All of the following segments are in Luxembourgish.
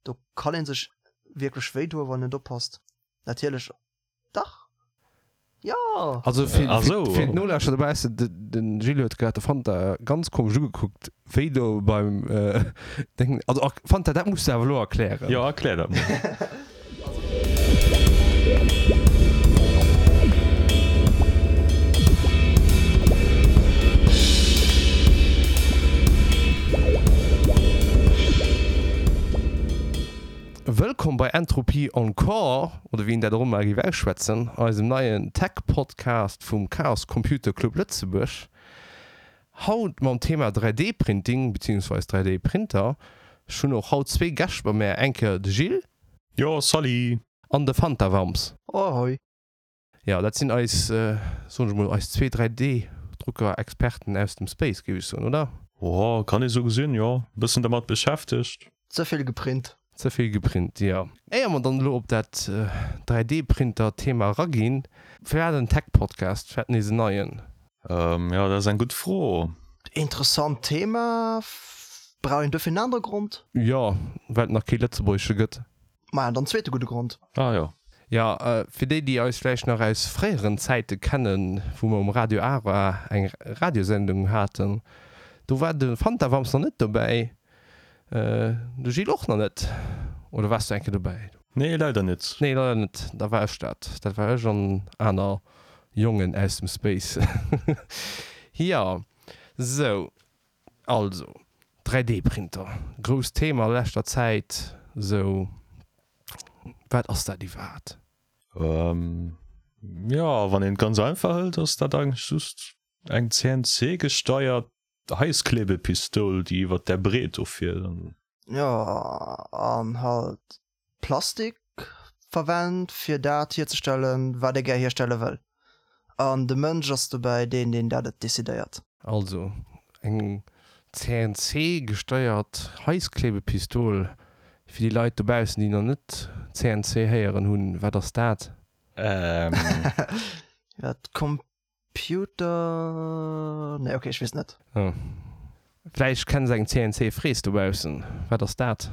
Do kann een sech wierklech wéi doen, wann een net oppasst. Natierlech, dach, jo! Also fir, fir, fir d'Nolauschterer dobaussen, de, den Gilles huet grad de Fanta ganz komesch ugekuckt, wéi do beim Deng. Also Fanta, dat muss de awer elo erklären. Jo, erklär dat mol. Wëllkomm bei Entropie Encore, oder wéi een dat och ëmmer géif ausschwätzen, eisem neien Tech-Podcast vum Chaos Computer Club Lëtzebuerg. Haut mam Thema 3D-Printing beziehungsweis 3D-Printer. Ech hunn och haut zwee Gäscht bei mär, eng Kéier de Gilles. Jo, salut! An de Fantawams. Ahoi! Jo, dat sinn eis, soen ech mol, eis zwee 3D-Drucker-Experten aus dem Space, géif ech soen, oder? Jo, kann ee sou gesinn, jo. E bëssen dermat beschäftegt. Ze vill geprint. Ze vill geprint, jo. Éier mer dann elo op dat 3D-Printer-Thema eraginn, firwat en Tech-Podcast? Firwat nees en neien? Jo, dat ass eng gutt Fro. Interessant Thema. Brauch een duerfir en anere Grond? Jo, well et nach kee lëtzebuergesche gëtt. Maja, dann zweete gudde Grond. Ah jo. Jo, fir déi, déi eis vläicht nach aus fréieren Zäite kennen, wou mer um Radio Ara eng Radiosendung haten, do war de Fantawams nach net dobäi, de Gilles och nach net. Oder waars du eng Kéier dobäi? Nee, leider net. Nee, leider net. Da war ech dat. Dat war ech an aner Jongen aus dem Space. Jo, sou, also 3D-Printer, grousst Thema a leschter Zäit. Sou, wat ass dat iwwerhaapt? Jo, wann een et ganz einfach hëlt, ass dat eigentlech just eng CNC-gesteiert Heißklebepistoul, déi iwwert där Breet do fiert. Jo, an halt Plastik verwent fir dat hierzestellen, wat ee gär hierstelle wëll. An de Mënsch ass dobäi deen, deen dat et decidéiert. Also eng CNC gesteiert Heißklebepistol. Fir déi Leit dobaussen, déi nach net CNC héieren hunn, wat ass dat? Ähm. Dat Computer, nee ok, ech weess net. Oh. Vläicht kenns eng CNC Fräs dobaussen. Wat ass dat?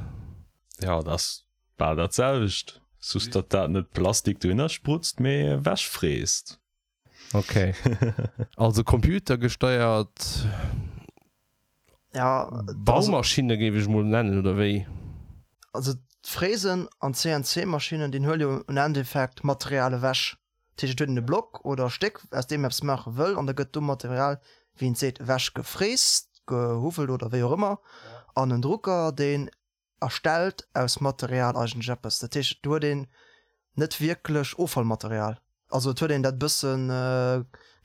Jo, dat ass bal dat selwecht, just datt dat net Plastik dohinner sprutzt, mee ewech fräst. Ok. Also computergesteiert Ja, Baumaschinne géif ech mol nennen, oder wéi? Also d'Fräsen an d'CNC-Maschinnen, déi huele jo um Endeffekt Material ewech. Dat heescht, et huet een e Block oder e Stéck, aus deem een eppes maache wëll, an da gëtt do Material, wéi een et seet, ewech gefräst, gehuffelt oder wéi och ëmmer. An en Drucker, deen erstellt aus Material eigentlech eppes. Dat heescht, do huet een net wierklech Offallmaterial. Also et huet een dat e bësse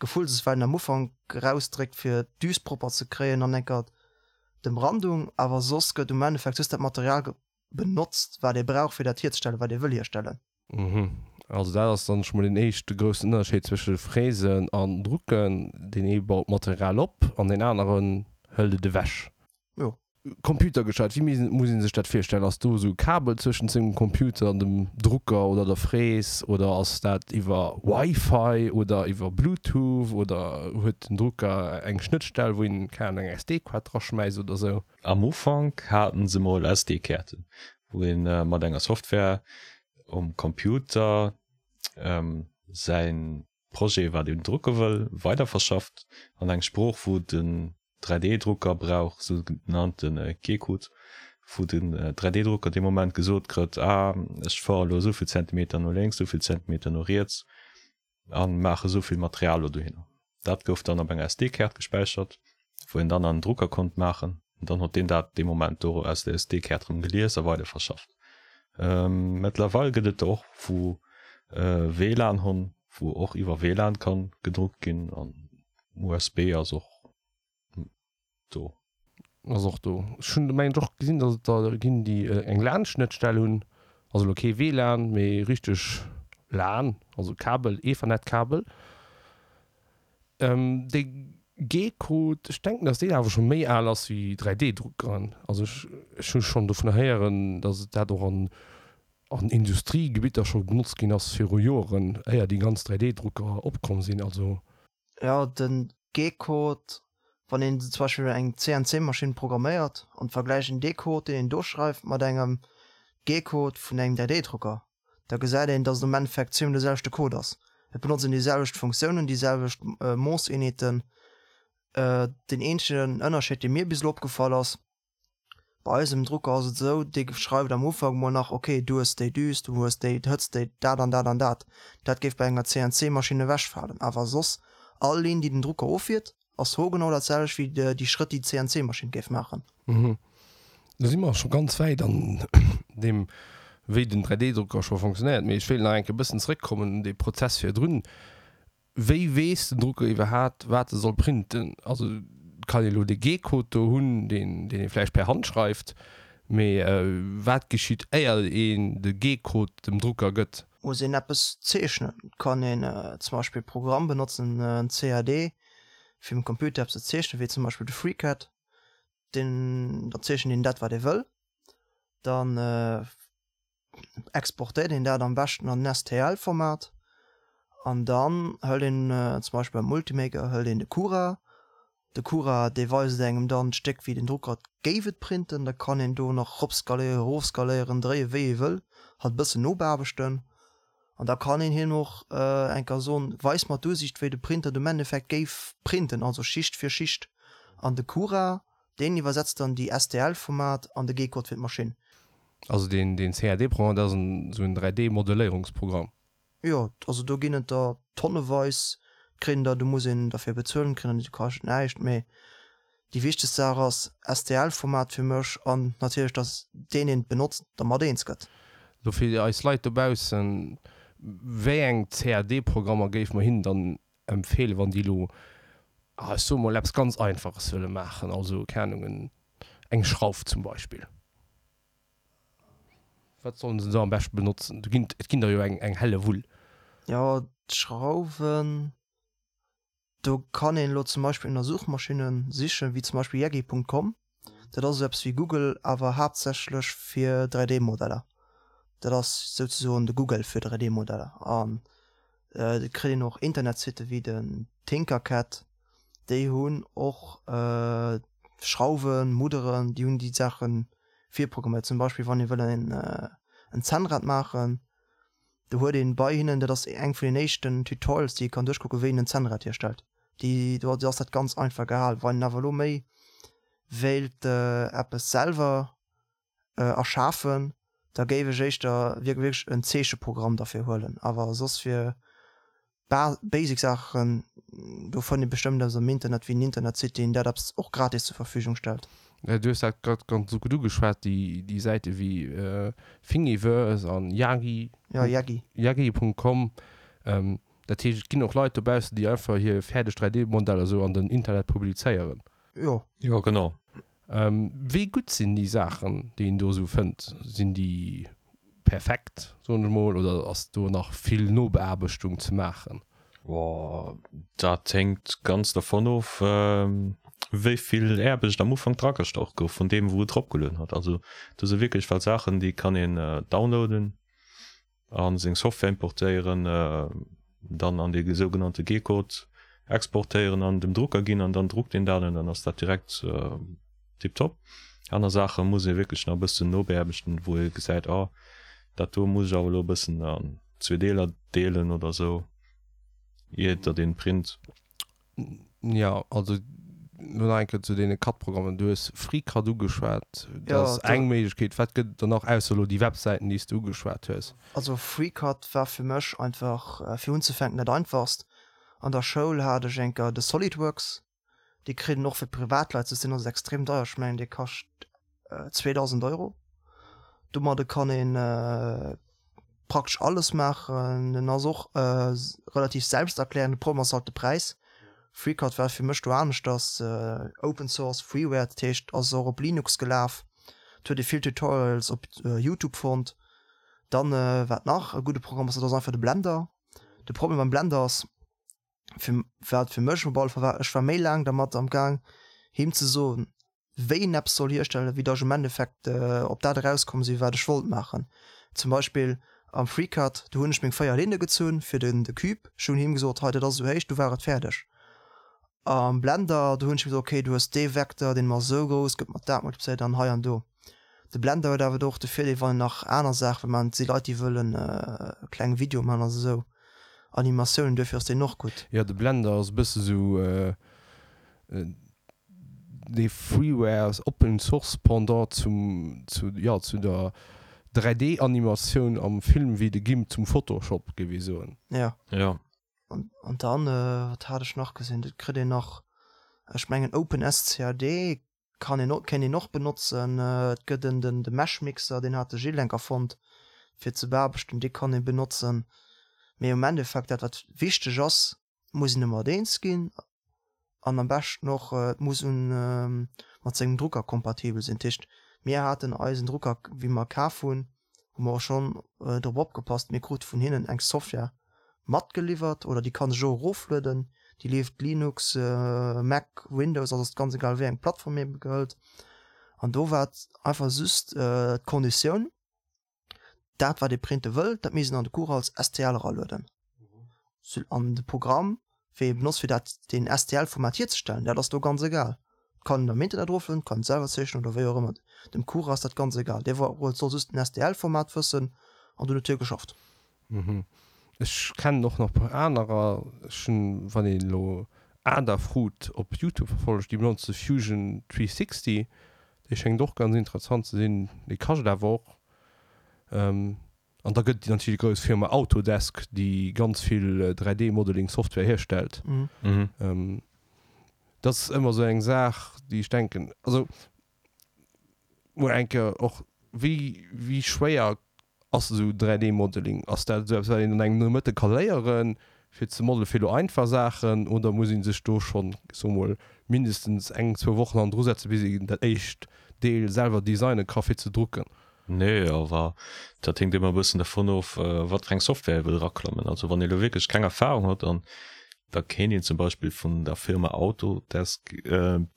Gefullses, wat een am Ufank erausdréckt, fir d'Düs propper ze kréien an enker d'Emrandung, awer soss gëtt um Endeffekt just dat Material benotzt, wat ee brauch, fir dat hierzestellen, wat ee wëll hierstellen. Mhm. Also dat ass dann scho mol deen éischte groussen Ënnerscheed zwësche Fräsen an Drucken. Deen ee baut d'Material op an deen aneren hëlt et ewech. Jo. Computergesteiert, wéi muss ee sech dat virstellen? Ass do esou e Kabel zwëschent sengem Computer an dem Drucker oder der Fräs oder ass dat iwwer Wi-Fi oder iwwer Bluetooth oder huet den Drucker eng Schnëttstell, wou een, keng Ahnung, eng SD-Kaart draschmäisst oder esou? Am Ufank haten se mol SD-Kaarten, wou een mat enger Software um Computer säin Projet, wat een drucke wëll, weiderverschafft an eng Sprooch, wou den 3D-Drucker brauch, sougenannte G-Code, wou den 3D-Drucker dee Moment gesot krëtt, ah, ech fuere elo esou vill Zentimeter no lénks, esou vill Zentimeter no riets a maache esou vill Material elo dohinner. Dat gouf dann op enger SD-Kaart gespäichert, wou een dann an den Drucker konnt maachen. An dann huet deen dat dee Moment do aus der SD-Kaart erëm gelies a weiderverschafft. Mëttlerweil gëtt et der och wou WLAN hunn, wou och iwwer WLAN kann gedruckt ginn an USB ass och do. Ass och do. Ech hunn mengen ech och gesinn, datt et der ginn, déi eng LAN-Schnëttstell hunn, also elo kee WLAN, mee richteg lan, also Kabel, Ethernet-Kabel. Dee G-Code, ech denken, datt deen awer scho méi al ass wéi 3D-Druckeren. Also ech ech hu schonn dovunner héieren, datt et dat och an an Industriegebitter scho benotzt ginn ass viru Joeren, éier déi ganz 3D-Drucker opkomm sinn. Also. Jo, den G-Code, wann een zum Beispill eng CNC-Maschinn programméiert an vergläicht een dee Code, deen een do schreift, mat engem, G-Code vun engem 3D-Drucker, da gesäit een, dass et am Endeffekt zweemol de selwechte Code ass. Et benotzen déi selwecht Funktiounen, déi selwecht Moosseenheeten. Deen eenzegen Ënnerscheed, dee mir bis elo opgefall ass, Bei eisem Drucker ass et esou, dee schreift am Ufank mol nach, ok, du hues déi Düs, du hues déi Hëtzt, déi dat an dat an dat. Dat géif bei enger CNC-Maschinn ewechfalen. Awer soss, all Linn, déi den Drucker offiert, ass hoergenau dat selwecht wéi déi Schrëtt, déi d'CNC-Maschinn géif maachen. Do si mer scho ganz wäit an deem, wéi den 3D-Drucker scho fonctionnéiert. Mee ech wéilt nach eng Kéier e bëssen zeréckkommen un dee Prozess virdrun. Wéi weess den Drucker iwwerhaat wat e soll printen? Also et kann ee lo de G-Code do hunn, deen deen ee vläicht per Hand schreift, mee wat geschitt éier een de G-Code dem Drucker gëtt? Muss een eppes zeechnen, kann een zum Beispill e Programm benotzen, en CAD, fir um Computer eppes ze zeechnen, wéi zum Beispill de FreeCAD. Deen, da zeechent een dat wat ee wëll, dann exportéiert een dat am beschten an en STL-Format an dann hëlt een zum Beispill beim Ultimaker hëlt een de Cura. De Cura dee weist engem dann d'Stéck wéi den Drucker et géif et printen. Da kann een do nach ropskaléieren, erofskaléieren, dréie wéi ee wëll, halt e bëssen nobeaarbechten an da kann een him och eng Kéier soen, weis mer d'Usiicht wéi de Printer am Endeffekt géif printen, also Schicht fir Schicht an de Cura deen iwwersetzt dann déi STL-Format an de G-Code fir d'Maschinn. Also deen deen CAD-Programm, dat ass en esou en 3D-Modelléierungsprogramm? Jo, also do ginn et der tonneweis, kritt een der, do muss een derfir bezuelen, kritt een der, déi kascht näischt, mee déi wichtegst Saach ass STL-Format fir mech an natierlech, dass deen deen et benotzt dermat eens gëtt. Lo fir eis Leit dobaussen, wéi eng CAD-Programmer géife mer hinnen dann empfeelen, wann déi elo, ech soe mol, eppes ganz Einfaches wëlle maachen, also, keng Ahnung, eng Schrauf zum Beispill? Wat sollen se da am beschten benotzen? Do ginn, et ginn der jo eng, eng helle Wull. Jo, d'Schrauwen, do kann een elo zum Beispill ënner Suchmaschinne sichen, wéi zum Beispill yaggi.com. Dat ass esou eppes wéi Google, awer haaptsächlech fir 3D-Modeller. Dat ass souzesoen de Google fir 3D-Modeller. An et kritt een och Internetsitte wéi den Tinkercad, déi hunn och Schrauwen, Mudderen, déi hunn déi Saache virprogramméiert. Zum Beispill wann ee wëll en Zännrad maachen, do huet een bei hinnen, dat ass eng vun den éischten Tutorials déi ee kann duerchkucken, wéi een en Zännrad hierstellt. Déi, do ass dat ganz einfach gehal. Wann een awer elo méi wéilt eppes selwer erschafen, da géif ech éischter wierklech en Zeecheprogramm derfir huelen. Awer soss fir basic Saachen, do fënnt ee bestëmmt eppes am Internet, wéi en Internetsite, deen dat eppes och gratis zur Verfügung stellt. Du hues dat grad ganz gutt ugeschwat, déi Säite wéi Thingiverse an Yagi. Ja, Yagi. Yagi.com. Dat heescht, et ginn och Leit dobaussen, déi einfach hir fäerdeg 3D-Modeller esou an den Internet publizéieren. Jo. Jo, genau. Wéi gutt sinn déi Saachen, déi een do esou fënnt? Sinn déi perfekt, soen ech mol, oder ass do nach vill Nobeaarbechtung ze maachen? Dat hänkt ganz dervon of, wéi vill Aarbecht am Ufank dragestach gouf vun deem, wou et eropgelueden hat. Also do si wierklech well Saachen, déi kann een downloaden a seng Software importéieren, dann an dee sougenannte G-Code exportéieren an dem Drucker ginn an dann druckt een dat an dann ass dat direkt tiptop. Aner Saache muss ee wierklech nach e bëssen nobeaarbechten, wou ee gesäit, oh dat do muss ech awer elo e bëssen an zwee Deeler deelen oder sou, ier datt een print. Jo, also lo nach eng Kéier zu deene CAD-Programmen. Du hues FreeCAD ugeschwat, dat ass eng Méiglechkeet. Wat gëtt et dann nach, ausser elo déi Websäiten, déi s de ugeschwat hues? Also FreeCAD war fir mech einfach fir unzefänken dat einfachst. An der Schoul hat ech eng Kéier de SolidWorks, dee kritt een och fir Privatleit, soss deen ass extrem deier, ech mengen dee kascht 2000 Euro. Domadde kann een praktesch alles maachen. En ass och relativ selbsterklärend, de Problem ass halt de Präis. FreeCAD war fir mech do aneschters, Open Source, Freeware, dat heescht ass och op Linux gelaf, et huet ee vill Tutorials op Youtube fonnt. Dann wat nach e gudde Programm ass, dat ass einfach de Blender. De Problem beim Blender ass, fir wat fir mech op alle Fall war, ech war méi laang dermat am Gaang him ze soen, wéi een eppes soll hierstellen, wéi datt ech am Endeffekt op dat erauskomm sinn, wat ech wollt maachen. Zum Beispill am FreeCAD, do hunn ech meng 4 Linne gezunn fir den de Cube, ech hunn him gesot, hei dat ass esou héich, du war et fäerdeg. Am Blender, do hunn ech him gesot, okay, du hues dee Vecteur, deen ass esou grouss, gëtt mat dat multiplizéiert an hei an do. De Blender huet awer do och de Virdeel, wann een nach aner Saache wëll maachen, et si Leit, déi wëllen kleng Videoe maachen, also esou Animatiounen, duerfir ass deen och gutt. Jo, de Blender ass e bësse sou dee Freeware, Open Source Pendant zum, zu, jo, zu der 3D Animatioun am Film wéi de Gimp zum Photoshop, géif ee soen. Jo. Jo. An, an dann, wat hat ech nach gesinn, et kritt een nach, ech mengen OpenSCAD Kann een och, kéint een och benotzen. Et gëtt en den de Meshmixer, deen hat de Gilles enk erfonnt fir ze beaarbechten, dee kann ee benotzen. Mee um Endeffekt dat wat wichteg ass, muss een domat eens ginn an am beschten och et muss un mat sengem Drucker kompatibel sinn. Dat heescht mir haten eisen Drucker wéi mer kaf hunn, hu mer och schonn drop opgepasst, mir krute vun hinnen eng Software matgeliwwert oder déi kann sech och eroflueden, déi leeft Linux, Mac, Windows, also ass ganz egal wéi eng Plattform ee gehëlt. An do war et einfach just d'Konditioun, dat wat ee printe wëll, dat misst een an de Cours als STL eralueden. An de Programm wéi ee benotzt fir dat deen STL-Format hierzestellen, dat ass do ganz egal. Et kann een am Internet eroflueden, et kann een et selwer zeechnen oder wéi och ëmmer. Dem Cura ass dat ganz egal, dee soll just den STL-Format wëssen an dunn huet hie geschafft. Ech kennen och nach e puer anerer. Ech hunn, wann een elo Adafruit op Youtube verfollegt, déi benotze Fusion 360, dee schéngt och ganz interessant ze sinn, dee kascht awer och. An da gëtt et natierlech déi grouss Firma Autodesk, déi ganz vill 3D-Modeling Software hierstellt. Dat ass ëmmer esou eng Saach, déi ech denken, also mol eng Kéier och, wéi, wéi schwéier ass esou 3D-Modeling? Ass dat esou eppes, wat een an engem Nomëtte ka léieren, fir ze modelen, fir elo einfach Saachen, oder muss ee sech do schonn, ech soe mol, mindestens eng, zwou Wochen hannendru setzen, bis een dat éischt Deel selwer designen ka fir ze drucken? Nee, awer dat héngt ëmmer e bëssen dervun of, wat fir eng Software ee wëll eraklammen. Also wann ee lo wierklech keng Erfahrung huet, an da kéint een zum Beispill vun der Firma Autodesk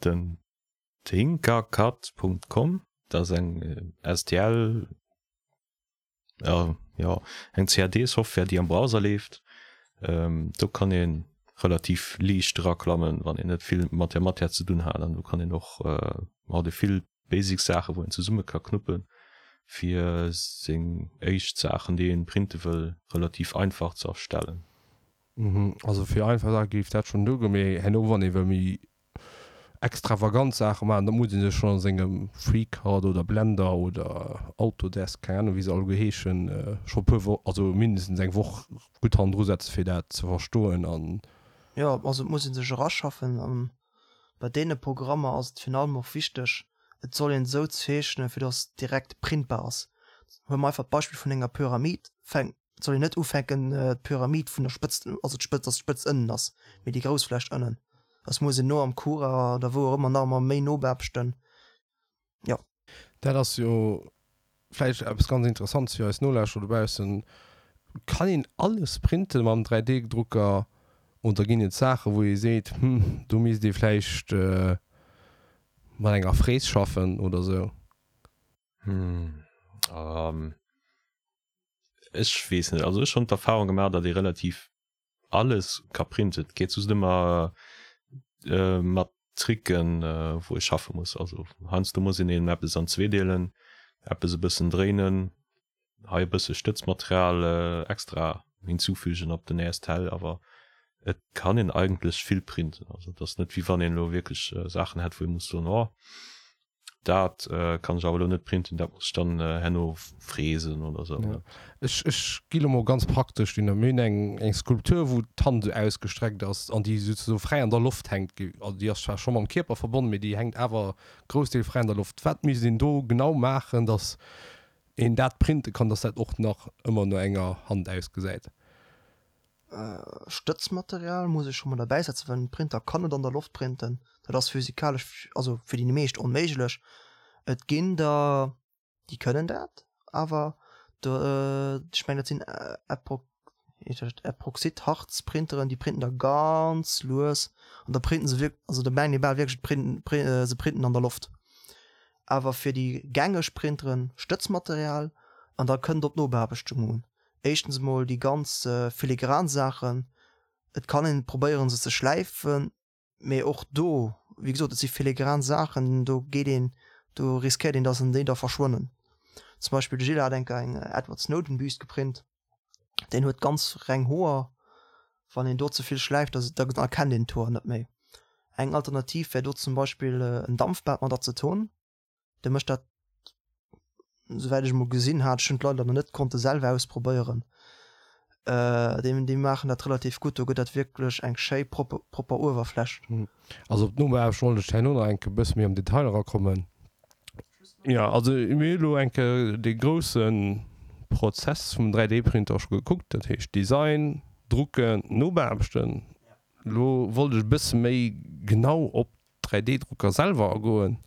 den Tinkercad.com, dat ass eng STL, jo eng CAD-Software, déi am Browser leeft. Do kann ee relativ liicht eraklammen, wann een net vill mat där Matière ze dunn hat. An do kann een och, hat ee vill Basic Saachen wou een zesumme ka knuppen fir seng éischt Saachen déi een printe wëll relativ einfach ze erstellen. Mhm, also fir einfach Saache géif dat schonn duergoen, mee herno wann ee wëll méi extravagant Saache maachen, da muss ee sech schonn a sengem FreeCAD oder Blender oder Autodesk, keng Ahnung wéi se alleguer heeschen, scho puer Wo-, also mindestens eng Woch gutt hannendru setzen fir dat ze verstoen an. Jo, also et muss ee sech eraschaffen an Bei deene Programmer ass et virun allem och wichteg, et soll een esou zeechnen, fir dass et direkt printbar ass. Huele mer einfach d'Beispill vun enger Pyramid, fänk, et soll een net ufänken d'Pyramid vun der Spëtzt, also d'Spëtzt, dass d'Spëtzt ënnen ass, mee déi grouss vläicht ënnen. Dass muss een no am Cura oder wou och ëmmer nach emmer méi no beaarbechten. Jo. Dat ass jo vläicht eppes ganz Interessantes fir eis Nolauschterer dobaussen. Kann een alles printen mam 3D-Drucker oder ginn et Saachen, wou ee seet, hm, do misst ee vläicht mat enger Fräs schaffen oder sou? Hm, ech weess net. Also ech hunn d'Erfahrung gemaach, datt ee relativ alles ka printen. Et geet just ëmmer mat Tricken, wou ee schaffe muss. Also heiansdo muss een eben eppes an zwee deelen, eppes e bëssen dréinen, hei e bësse Stëtzmaterial extra hinzufügen op den nächst Tel, awer et kann een eigentlech vill printen. Also et ass net wéi wann een elo wierklech Saachen hätt, wou ee muss soen, oh Dat kann ech awer elo net printen, dat muss ech dann herno fräsen oder sou. Ja. Ech, ech gi lo mol ganz praktesch dunner. Mir hunn eng, eng Skulptur, wou d'Hand esou ausgestreckt ass an déi souzesoe fräi an der Loft hänkt. Also déi ass zwar scho mam Kierper verbonnen, mee déi hänkt awer Groussdeel fräi an der Loft. Wat misst een do genau maachen, datt een dat printe kann, datt dat och nach ëmmer no enger Hand ausgesäit? Stëtzmaterial muss ech scho mol derbäi setzen, well en Printer kann net an der Loft printen. Dat ass physikalesch, also fir déi meescht onméiglech. Et ginn der, déi kënnen dat, awer do, ech mengen dat sinn Epoxidharzprinteren, déi printen da ganz lues an da printen se wierk-, also da mengt ee bal wierklech, et se printen an der Loft. Awer fir déi gängeg Printeren Stëtzmaterial an da kënnt op d'Nobeaarbechtung un. Éischtens emol déi ganz filigran Saachen, et kann een probéieren se ze schläifen, mee och do, wéi gesot, et si filigran Saachen, do geet een. Do riskéiert een, dass en déi da verschwannen. Zum Beispill de Gilles hat enker eng Edward Snowden Büst geprint. Deen huet ganz reng Hoer. Wann een do ze vill schläift, da erkennt een d'Hoer net méi. Eng Alternativ wär do zum Beispill en Dampfbad mat Azeton. De mécht dat, souwäit ech emol gesinn hat, ech hunn et leider nach net konnte selwer ausprobéieren, déi déi maachen dat relativ gutt. Do gëtt dat wierklech eng schéi propper propper Uewerfläch. Also op d'Nobeaarbecht wollt ech herno nach enke bësse méi am Detail erakommen. Jo, also mir hu elo enke dee grousse Prozess vum 3D-Printer scho gekuckt, dat heescht Design, Drucken, Nobeaarbechten. Elo wollt ech e bësse méi genau op 3D-Drucker selwer agoen.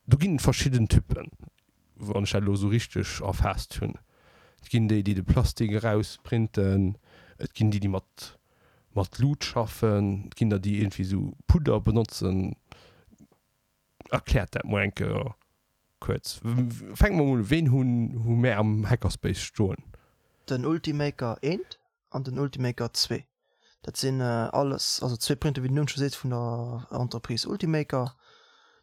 Do ginn et verschidden Typen, wann ech dat elo esou richteg erfaasst hunn. Et ginn déi, déi de Plastik erausprinten, et ginn déi, déi mat mat Lut schaffen, et ginn der, déi iergendwéi esou Pudder benotzen. Erkläert dat mol eng Kéier kuerz. Fänke mer mol un, Ween hunn hu mär am Hackerspace stoen? Den Ultimaker 1 an den Ultimaker 2. Dat sinn alles, also zwee Printer, wéi den Numm scho seet, vun der Entreprise Ultimaker.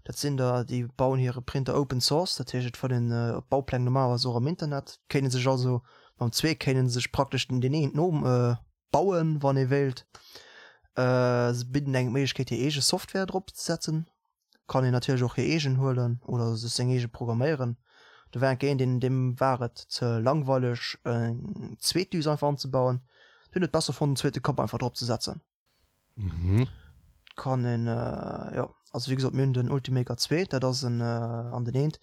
Dat sinn der, déi bauen hire Printer open source, dat heescht et fënnt een d'Baupläng normalerweis och am Internet. Kéint ee sech also mam zwee kéint ee sech praktesch deen een no bauen, wann ee wéilt. Se bidden engem d'Méiglechkeet hir eege Software drop ze setzen. Kann een natierlech och hir eegen huelen oder sech seng eege programméieren. Do war enke een, deen deem war et ze langweileg eng zweet Düs einfach anzebauen, deen huet besser fonnt en zweete Kapp einfach drop ze setzen. Kann een, jo, also wéi gesot mir hunn den Ultimaker 2, dat ass en an den eent,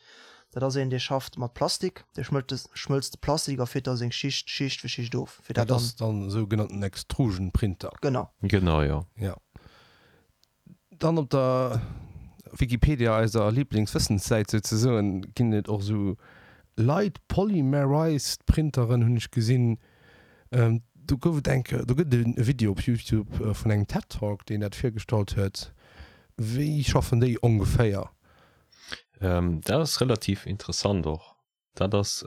dat ass een dee schafft mat Plastik, dee schmëllt de schmëlzt de Plastik a fiert da seng Schicht Schicht fir Schicht of fir dat Dat dann. ass dann esou genannten Extrusion Printer. Genau. Genau, jo. Jo. Dann op der Wikipedia, eiser Lieblingswëssenssäit souzesoen, ginn et och esou Light Polymerized Printeren, hunn ech gesinn. Do gouf et eng Kéier, do gëtt et e Video op Youtube vun engem TED Talk, deen dat virgestallt huet. Wéi schaffen déi ongeféier? Dat ass relativ interessant och. Dat ass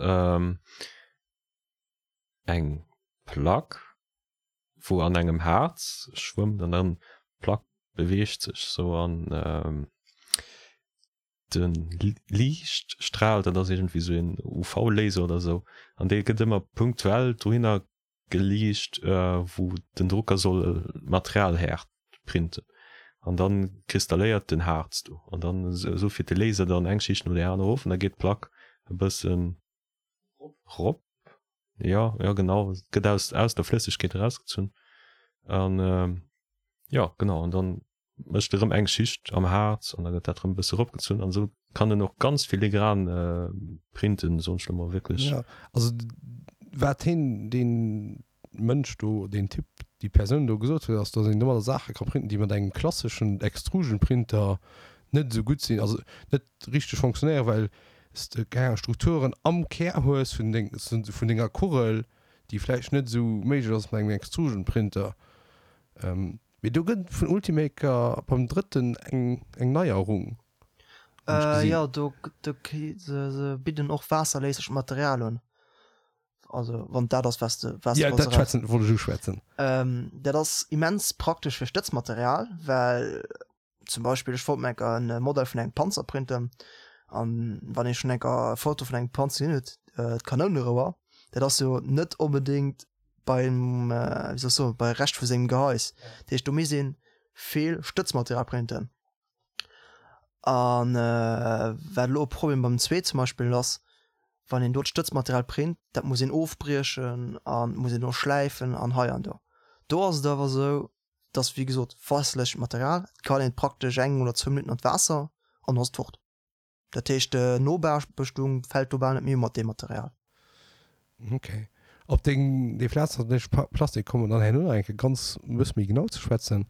eng Plack, wou an engem Haarz schwëmmt an dann d'Plack beweegt sech sou an de Liichtstral, dat ass iergendwéi sou een UV-Laser oder sou, an dee gëtt ëmmer punktuell dohinner geliicht, wou den Drucker soll d'Material häert printen an dann kristalléiert den Haarz do an dann esou fiert de Laser dann eng Schicht no där aner of an da geet d'Plack e bëssen Rop, jo, jo genau, et gëtt aus, aus der Flëssegkeet erausgezunn an jo genau an dann mécht e rëm eng Schicht am Haarz an da gëtt dat rëm e bësse eropgezunn an esou kann en och ganz filigran printen, soen ech lo mol wierklech. Jo, also wat heen, deen Mënsch do, deen Typ, déi Persoun do gesot huet, ass, datt een domadder Saache ka printen, déi mat engem klasseschen Extrusion-Printer net esou gutt sinn, also net richteg fonctionnéieren, well s de keng Ahnung Strukturen am Kär hues vun deng, vun denger Kugel, déi vläicht net esou méiglech ass mat engem Extrusion-Printer. Mee do gëtt et vun Ultimaker beim drëtten eng, eng Neierung, hunn ech gesinn. Jo, do, do, se bidden och waasserléislecht Material un. Also wann dat ass was de was ja, dat schwätzen wollt ech uschwätzen. Ähm, dat ass immens praktesch fir Stëtzmaterial, well zum Beispill ech wollt mir enker en Modell vun engem Panzer printen an wann ee schonn enker e Foto vun engem Panzer gesinn huet, äh, d'Kanounerouer, dat ass jo net onbedéngt beim äh, wéi soll ech soen, bei Rescht vu sengem Gehais. Dat heescht do misst een vill Stëtzmaterial printen. An äh, wat elo e Problem beim zwee zum Beispill ass, wann een do d'Stëtzmaterial print, dat muss een ofbriechen an muss een och schläifen an hei an do. Do ass et awer esou, dass wéi gesot waasserlech Material, et kann een praktesch eng oder zwou Minutten an d'Waasser an ass et fort. Dat heescht d'Nobearbechtung fält do bal net méi u mat deem Material. Ok. Op deng, déi Flatzerlech Plastik komme mer dann herno nach eng Kéier ganz e bësse méi genau ze schwätzen.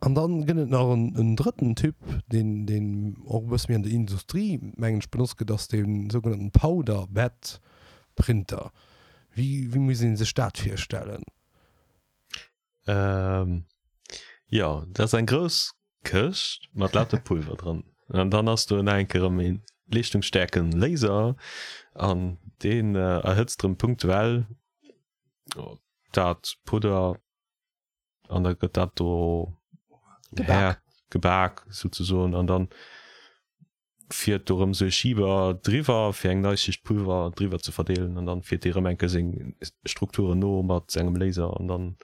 An dann gëtt et nach en, en drëtten Typ, deen, deen och e bësse méi an der Industrie, mengen ech, benotzt gëtt, ass dee sougenannten Powder Bed Printer. Wéi, wéi muss ee sech dat virstellen? Ähm, jo, dat ass eng grouss Këscht mat lauter Pulver dran. An dann ass do nach eng Kéier erëm ee leeschtungsstaarken Laser an deen erhëtzt erëm punktuell dat Pudder an da gëtt dat do gebak, gebak souzesoen an dann. Fiert do rëm sou e Schieber driwwer fir eng nei Schicht Pulver driwwer ze verdeelen an dann fiert dee rëm eng Kéier seng Strukturen no mat engem Laser an dann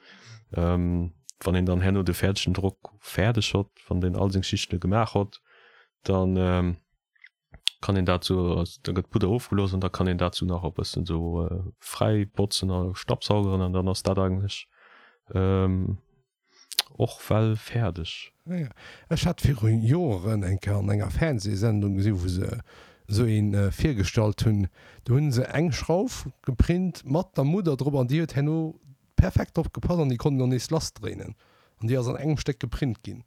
wann een dann herno de fäerdegen Drock fäerdeg hott, wann deen all seng Schichten gemaach hott, dann kann een dat sou, da gëtt d'Pudder ofgelooss an da kann een dat sou nach e bëssen sou fräi botzen a stabbsaugeren an dann ass dat eigentlech och well fäerdeg. Ja, ech hat viru Joeren eng Kéier an enger Fernsehsendung gesinn, wou se esou een virgestallt hunn. Do hunn se eng Schrauf geprint mat der Mudder drop an déi huet herno perfekt drop gepasst an déi konnt een och nees lassdréinen an déi ass an engem Stéck geprint ginn.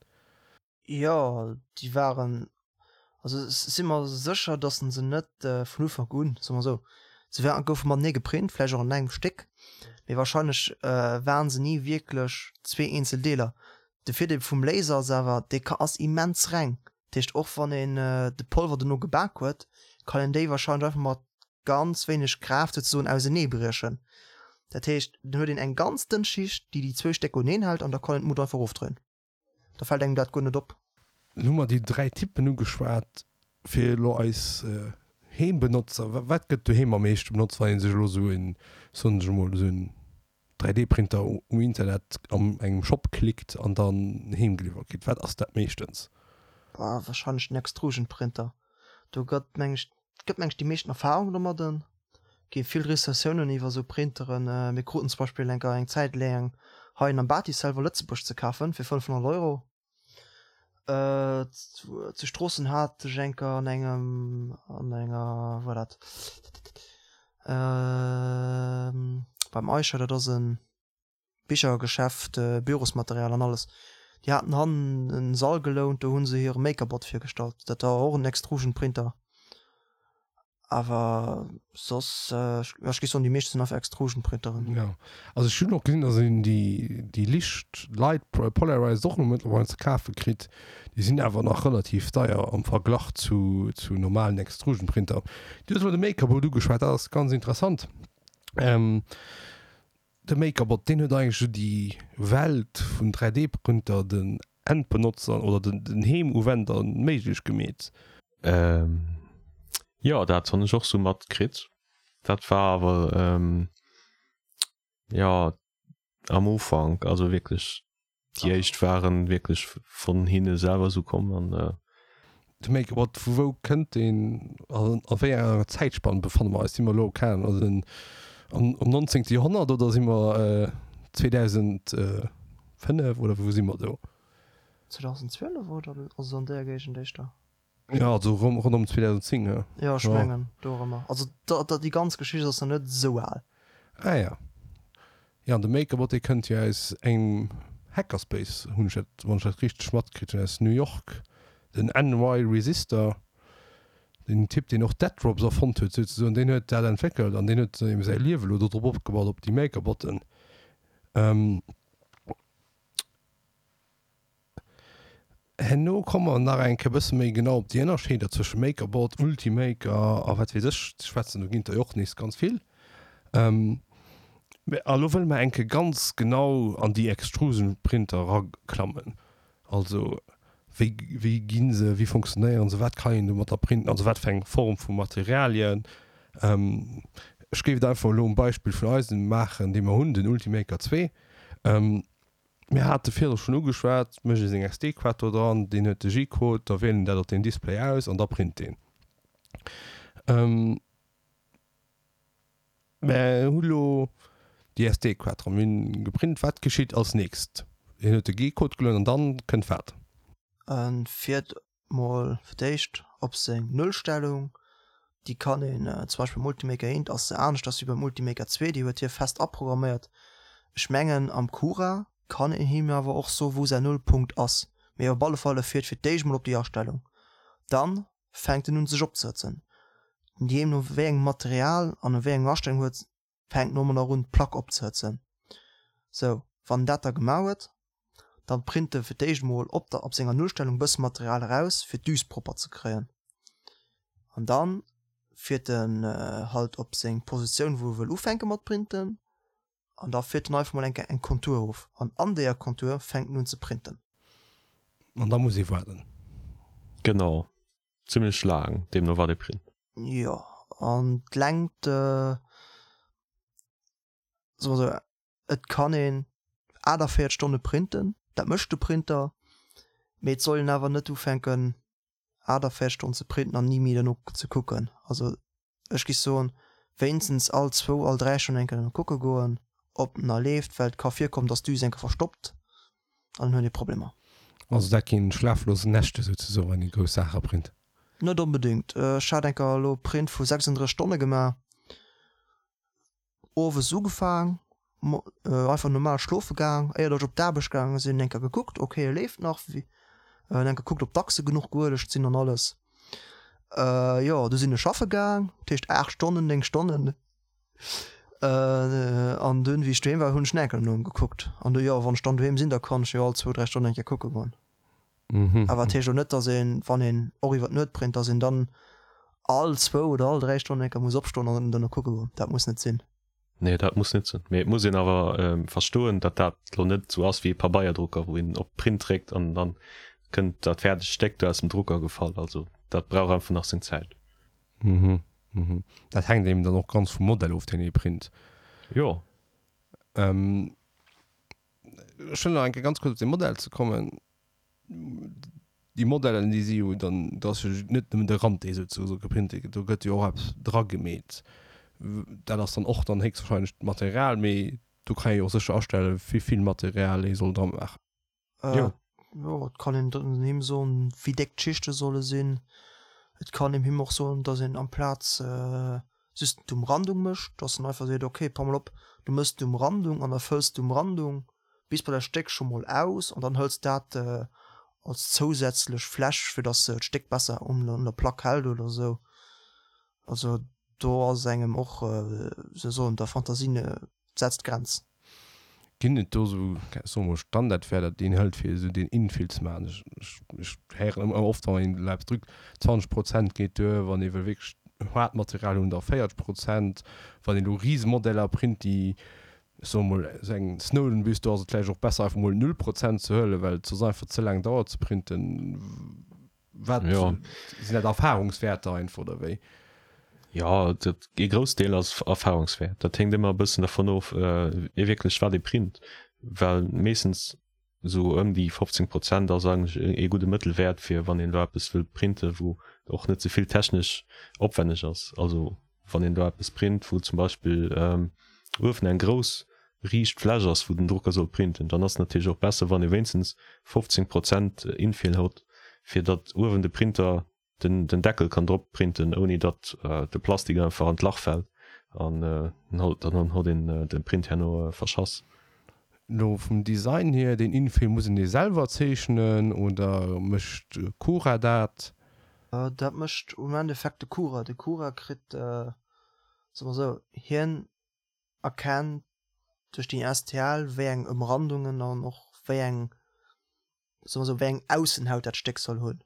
Jo, déi waren, also ech si mer sécher, datt se net vun Ufank un, soe mer esou, se waren, goufe matenee geprint, vläicht och an engem Stéck, mee wahrscheinlech waren se ni wierklech zwee eenzel Deeler. De Virdeel vum Laser ass awer, dee ka ass immens reng, dat heescht och wann een de Polver dono gebak huet, kann een déi wahrscheinlech einfach mat ganz wéineg Kraaft souzesoen auseneebriechen. Dat heescht, dann huet een eng ganz dënn Schicht, déi déi zwou Stécker uneen hält an da kann een d'Mut einfach erofdréinen. Da fält engem dat guer net op. Lo hu mer déi 3 Typen ugeschwat. Fir elo eis Heembenotzer, wat gëtt doheem am meeschte benotzt, wann ee sech elo esou en, soen ech emol, esou en 3D-Printer um Internet an engem Shop klickt an dann heem geliwwert kritt? Wat ass dat meeschtens? Bah, wahrscheinlech den Extrusion-Printer. Do gëtt, meng ech, gëtt meng ech déi meeschten Erfahrung domadden. Gi vill Recensiounen iwwer esou Printeren. Mir kruten zum Beispill eng eng Zäit laang hei en am Bati selwer Lëtzebuerg ze kafen fir 500 Euro. Zu Stroossen hat ech enker an engem an enger wou war dat beim Eicher, dat ass en Bichergeschäft, Bürosmaterial an alles. Déi haten hannen en Sall gelount, do hu se hire MakerBot virgestallt. Dat war och en Extrusion-Printer. Awer soss, jo ech géif soen, déi meescht sinn einfach Extrusion-Printeren. Jo, also ech hunn och gesinn, dass een déi, déi licht, light polarized och elo mëttlerweil ze kafe kritt. Déi sinn awer nach relativ deier am Verglach zu, zu normalen Extrusion-Printer. Du hues elo de MakerBot ugeschwat, dat ass ganz interessant. De MakerBot, deen huet eigentlech esou déi Welt vun 3D-Printer den Endbenotzer oder den Heemuwender méiglech gemeet. Jo, dat hunn ech och sou matkritt. Dat war awer jo am Ufank, also wierklech Déi éischt waren wierklech vun hinne selwer esou komm an. De MakerBot, vu wou kënnt deen an a wéi enger Zäitspann befanne mer eis? Si mer elo, keng Ahnung, also am 19. Joerhonnert oder si mer 2005 oder wou si mer do? 2012 oder also an deeër Géigend éischter. Jo, also ronderëm 2010, jo. Jo, ech mengen dorëmmer. Also déi ganz Geschicht ass nach net esou al. Ah ja. Jo, an de MakerBot, dee kënnt jo aus engem Hackerspace, hunn ech dat, wann ech dat richteg matkritt hunn, aus New York, den NY Resistor, den Typ, deen och Dead Drops erfonnt huet souzesoen, deen huet dat entwéckelt an deen huet eben säi Liewe lo dodrop opgebaut, op déi MakerBotten. Herno komme mer nach eng Kéier e bësse méi genau op déi Ënnerscheeder zwësche MakerBot, Ultimaker a wat weess ech ze schwätzen. Do ginn et der jo och nees ganz vill. Mä a lo wëlle mer eng Kéier ganz genau an déi Extrusion-Printer eraklammen. Also wéi, wéi gi se, wéi funktionéieren se, wat kann een domatter printen, also wat fir eng Form vu Materialien. Ech géif et einfach elo um Beispill vun eisem maachen, dee mer hunn, den Ultimaker 2. Mir hate virdru schonn ugeschwat, mécht ee seng SD-Kaart do dran, deen huet de G-Code, da wielt en dat op deem Display aus an da print deen. Mer hu lo déi SD-Kaart dran, mir hunn geprint. Wat geschitt als nächst? Hien huet de G-Code gelueden an dann kënnt wat? E fiert mol fir d'éischt op seng Nullstellung, déi kann een zum Beispill beim Ultimaker 1 ass se aneschters wéi beim Ultimaker 2, déi huet hie fest aprogramméiert. Ech mengen am Cura kann een him awer och soe wou säin Nullpunkt ass, mee op alle Fall e fiert fir d'éischt mol op déi Astellung, dann fänkt en un sech opzehëtzen, deemno wéi engem Material an a wéi enger Astellung huet fänkt en och un d'Plack opzehëtzen. Sou, wann en dat da gemaach huet, dann print e fir d'éischt mol op der op senger Nullstellung bësse Material eraus fir d'Düs propper ze kréien an dann fiert en halt op seng Positioun wou e wëll ufänke mat printen an da fiert en einfach mol eng Kéier eng Kontur of an an deeër Kontur fänkt en un ze printen. An da muss ee waarden. Genau. Zimmlech laang, deemno wat ee print. Jo, an d'Längt, soe mer esou, et kann een 48 Stonne printen, dat mécht de Printer, mee et soll een awer net ufänken 48 Stonnen ze printen an ni méi derno ze kucken. Also ech géif soen, wéinstens all zwou, all 3 Stonnen eng Kéier derno kucke goen, ob en nach leeft, well et ka virkommen, dass d'Düs eng Kéier verstoppt an dann huet ee Problemer. Also dat ginn schlaflos Nächte souzesoen, wann ee grouss Saache print? Net onbedéngt. Ech hat eng Kéier elo e Print vu 36 Stonne gemaach. Owes ugefaang, einfach normal schlofe gaang, éiert ech op d'Aarbecht gaange sinn, eng Kéier gekuckt, ok e leeft nach, en eng Kéier gekuckt ob d'Achse genuch geuelegt sinn an alles. Jo du sinn ech schaffe gaang, dat heescht 8 Stonnen, 9 Stonnen an dunn wéi ech doheem war hunn ech nach eng Kéier no em gekuckt an du jo wann ech dann doheem sinn, da kann ech jo all zwou, 3 Stonnen eng Kéier kucke goen. Awer dat heescht och net, dass een, wann een och iwwer d'Nuet print, dass een dann all zwou oder all 3 Stonnen eng Kéier muss opstoen an dann no kucke goen. Dat muss net sinn. Nee, dat muss net sinn. Mee et muss een awer verstoen, datt dat lo net esou ass wéi e Pabeierdrucker, wou een op Print dréckt an dann kënnt dat fäerdegt Stéck do aus dem Drucker gefall. Also dat brauch einfach nach seng Zäit. Mhm, mhm. Dat hänkt eben dann och ganz vum Modell of, deen ee print. Jo. Ech wëll nach eng Kéier ganz kuerz op dee Modell ze kommen. Déi Modellen, déi si jo dann, do ass jo net nëmmen de Rand, dee souzesoe geprint gëtt, do gëtt jo och eppes dragemeet. Dat ass dann och dann héchstwahrscheinlech d'Material, mee do kann ee jo och sécher astellen, wéi vill Material ee soll dramaachen. Jo. Jo, et kann een him soen, wéi déck d'Schichte solle sinn. Et kann een him och soen, datt een amplaz just d'Umrandung mécht, datt en einfach seet, ok, pass mol op, du méchs d'Umrandung an da fëlls d'Umrandung bis bei dat Stéck scho mol aus an dann hëls dat als zousätzlech Fläch, fir datt d'Stéck besser un der Plack hält oder esou. Also do ass engem och, wéi soll ech soen, der Fantasie setzt d'Grenz. Ginn et do esou, soe mol, Standardwäerter, déi een hëlt, fir esou deen Infill ze maachen? Ech, ech héieren ëmmer oft, wann een elo eppes drückt, 20 Prozent geet duer, wann ee wëll wierklech haart Material hunn, da 40 Prozent. Wann een elo Risemodeller print, déi, ech soe mol, esou eng Snowden-Büst, do ass et vläicht och besser, einfach mol null Prozent ze huelen, well et soss einfach ze laang dauert ze printen. Wat ja. sinn dat Erfahrungswäerter einfach oder wéi? Ja, dat ee Groussdeel ass Erfahrungswäert. Dat hänkt ëmmer e bëssen dervun of, äh, wierklech wat ee print, well meeschtens esou ëm déi 15 Prozent ass eigentlech ee gudde Mëttelwäert fir wann een do eppes wëll printen, wou och net ze vill technesch opwänneg ass. Also wann een do eppes print, wou zum Beispill ähm, uewen eng grouss riicht Fläch ass, wou den Drucker soll printen, dann ass et natierlech och besser, wann ee wéinstens 15 Prozent Infill hott, fir datt uewen de Printer den den Deckel kann drop printen, ouni datt de Plastik einfach an d'Lach fält an dann hott een de Print herno verschass. Lo vum Design hier, deen Infill muss een dee selwer zeechnen oder mécht Cura dat? Dat mécht um Endeffekt de Cura. De Cura kritt, soe mer esou, hien erkennt duerch déi STL wéi eng Ëmrandungen an och wéi eng, soe mer esou, wéi eng Aussenhaut dat Stéck soll hunn.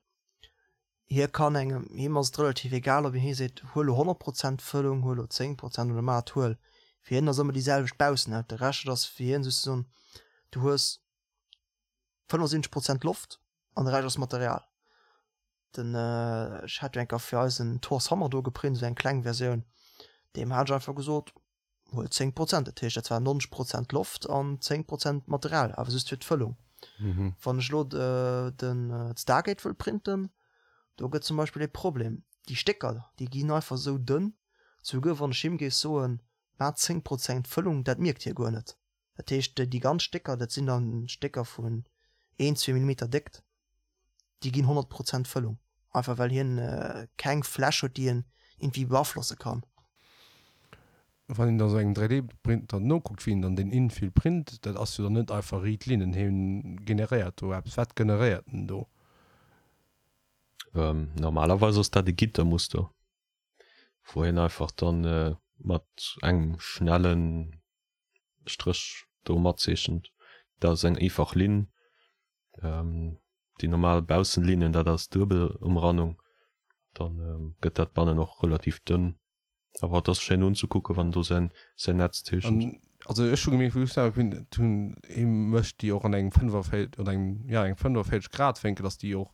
Hie kann engem, him ass et relativ egal, ob een hie seet, huel elo 100 Prozent Fëllung, huel elo 10 Prozent oder mat huel. Fir hien ass ëmmer déi selwecht Baussenhaut. De Rescht ass fir hien souzesoen, du hues 75 Prozent Loft an de Rescht ass Material. Den, ech hat jo eng Kéier fir eisen Thor's Hammer do geprint, esou eng kleng Versioun, deem hat ech einfach gesot, huel 10 Prozent, dat heescht dat war 90 Prozent Loft an 10 Prozent Material, awer just fir d'Fëllung. Wann ech elo den d'Stargate wëll printen, do gëtt zum Beispill ee Problem, déi Stécker déi ginn einfach esou dënn, souguer wann ech him géif soen, maach 10 Prozent Fëllung, dat mierkt hie guer net. Dat heescht déi ganz Stécker, dat sinn dann Stécker vun een, zwee Millimeter Déckt, déi ginn 100 Prozent Fëllung, einfach well hien keng Fläch huet, déi en iergendwéi beaflosse kann. Wann een da sou engem 3D-Printer nokuckt, wéi en dann deen Infill print, dat ass jo dann net einfach riit Linnen, hien generéiert do eppes. Wat generéiert en do? Normalerweis ass dat e Gittermuster, wou hien einfach dann mat engem schnellen Stréch do matzeechent. Dat ass eng eefach Linn. Déi normal Baussenlinnen, dat ass Duebelumrannung. Dann gëtt dat bannen och relativ dënn. Awer et ass schéin unzekucken, wann en do säin säin Netz zeechent. An also ech hu gemierkt, wou ech selwer geprint hunn, hie mécht déi och an engem 45 oder engem, jo engem 45 Grad Wénkel, dass déi och.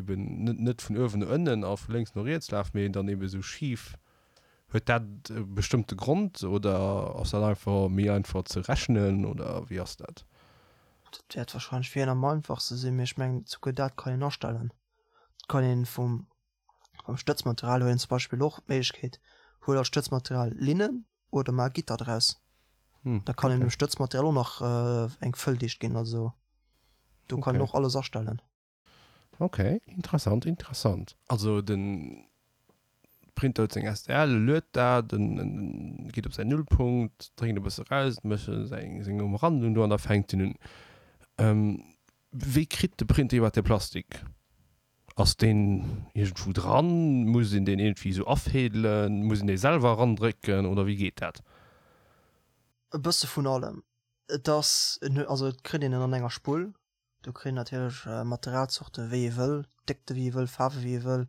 Eben net net vun uewen no ënnen a vu lénks no riets laf, mee dann eben esou schif. Huet dat e bestëmmte Grond oder ass dat einfach méi einfach ze rechnen oder wéi ass dat? Dat wäert wahrscheinlech fir hien am einfachste sinn, mee ech mengen souguer dat kann een astellen. Et kann een vum beim Stëtzmaterial huet een zum Beispill och d'Méiglechkeet, huel als Stëtzmaterial Linnen oder maach Gitter draus. Da kann een dem Stëtzmaterial och nach eng Fëlldicht ginn, also do kann een och alles astellen. Ok, interessant, interessant. Also den Printer huet seng STL, e luet dat, en geet op säin Nullpunkt, drénkt e bësse raus, mécht seng Umrandung do an da fänkt en un. Wéi kritt de Printer iwwerhaapt de Plastik? Ass deen iergendwou dran? Muss een deen iergendwéi esou afädelen? Muss een dee selwer erandrécken oder wéi geet dat? E bësse vun allem. Et ass, also et kritt een en an enger Spull, Do kritt een natierlech Materialzorte wéi ee wëll, Déckte wéi ee wëll, Faarwe wéi ee wëll.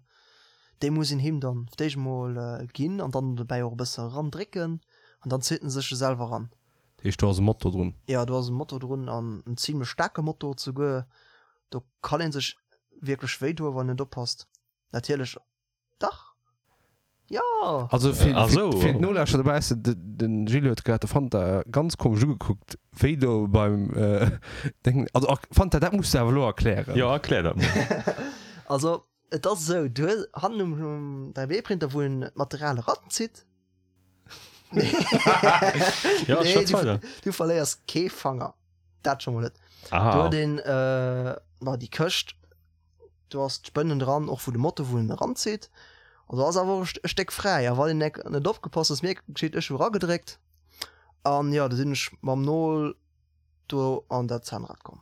Déi muss een him dann fir d'éischt emol ginn an dann dobäi och e bësse erandrécken an dann zitt en sech e selwer eran. Dat heescht do ass e Motor drun? Jo, do ass e Motor drun an en zimlech staarke Motor souguer. Do kann ee sech wierklech wéi doen, wann een net oppasst. Natierlech Dach! Jo! Also fir, ah, so. fir d'Nolauschterer dobaussen, de, den Gilles huet grad de Fanta ganz komesch ugekuckt, wéi do beim äh, Deng. Also er, Fanta, dat muss du awer elo erklären. Jo, erklär dat mol. Also, et ass esou, du hues hannen um, um 3D-Printer, wou een d'Material eranzitt. Ja, nee, schwätz du, weider. du verléiers kee Fanger. Dat scho mol net. Du Ah, huet een, äh, ma déi Këscht. Do ass d'Spënnen dran, och wou de Motor wou en eranzitt. An do ass awer och e Stéck fräi. A wann een nek net opgepasst ass, mir geschitt, ech hu eragedréckt an jo, do sinn ech mam Nol do an dat Zahnrad komm.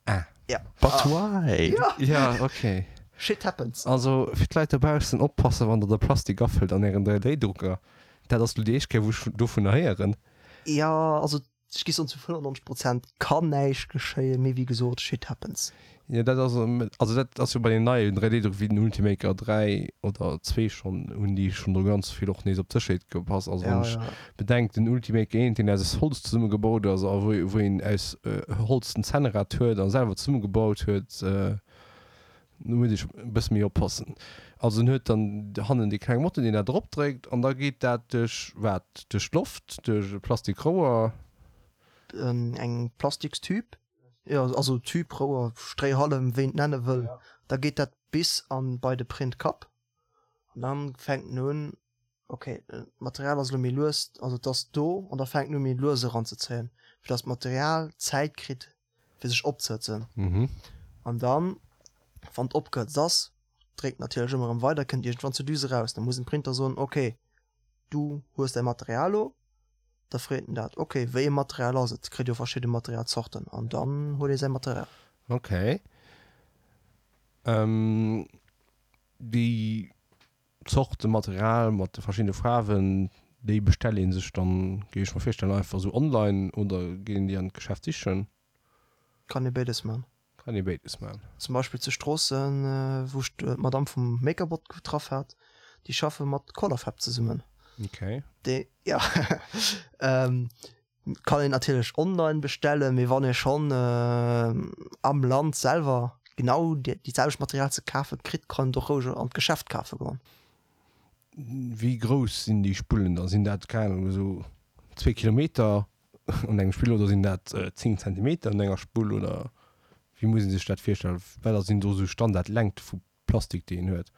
Ah. Ja. But why? Ja. Ja, okay. Shit happens. Also fir d'Leit dobaussen, oppassen wann der de Plastik afëllt an ären 3D-Drucker. Dat ass lo déi éischt Kéier wou ech dovunner héieren. Ja, also Ech gi soen zu 95 Prozent kann näischt geschéien, mee wéi gesot, shit happens. Jo dat ass, also dat ass jo bei den neien 3D-Druck wéi den Ultimaker 3 oder 2 schonn, hunn déi schonn do ganz vill och nees op d'Sécherheet gepasst. Also wann ech bedenk den Ultimaker 1 deen aus Holz zesummegebaut ass a wou wou een aus Holz den Zännrad huet a selwer zesummegebaut huet, Do muss ech e bësse méi oppassen. Also en huet dann hannen dee klenge Motor, deen dat eropdréckt an da geet dat duerch wat? Duerch d'Loft, duerch e Plastikrouer? Eng Plastikstüb, jo, also Tüb, Rouer, Stréihallem, wéi een et nenne wëll. Da geet dat bis an bei de Printkapp an dann fänkt en un, ok, d'Material ass elo méi lues, also et ass do an da fänkt en u méi lues eranzezéien, fir datt d'Material Zäit kritt fir sech opzehëtzen. An dann, wann et opgehëtzt ass, dréckt natierlech ëmmer erëm weider, kënnt iergendwann zur Düse raus. Da muss den Printer soen, ok, du hues däi Material lo. Da freet en dat, ok, wéi e Material ass et? Kritt jo verschidde Materialzorten an dann huet ee säi Material. Ok. Déi Zorte Material mat de verschiddene Faarwen, déi bestellt ee sech dann, géif ech mer virstellen, einfach esou online oder geet een déi an d'Geschäft sichen? Kann ee béides man. Kann ee béides man. Zum Beispill zu Stroossen, wou ech d'Madame vum Makerbot getraff hat, déi schaffe mat Colorfab zesummen. Okay. Déi, jo. Kann een natierlech online bestellen, mee wann ee schonn am Land selwer genau déi selwecht Material ze kafe kritt, kann een et och roueg an d'Geschäft kafe goen. Wéi grouss sinn déi Spullen da? Sinn dat, keng Ahnung, esou zwee Kilometer an engem Spill oder sinn dat 10 Zentimeter an enger Spull oder wéi muss ee sech dat virstellen? Wat sinn do esou Standardlängte vu Plastik déi een huet.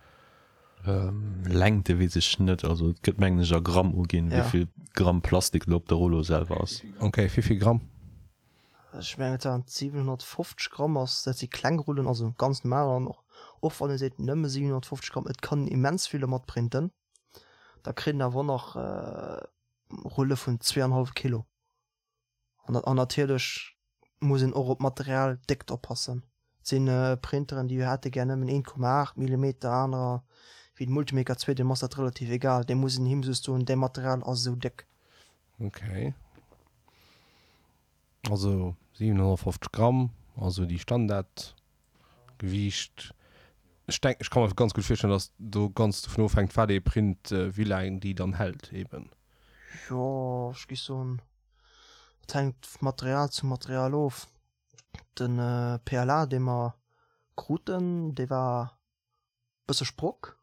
Längte weess ech net, also et gëtt mengen ech a Gramm uginn, Ja. wéivill Gramm Plastik elo op der Rullo selwer ass. Ok, wéivill Gramm? Ech mengen et waren 750 Gramm ass, dat si kleng Rullen, also ganz normal an och och wann ee seet nëmme 750 Gramm, et kann een immens vill dermat printen. Da kritt een awer och nach Rulle vun 2,5 Kilo. An natierlech muss een och op d'Materialdéckt oppassen. Et si Printeren, déi hätte gär nëmmen 1,8 Millimeter, anerer, wéi de Multimaker 2, deem ass dat relativ egal, dee muss een him just soen, däi Material ass esou déck. Ok. Also 750 Gramm, also déi Standardgewiicht. Ech denken, ech ka mer ganz gutt virstellen, datt do ganz dovun ofhänkt, wat ee print, wéi laang déi dann hält eben. Jo, ech géif soen, et hänkt vu Material zu Material of. De PLA, dee mer. kruten, dee war bësse sprock,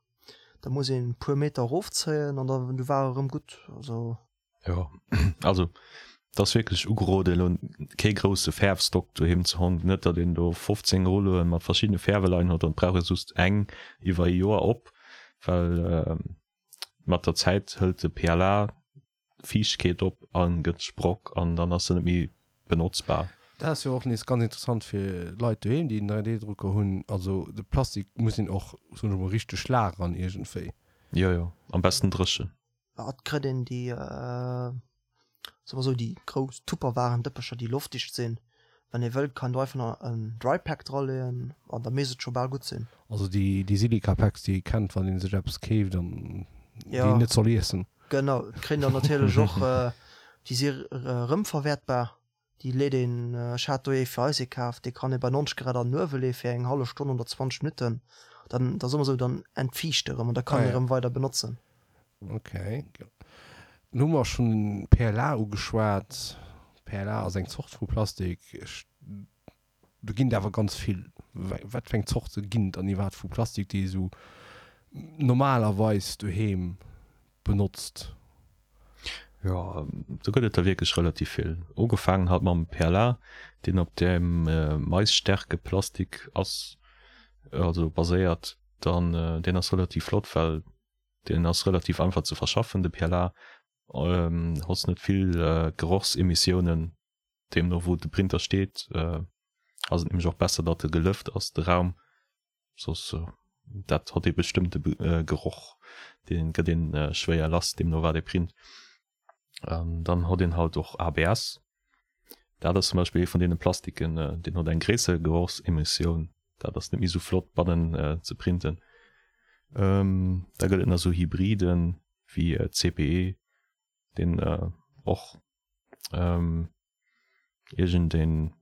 da muss een puer Meter erofzéien an da du war e rëm gutt, also. Jo, also et ass wierklech ugerode elo kee grousse Fäerfstock doheem ze honn, net datt een do 15 Rulloe mat verschiddene Fäerwe leien huet an et brauch ee just eng iwwer e Joer op, well mat der Zäit hëlt de PLA Fiichtkeet op a gëtt sprock an dann ass se net méi benotzbar. Dat ass jo och nees ganz interessant fir Leit doheem, déi en 3D-Drucker hunn. Also de Plastik muss een och, soen ech emol, richteg lagern iergendwéi. Jo, jo, am besten dréchen. Et kritt een déi, soe mer esou, déi grouss Tupperwaren-Dëppecher, déi loftdicht sinn. Wann ee wëllt, kann do einfach nach en Drypack draleeën an da misst et scho bal gutt sinn. Also déi, déi Silica-Packs, déi ee kennt, wann ee sech eppes keeft an déi een net soll iessen. Genau, et kritt een dann natierlech och, déi si erëmverwäertbar. Déi leet een, ech hat do ee fir eis ee kaf, dee kann ee bei 90 Grad an den Uewe leeë fir eng hallef Stonn oder 20 Minutten, dann, da soe mer esou, dann entfiicht e rëm an da kann een e rëm weider benotzen. Ok. Lo hu mer schonn PLA ugeschwat. PLA ass eng Zort vu Plastik. Ech, do ginn et awer ganz vill. Wat fir eng Zorte ginn et dann iwwerhaapt vu Plastik, déi ee sou normalerweis doheem benotzt? Jo, do gëtt et der wierklech relativ vill. Ugefaangen halt mam PLA, deen op dem Maisstärkeplastik ass, also baséiert. Dann, deen ass relativ flott, well deen ass relativ einfach ze verschaffen, de PLA. Hos net vill Gerochsemissiounen, deemno wou de Printer steet, ass et nämlech och besser, datt e gelëft ass, de Raum. Soss dat hott ee bestëmmte Geroch, dee gëtt een schwéier lass, deemno wat ee print. An dann hott een halt och ABS. Dat ass zum Beispill ee vun deene Plastiken, deen hott eng gréisser Gerochsemissioun. Dat ass net méi sou flott bannen ze printen. Da gëtt et nach sou Hybriden wéi CPE, deen och iergendeen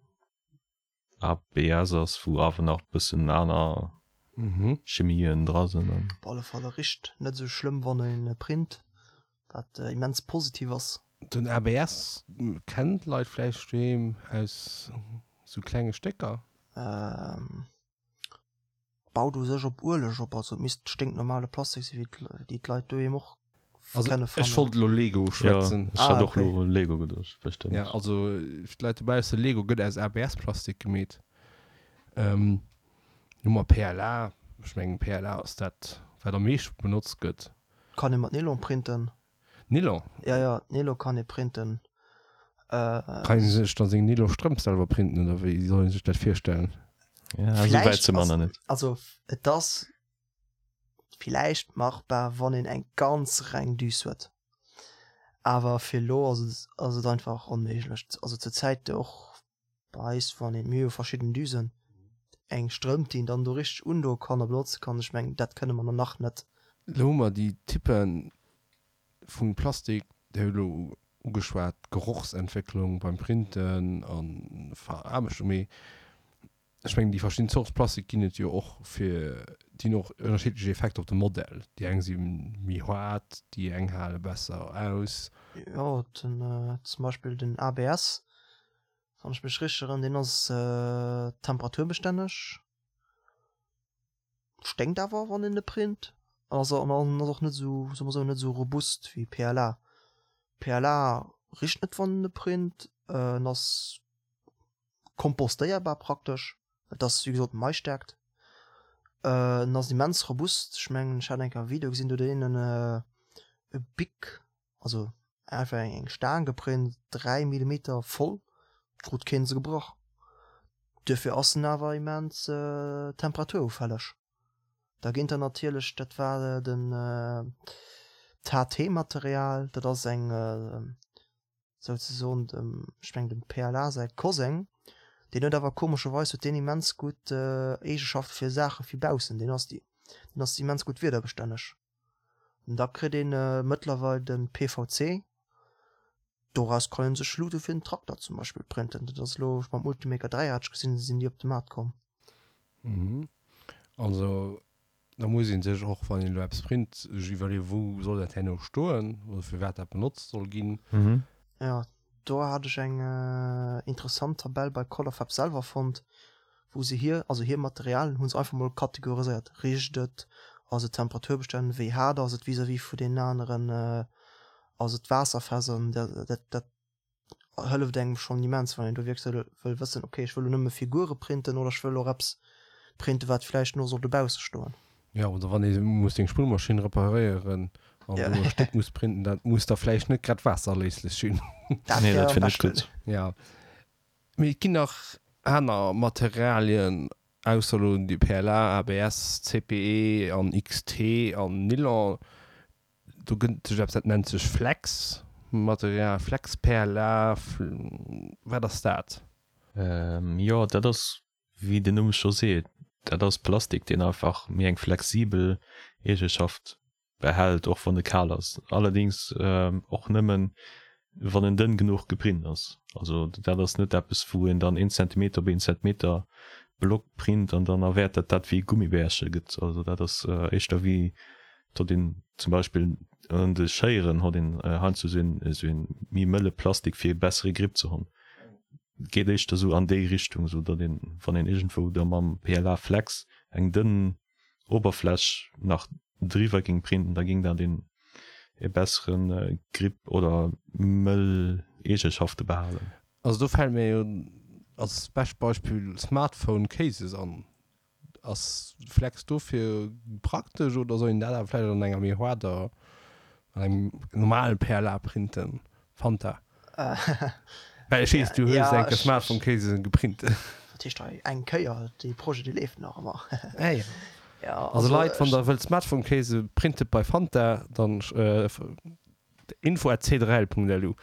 ABS ass, wou awer nach bëssen aner Chemien dra sinn. Op alle Fall e richt net esou schlëmm wann een e print, wat immens positiv ass. Den ABS kennen d'Leit vläicht doheem aus sou klenge Stécker. Baut u sech op Ueleg op, also et misst sténknormale Plastik sinn, wéi déi d'Leit doheem och Also kenne ech fannen. wollt elo Lego schwätzen. Ja, ech hat och elo u Lego geduecht, bestëmmt. Ja, also fir d'Leit dobausse, Lego gëtt aus ABS-Plastik gemeet. Hu mer PLA, ech mengen PLA ass dat wat am meeschte benotzt gëtt. Kann ee mat Nylon printen. Nylon? Ja, ja, Nylon kann ee printen. Kann ee sech dann seng Nylon-Strëmp selwer printen oder wéi soll ee sech dat virstellen? Ja, esou wäit si mer nach net. Also et ass villäicht machbar, wann een eng ganz reng Düs huet, awer fir elo ass et ass et einfach onméiglech. Also zur Zäit och bei eis, wann een, mir hu jo verschidden Düsen, eng Strëmp, déi een dann do richteg undoe kann a benotze kann, ech mengen, dat kënne mer nach net. Elo hu mer déi Typpe vu Plastik, Dir hutt elo ugeschwat, d'Gerochsentwécklung beim Printen a Veraarbechtung, mee ech mengen déi verschidden Zorte Plastik ginn et jo och fir, déi hunn och ënnerschiddlech Effekter op de Modell. Déi eng si méi haart, déi eng hale besser aus. Jo, den zum Beispill den ABS, wann ech mech richteg erënneren, deen ass temperaturbestänleg, sténkt awer wann een e print an ass an ass och net esou, soe mer esou, net esou robust wéi PLA. PLA richt net wann en e print, en ass kompostéierbar praktesch, et ass wéi gesot Maisstärkt, en ass immens robust, ech mengen ech hat eng Kéier e Video gesinn, do huet een e Bic, also einfach eng Staang geprint, 3 Millimeter voll, krut keen se gebrach, duerfir ass en awer immens temperaturufälleg. Da ginn der natierlech, dat war den d'HT-Material, dat ass eng souzesoen dem, ech mengen dem PLA säi Koseng, deen huet awer komescherweis huet deen immens gutt Eegeschafte fir Saache fir baussen, deen ass deen ass immens gutt wiederbestänneg. An da kritt een mëttlerweil de PVC, doraus kann een sech Luute fir den Trakter zum Beispill printen, dat ass elo mam Ultimaker 3 hat ech gesinn, sinn déi op de Maart komm. Also Da muss ee sech och, wann een elo eppes print, sech iwwerleeën, wou soll dat herno stoen oder fir wat dat benotzt soll ginn. Jo, do hat ech eng interessant Tabell bei Colorfab selwer fonnt, Wou se hir, also hir Materialien hu se einfach mol kategoriséiert, richt et, ass et temperaturbestänn, wéi haart ass et vis-à-vis vu deenen aneren, ass et waasserfest an dat dat hëlleft engem schonn immens, wann een do wierklech wëll wëssen, okay ech wëll elo nëmme Figure printen oder ech wëll och eppes printen, wat vläicht no soll dobausse stoen. Jo, oder wann ee muss seng Spullmaschinn reparéieren an do e Stéck muss printen, dat muss da vläicht net grad waasserléislech sinn. Dat wär am beschten. Jo. Mee et ginn nach aner Materialien ausser elo déi PLA, ABS, CPE an XT an Nylon. Do gëtt sech eppes dat nennt sech Flex Material, Flex PLA, wat ass dat? Jo, dat ass wéi den Numm scho seet, dat ass Plastik deen einfach méi eng flexibel Eegeschaft behält, och wann e kal ass, allerdings och nëmmen wann en dënn genuch geprint ass. Also dat ass net eppes wou een dann een Zentimeter op een Zentimeter Block print an dann erwäert dat dat wéi e Gummibärche gëtt. Also dat ass éischter wéi datt een zum Beispill un de Schéieren hott een heiansdo esou een esou een méi mëlle Plastik fir e bessere Grip ze honn. Geet éischter esou an déi Richtung, esou datt een wann een iergendwou da mam PLA Flex eng dënn Oberfläch nach driwwer ging printen, da ging dat een e besseren Grip oder mëll Eegeschafte behalen. Also do fällt mir jo als bescht Beispill Smartphone Cases an. Ass Flex dofir praktesch oder soll een dat awer vläicht an enger méi haarder, an engem normalen PLA printen? Fanta? Well ech weess, du hues eng Kéier Smartphone Casen geprint. Wat heescht hei eng Kéier? Dee Projet, dee leeft nach ëmmer. Ah jo. Also Leit, wann der wëllt Smartphone Case printet bei Fanta, dann info at c3l.lu.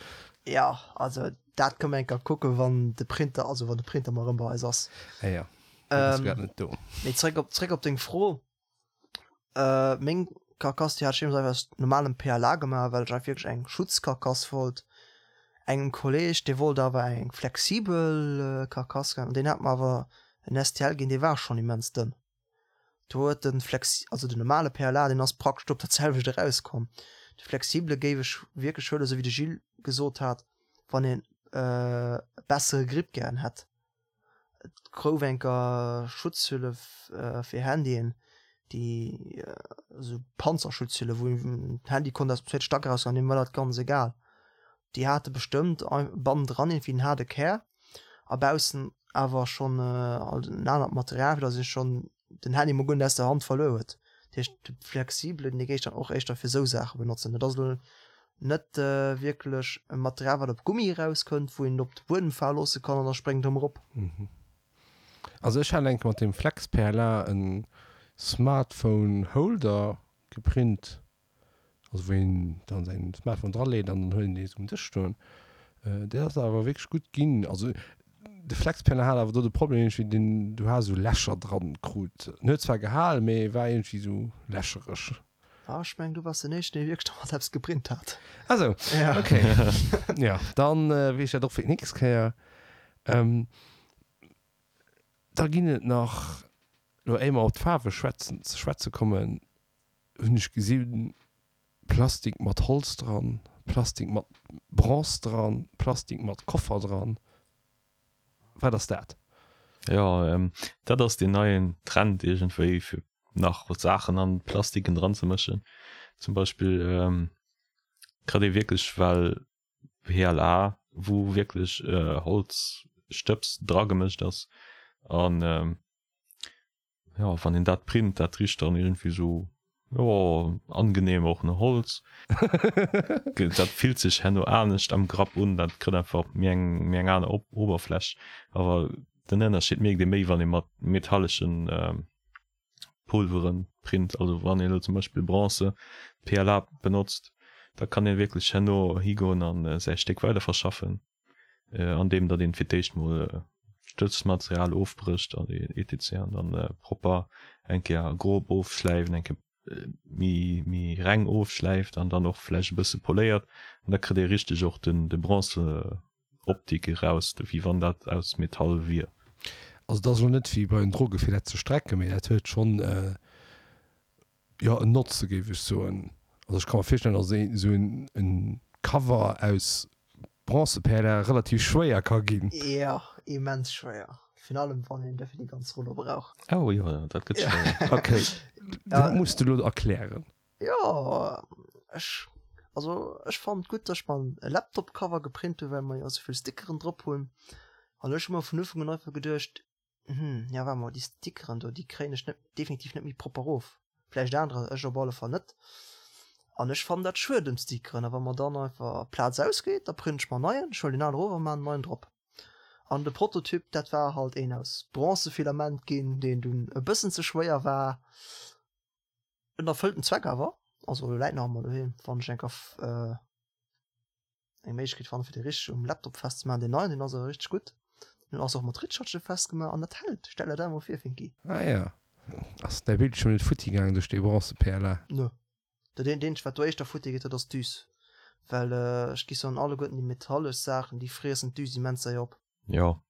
Jo, also dat kënne mer eng Kéier kucken, wann de Printer, also wann de Printer mol erëm bei eis ass. Ah jo, deen ass grad net do. Mee zréck op, zréck op deng Fro. Meng Karkass déi hat ech deemools einfach aus normalem PLA gemaach, well ech einfach wierklech eng Schutzkarkass wollt. Engem Kolleg dee wollt awer eng flexibel Karkass an deen hat mer awer en STL ginn, dee war schonn immens dënn. Do huet de flexi also den normale PLA deen ass praktesch op dat selwecht erauskomm. De flexibele géif ech wierklech huelen, esou wéi de Gilles gesot hat, wann een e bessere Grip gären hätt. Et gouf enker Schutzhülle fir Handyen, déi esou Panzerschutzhülle, wou den Handy konnt aus dem zweete Stack erausgoen, deem war dat ganz egal. Déi hate bestëmmt bannendran iergendwéi en haarde Kär a baussen awer schonn en anert Material, fir datt ee schonn den Handy mol guer net aus der Hand verluer huet. Dat heescht de flexibelen, dee géif ech dann och éischter fir esou Saache benotzen. Dat ass elo net wierklech e Material wat op Gummi erauskënnt, wou een et op de Buedem fale loosse kann an da spréngt et erëm erop. Also ech hat enke mat dem Flex PLA en Smartphone Holder geprint. Also wou een dann säin Smartphone dra leet an dann huet een dee sou um Dësch stoen. Dat ass awer wierklech gutt ginn. Also de Flexpanel hat awer do de Problem iergendwéi deen du has esou Lächer dran krut. En huet zwar gehal, mee war iergendwéi sou lächereg. Ah ech mengen du wars den éischten dee wierklech domat eppes geprint hat. Ah sou, ok. Jo, dann weess ech dat och fir d'nächst Kéier. Da ginn et nach, lo éier mer op d'Faarwe schwätzen ze schwätze kommen, hunn ech gesinn, Plastik mat Holz dran, Plastik mat Bronze dran, Plastik mat Koffer dran. Wat ass dat? Jo, dat ass deen neien Trend iergendwéi, fir nach Saachen an Plastiken dran ze mëschen. Zum Beispill kritt ee wierklech well PLA, wou wierklech Holzstëbs dragemëscht ass an Jo, wann een dat print, dat richt dann iergendwéi sou, jo, angenehm och no Holz. Dat fillt sech herno anescht am Grapp un, dat kritt einfach méi eng, méi eng aner Oberfläch. Awer den Ënnerscheed mierkt ee méi, wann ee mat metalleschen Pulveren print. Also wann een elo zum Beispill Bronze, PLA benotzt, da kann ee wierklech herno higoen a säi Stéck weiderverschaffen. Andeem datt een fir d'éischt mol d'Stëtzmaterial ofbrécht an etc an dann propper eng Kéier grob ofschläift, eng Kéier méi méi reng ofschläift an dann och vläicht e bësse poléiert an da kritt ee richteg och den de Bronze-Optik eraus, wéi wann dat aus Metall wier. Also et ass elo net wéi bei den Droge fir dat ze strecken, mee dat huet schonn Jo, en Notze géif ech soen. Also ech ka mer virstellen, datt esou en Cover aus Bronzeperle relativ schwéier ka ginn. Jo, immens schwéier. Virun allem wann een dofir déi ganz Rullo brauch. Oh jo, dat gëtt schwéier. Ok, dat muss de lo erklären. Jo, ech, also ech fannen et gutt, dass ech mer e Laptop-Cover geprint hunn, well mer jo esou vill Stickeren drop hunn. An ech hu mer vun Ufank un einfach geduecht, Hm, ja waart mol, déi Stickeren do, déi kréien ech net, definitiv net méi propper of. Vläicht anerer, ech op alle Fall net. An ech fannen dat schued ëm d'Stickeren. A wa mer dann einfach Plaz ausgeet, da print ech mer en neien, ech huelen deen alen erof a maan en neien drop. An de Prototyp, dat war halt een aus Bronzefilament ginn, deen dunn e bëssen ze schwéier war. En erfëllt den Zweck awer, also läit nach ëmmer doheem, wann ech eng Kéier eng Méiglechkeet fannen fir dee richteg um Laptop festzemaachen. Deen neien, deen ass awer richteg gutt. Deen ass och mat Ritschatschen festgemaach an dat hält. Stell der dat emol vir, Finki. Ah ja. Ass däi Bildschierm net futti gaangen duerch dee Bronze-PLA? Nö. Dat eenzegt wat do éischter futti geet, dat ass d'Düs. Well ech gi soen, alleguerten déi metallesch Saachen, déi friessen d'Düs immens séier op. Jo,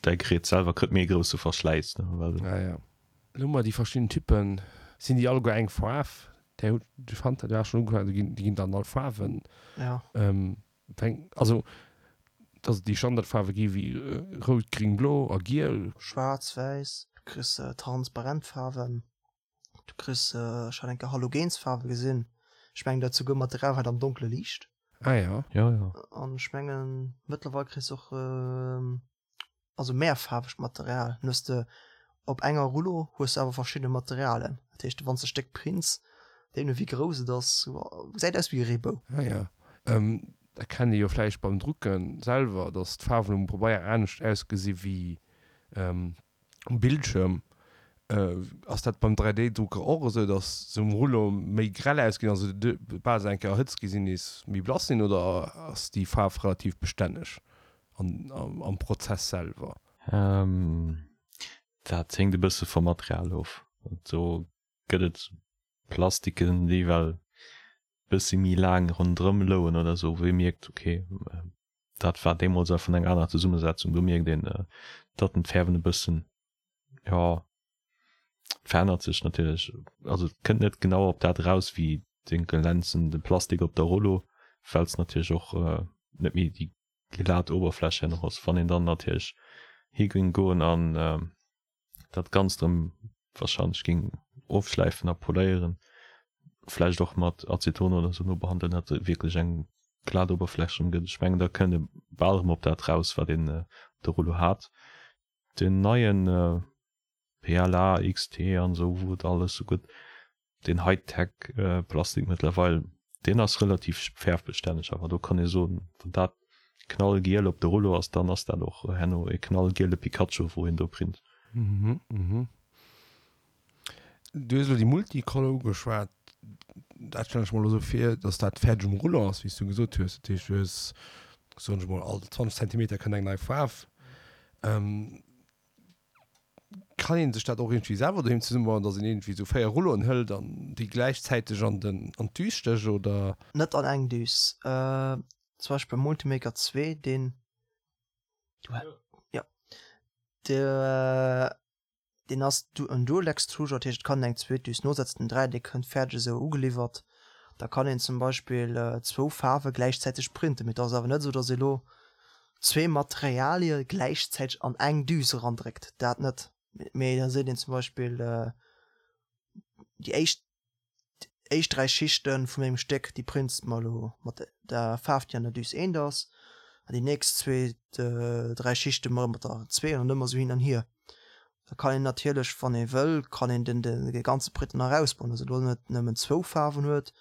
Däi Gerät selwer kritt méi e grousse Verschläiss, ne, well. Ah ja. Elo hu mer déi verschidden Typen. Sinn déi alleguer eng Faarf? Där hutt, de Fanta, du has schonn ugefaangen, déi ginn, déi ginn dann all Faarwen. Ja. Weng, also, dass et déi Standardfaarwe gi wéi rout, gring, blo a giel. Schwaarz, wäiss, du kriss transparent Faarwen. Du kriss, ech hat eng Kéier Halogensfaarwe gesinn, ech mengen dat souguer Material wat am Donkele liicht. Ah ja. Ja, ja. An ech mengen mëttlerweil kriss och also mehrfaarwegt Material. Dann hues de op enger Rullo hues de awer verschidde Materialen. Dat heescht wann s de e Stéck prints, deemno wéi grouss et ass, gesäit aus wéi e Reebou. Ah ja. Dat kennt ee jo vläicht beim Drucken selwer, dass d'Faarwen um Pabeier anescht ausgesi wéi Um Bildschirm. Ass dat beim 3D-Drucker och esou, dass se um Rullo méi grell ausginn, also bal se eng Kéier erhëtzt gi sinn, nees méi blass sinn, oder ass déi Faarf relativ bestänneg am Prozess selwer? Dat héngt e bësse vum Material of. Do gëtt et Plastiken, déi well bëssi méi laang ronderëm louen oder esou, wou ee mierkt, ok, dat war deemools einfach eng aner Zesummesetzung. Do mierkt een, datt en d'Fäerwen e bëssen, jo, verännert sech natierlech. Also et kënnt net genau op dat eraus wéi de glänzende Plastik op der Rollo, well s natierlech och net méi déi glat Oberfläch herno ass. Wann een dann natierlech hi géing goen an dat Ganzt erëm wahrscheinlech géing ofschläifen a poléieren, vläicht och mat Aceton oder sou nobehandeln, datt et wierklech eng glat Oberfläch erëm gëtt. Ech mengen, da kënnt e bal erëm op dat raus, wat een op der Rullo hat. Den neien PLA XT an esou, wou et alles sou gëtt, deen Hightech Plastik mëttlerweil, deen ass relativ fäerfbestänneg, awer do kann ee soen, wann dat knallgiel op de Rullo ass, dann ass dat och herno e knallgiele Pikachu wou een do print. Mhm, mhm. Du hues elo déi Multicolor ugeschwat, dat stellen ech mer elo esou vir, datt dat fäerdeg um Rullo ass, wéi s du gesot hues. Dat heescht, du hues, soen ech mol, all 20 Zentimeter kënnt eng nei Faarf. Kann een sech dat och iergendwéi selwer doheem zesummebauen, dass een iergendwéi esou 4 Rulloen hëlt an déi gläichzäiteg an den an d'Düs stécht, oder? Net an eng Düs. Zum Beispill beim Multimaker 2, deen, jo, deen ass en Dual Extruder, dat heescht et kann een eng zweet Düs nosetzen. Den 3, dee kënnt fäerdeg esou ugeliwwert. Da kann een zum Beispill zwou Faarwe gläichzäiteg printen, mee et ass awer net esou, dass ee lo zwee Materialie gläichzäiteg an eng Düs erandréckt, dat net. Mee da seet een zum Beispill, déi éischt éischt 3 Schichte vun mengem Stéck, déi prints de mer elo mat der Faarf, déi an der Düs eent ass, an déi nächst zwee, 3 Schichte mol mat der zwee an ëmmer esou hin an hier. Da kann een natierlech, wann ee wëll, kann een den de ganze Printer nach ausbauen, dass e lo net nëmmen zwou Faarwen huet,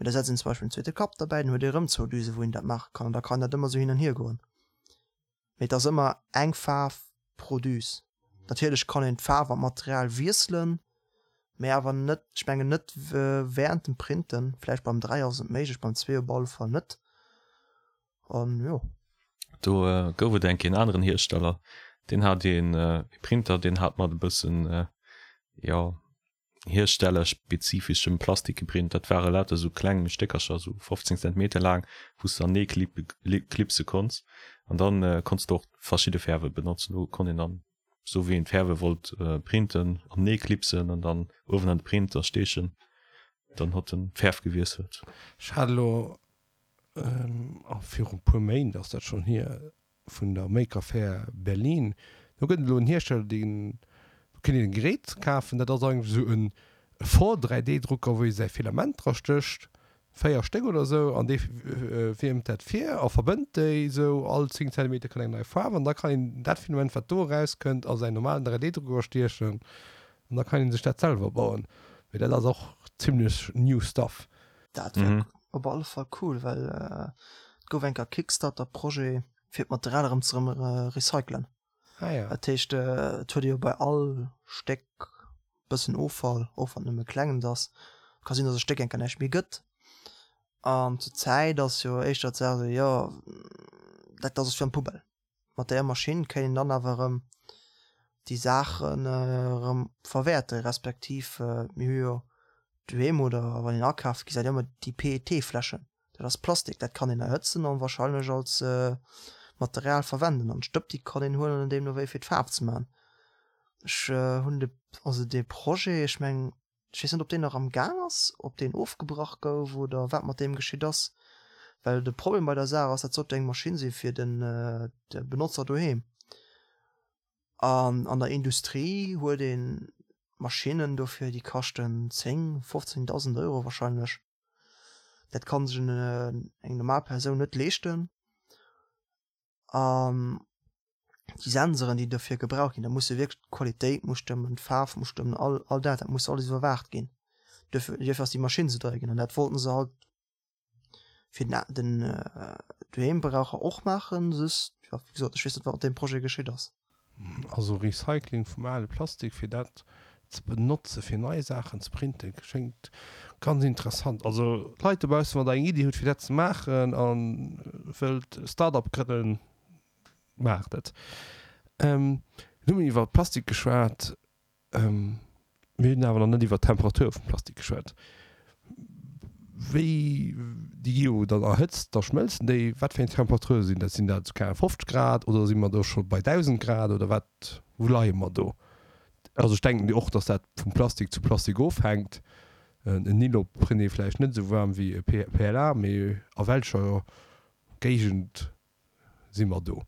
Mee da setzt een zum Beispill en zweete Kapp derbäi, dann huet ee rëm zwou Düsen, wou een dat maache kann an da kann dat ëmmer esou hin an hier goen. Mee et ass ëmmer eng Faarf pro Düs. Natierlech kann een d'Faarf an d'Material wiesselen, mee awer net, ech mengen net während dem Printen. Vläicht beim 3 ass et méiglech, beim 2 op alle Fall net. An jo. Do gouf et eng Kéier en aneren Hiersteller, deen hat een Printer, deen hat mat e bëssen, jo, hierstellerspezifeschem Plastik geprint. Dat ware lauter sou kleng Stéckercher, sou 15 Zentimeter laang, wou s de anee klipse konns. An dann konns de och verschidde Fäerwe benotzen. Do konnt een dann, sou wéi een d'Fäerwe wollt printen, anee klipsen an dann uewen an de Printer steechen. Dann hott en d'Fäerf gewiesselt. Ech hat elo, viru puer Méint ass dat schonn hier, vun der Maker Faire Berlin. Do gëtt et elo en Hiersteller, deen, do kënnt een e Gerät kafen, dat ass eigentlech esou e Vor-3D-Drucker, wou ee säi Filament dra stécht, 4 Stéck oder esou, an dee wiermt dat vir a verbënnt déi esou, all 10 Zentimeter kënnt eng nei Faarf an da kann een dat Filament, wat do erauskënnt, a säin normalen 3D-Drucker stiechen an da kann ee sech dat selwer bauen. Mee dat ass och zimlech new stuff. Dat wär op alle Fall cool, well et gouf eng Kéier Kickstarter-Projet fir d'Material erëm ze recyclen. Ah ja. Dat heescht, et huet ee jo bei all Stéck bëssen Offall, och wann et nëmme klengens ass. Ka sinn, datt e Stéck eng Kéier näischt méi gëtt. An zur Zäit ass jo éischter d'Saach esou, jo, dat ass fir an d'Poubelle. Mat där Maschinn kéint een dann awer erëm déi Saachen erëm verwäerten, respektiv mir hu jo doheem oder wann een akaft, gesäit een ëmmer déi PET-Fläschen. Dat ass Plastik, dat kann een erhëtzen an wahrscheinlech als Material verwenden. An d'Stëpp déi kann een huelen an deemno wéi fir d'Faarf ze man. Ech hunn de, also dee Projet, ech mengen, ech weess net ob deen nach am Gaang ass, ob deen ofgebrach gouf oder wat mat deem geschitt ass. Well de Problem bei der Saach ass, dat sollt jo eng Maschinn si fir den de Benotzer doheem. An an der Industrie huet ee Maschinnen dofir, déi kaschten 10, 15.000 Euro wahrscheinlech. Dat kann sech eng normal Persoun net leeschten. An déi Sensoren, déi dofir gebraucht ginn, da muss jo wierklech d'Qualitéit muss stëmmen, d'Faarf muss stëmmen, all all dat, dat muss alles iwwerwaacht ginn. Duerfir duerfir ass déi Maschinn esou deier ginn. An dat wollten se halt fir den den Doheembraucher och maachen, just, jo, wéi gesot, ech weess net, wat mat deem Projet geschitt ass. Also Recycling vum ale Plastik fir dat ze benotze fir nei Saachen ze printen schéngt ganz interessant. Also Leit dobaussen wann der eng Iddi hutt fir dat ze maachen a wëllt e Start-up grënnen, maacht et. Elo hu mir iwwer Plastik geschwat. Mir hunn awer nach net iwwer d'Temperatur vum Plastik geschwat. Wéi déi gi jo dann erhëtzt, da schmëlzen déi. Wat fir eng Temperature sinn dat? Sinn dat esou keng 50 Grad oder si mer do scho bei 1.000 Grad oder wat, wou leie mer do? Also ech denken och, datt dat vum Plastik zu Plastik ofhänkt. En Nylon print ee vläicht net esou waarm wéi e PLA, mee a welcher Géigend si mer do?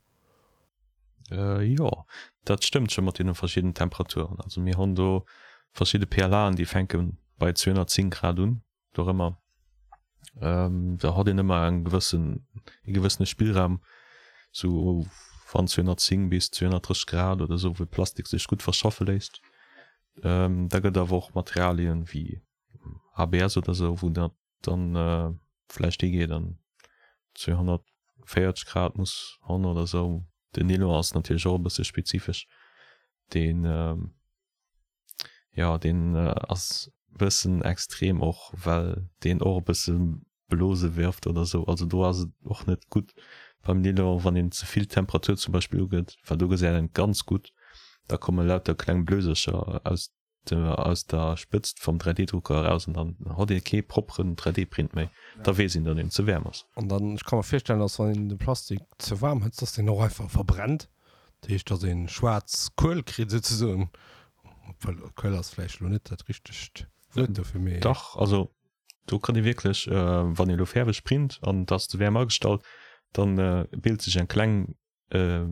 Jo, dat stëmmt scho mat deene verschiddenen Temperaturen. Also mir hunn do verschidde PLAen, déi fänke bei 210 Grad un, dorëmmer. Da hat een ëmmer eng gewëssen, e gewëssene Spillraum, sou van 210 bis 230 Grad oder sou, wou Plastik sech gutt verschaffe léisst. Da gëtt awer och Materialien wéi ABS oder sou, wou dat dann vläicht higeet an 240 Grad muss han oder sou. Den Nylon ass natierlech och e bësse spezifesch. Deen jo deen ass bëssen extrem och well deen och e bësse Blose wirft oder sou. Also do ass et och net gutt beim Nylon wann een ze vill Temperatur zum Beispill ugëtt, well do gesäit een et ganz gutt, da komme lauter kleng Blösercher aus aus der Spëtzt vum 3D-Drucker eraus an dann hott ee kee propperen 3D-Print méi. Da weess een, datt een ze waarm ass. An dann, ech ka mer virstellen, datt wann een de Plastik ze waarm hëtzt, datt deen och einfach verbrennt. Dat heescht, datt ee schwaarz Kuel kritt souzesoen. Obwuel, Kuel ass vläicht elo net dat richtegt Wuert dofir, mee. Dach, also do kann ee wierklech, wann ee elo fäerweg print an et ass ze waarm agestallt, dann bilt sech eng kleng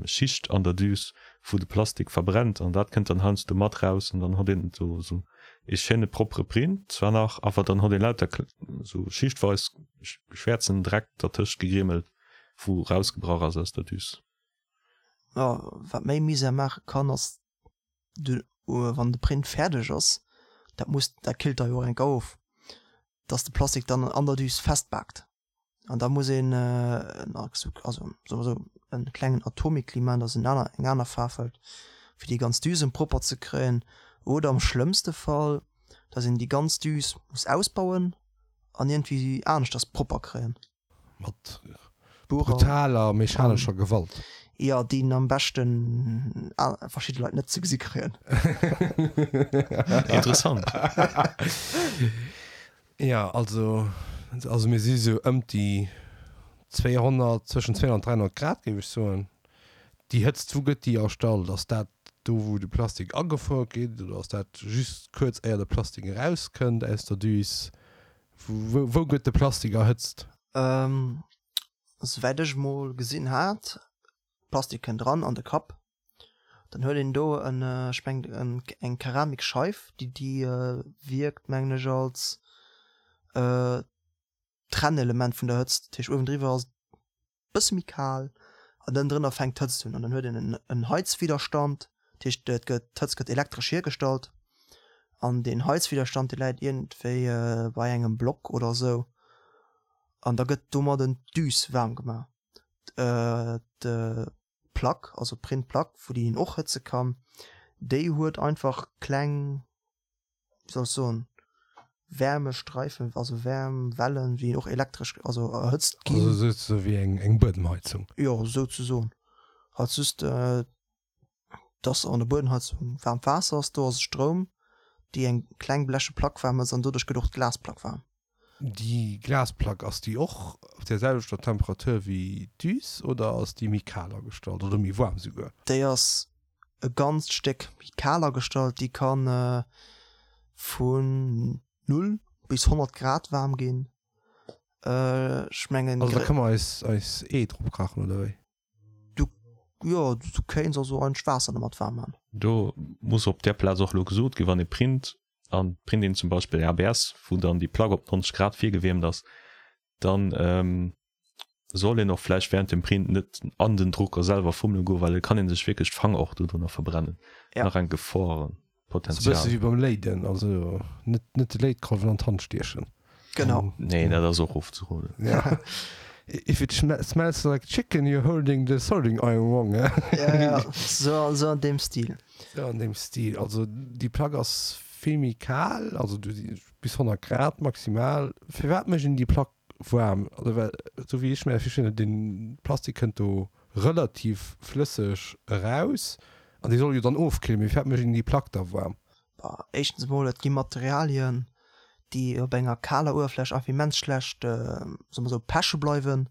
Schicht an der Düs wou de Plastik verbrennt an dat kënnt dann heiansdo mat raus an dann hott een do sou ee schéine proppere Print zwar nach, awer dann hott ee lauter sou schichtweis schwäerzen Dreck dertëscht gegrimmelt wou rausgebrach ass aus der Düs. Jo, wat méi Misär maache kann ass de wann de Print fäerdeg ass, dat muss dat killt da jo och enk of, dass de Plastik dann an der Düs festbaakt. An da muss een also soe mer esou en klengen Atomikli maachen, dass en aner eng aner Faarf hëlt, fir déi ganz Düsen propper ze kréien. Oder am schlëmmste Fall, dass een déi ganz Düs muss ausbauen an iergendwéi aneschters propper kréien. Mat brutaler mechanescher Gewalt. Jo, déi en am beschten verschidde Leit net ze gesi kréien. Interessant. Jo, also, also mir si sou ëmt déi 200, zwëschen 200 an 300 Grad géif ech soen. Déi Hëtzt, wou gëtt déi erstallt? Ass dat do wou de Plastik agefuer gëtt oder ass dat just kuerz éier de Plastik erauskënnt aus der Düs? Wou, wou gëtt de Plastik erhëtzt? Souwäit ech mol gesinn hat, Plastik kënnt eran an de Kapp. Dann huet een do en, ech mengen eng Keramikscheif, déi déi wierkt mengen ech als Trennelement vun der Hëtzt. Dat heescht uewendriwwer ass et bësse méi kal an ënnendrënner fänkt d'Hëtzt un an dann huet een en Heizwiderstand, dat heescht et gëtt, d'Hëtzt gëtt elektresch hiergestallt an deen Heizwiderstand dee läit iergendwéi bei engem Block oder esou an da gëtt domadden d'Düs waarm gemaach. D'Plack, also d'Printplack, wou déi een och hëtze kann, déi huet einfach kleng wéi soll ech soen, Wärmestreifen, also Wärmwellen, wéi och elektresch, also erhëtzt ginn. Also souzesoe wéi eng eng Buedemheizung? Jo, souzesoen. Halt just, dass an der Buedemheizung waarmt Waasser ass, do ass et Stroum, déi eng kleng bleche Plack waarm hëtzt an doduerch gëtt och d'Glasplack waarm. Déi Glasplack, ass déi och op där selwechter Temperatur wéi d'Düs oder ass déi méi kal agestallt oder méi waarm souguer? Déi ass e ganzt Stéck méi kal agestallt. Déi ka vun 0 bis 100 Grad waarm ginn. Ech mengen. Also da kënne mer eis eis Ee drop kachen oder wéi? Du, jo, du kéints also eigentlech Waasser domat waarm man. Do muss op där Plaz och elo gesot ginn, wann ee print, an print een zum Beispill ABS, wou dann déi Plack op 90 Grad virgewiermt ass, dann soll een och vläicht während dem Print net an den Drucker selwer fummele goen, well et kann ee sech wierklech d'Fanger och dodrunner verbrennen. Ja. Nach eng Geforenpotenzial. Sou e bësse wéi beim Léiden, also net net de Léitkolwen an d'Hand stiechen. Genau. Nee, dat ass och ofzeroden. Ja. If it smells like chicken, you're holding the soldering iron wrong. Ja, ja, sou, sou an deem Stil. Sou an deem Stil. Also déi Plack ass vill méi kal, also bis 100 Grad maximal. Firwat mécht een déi Plack waarm? Also well, sou wéi ech mir dat virstellen, den Plastik kënnt do relativ flësseg eraus an dee soll jo dann ofkillen. Mee firwat mécht een déi Plack da waarm? Bah, éischtens emol, et gi Materialien, déi op enger kaler Uewerfläch einfach immens schlecht, soe mer sou, peche bleiwen.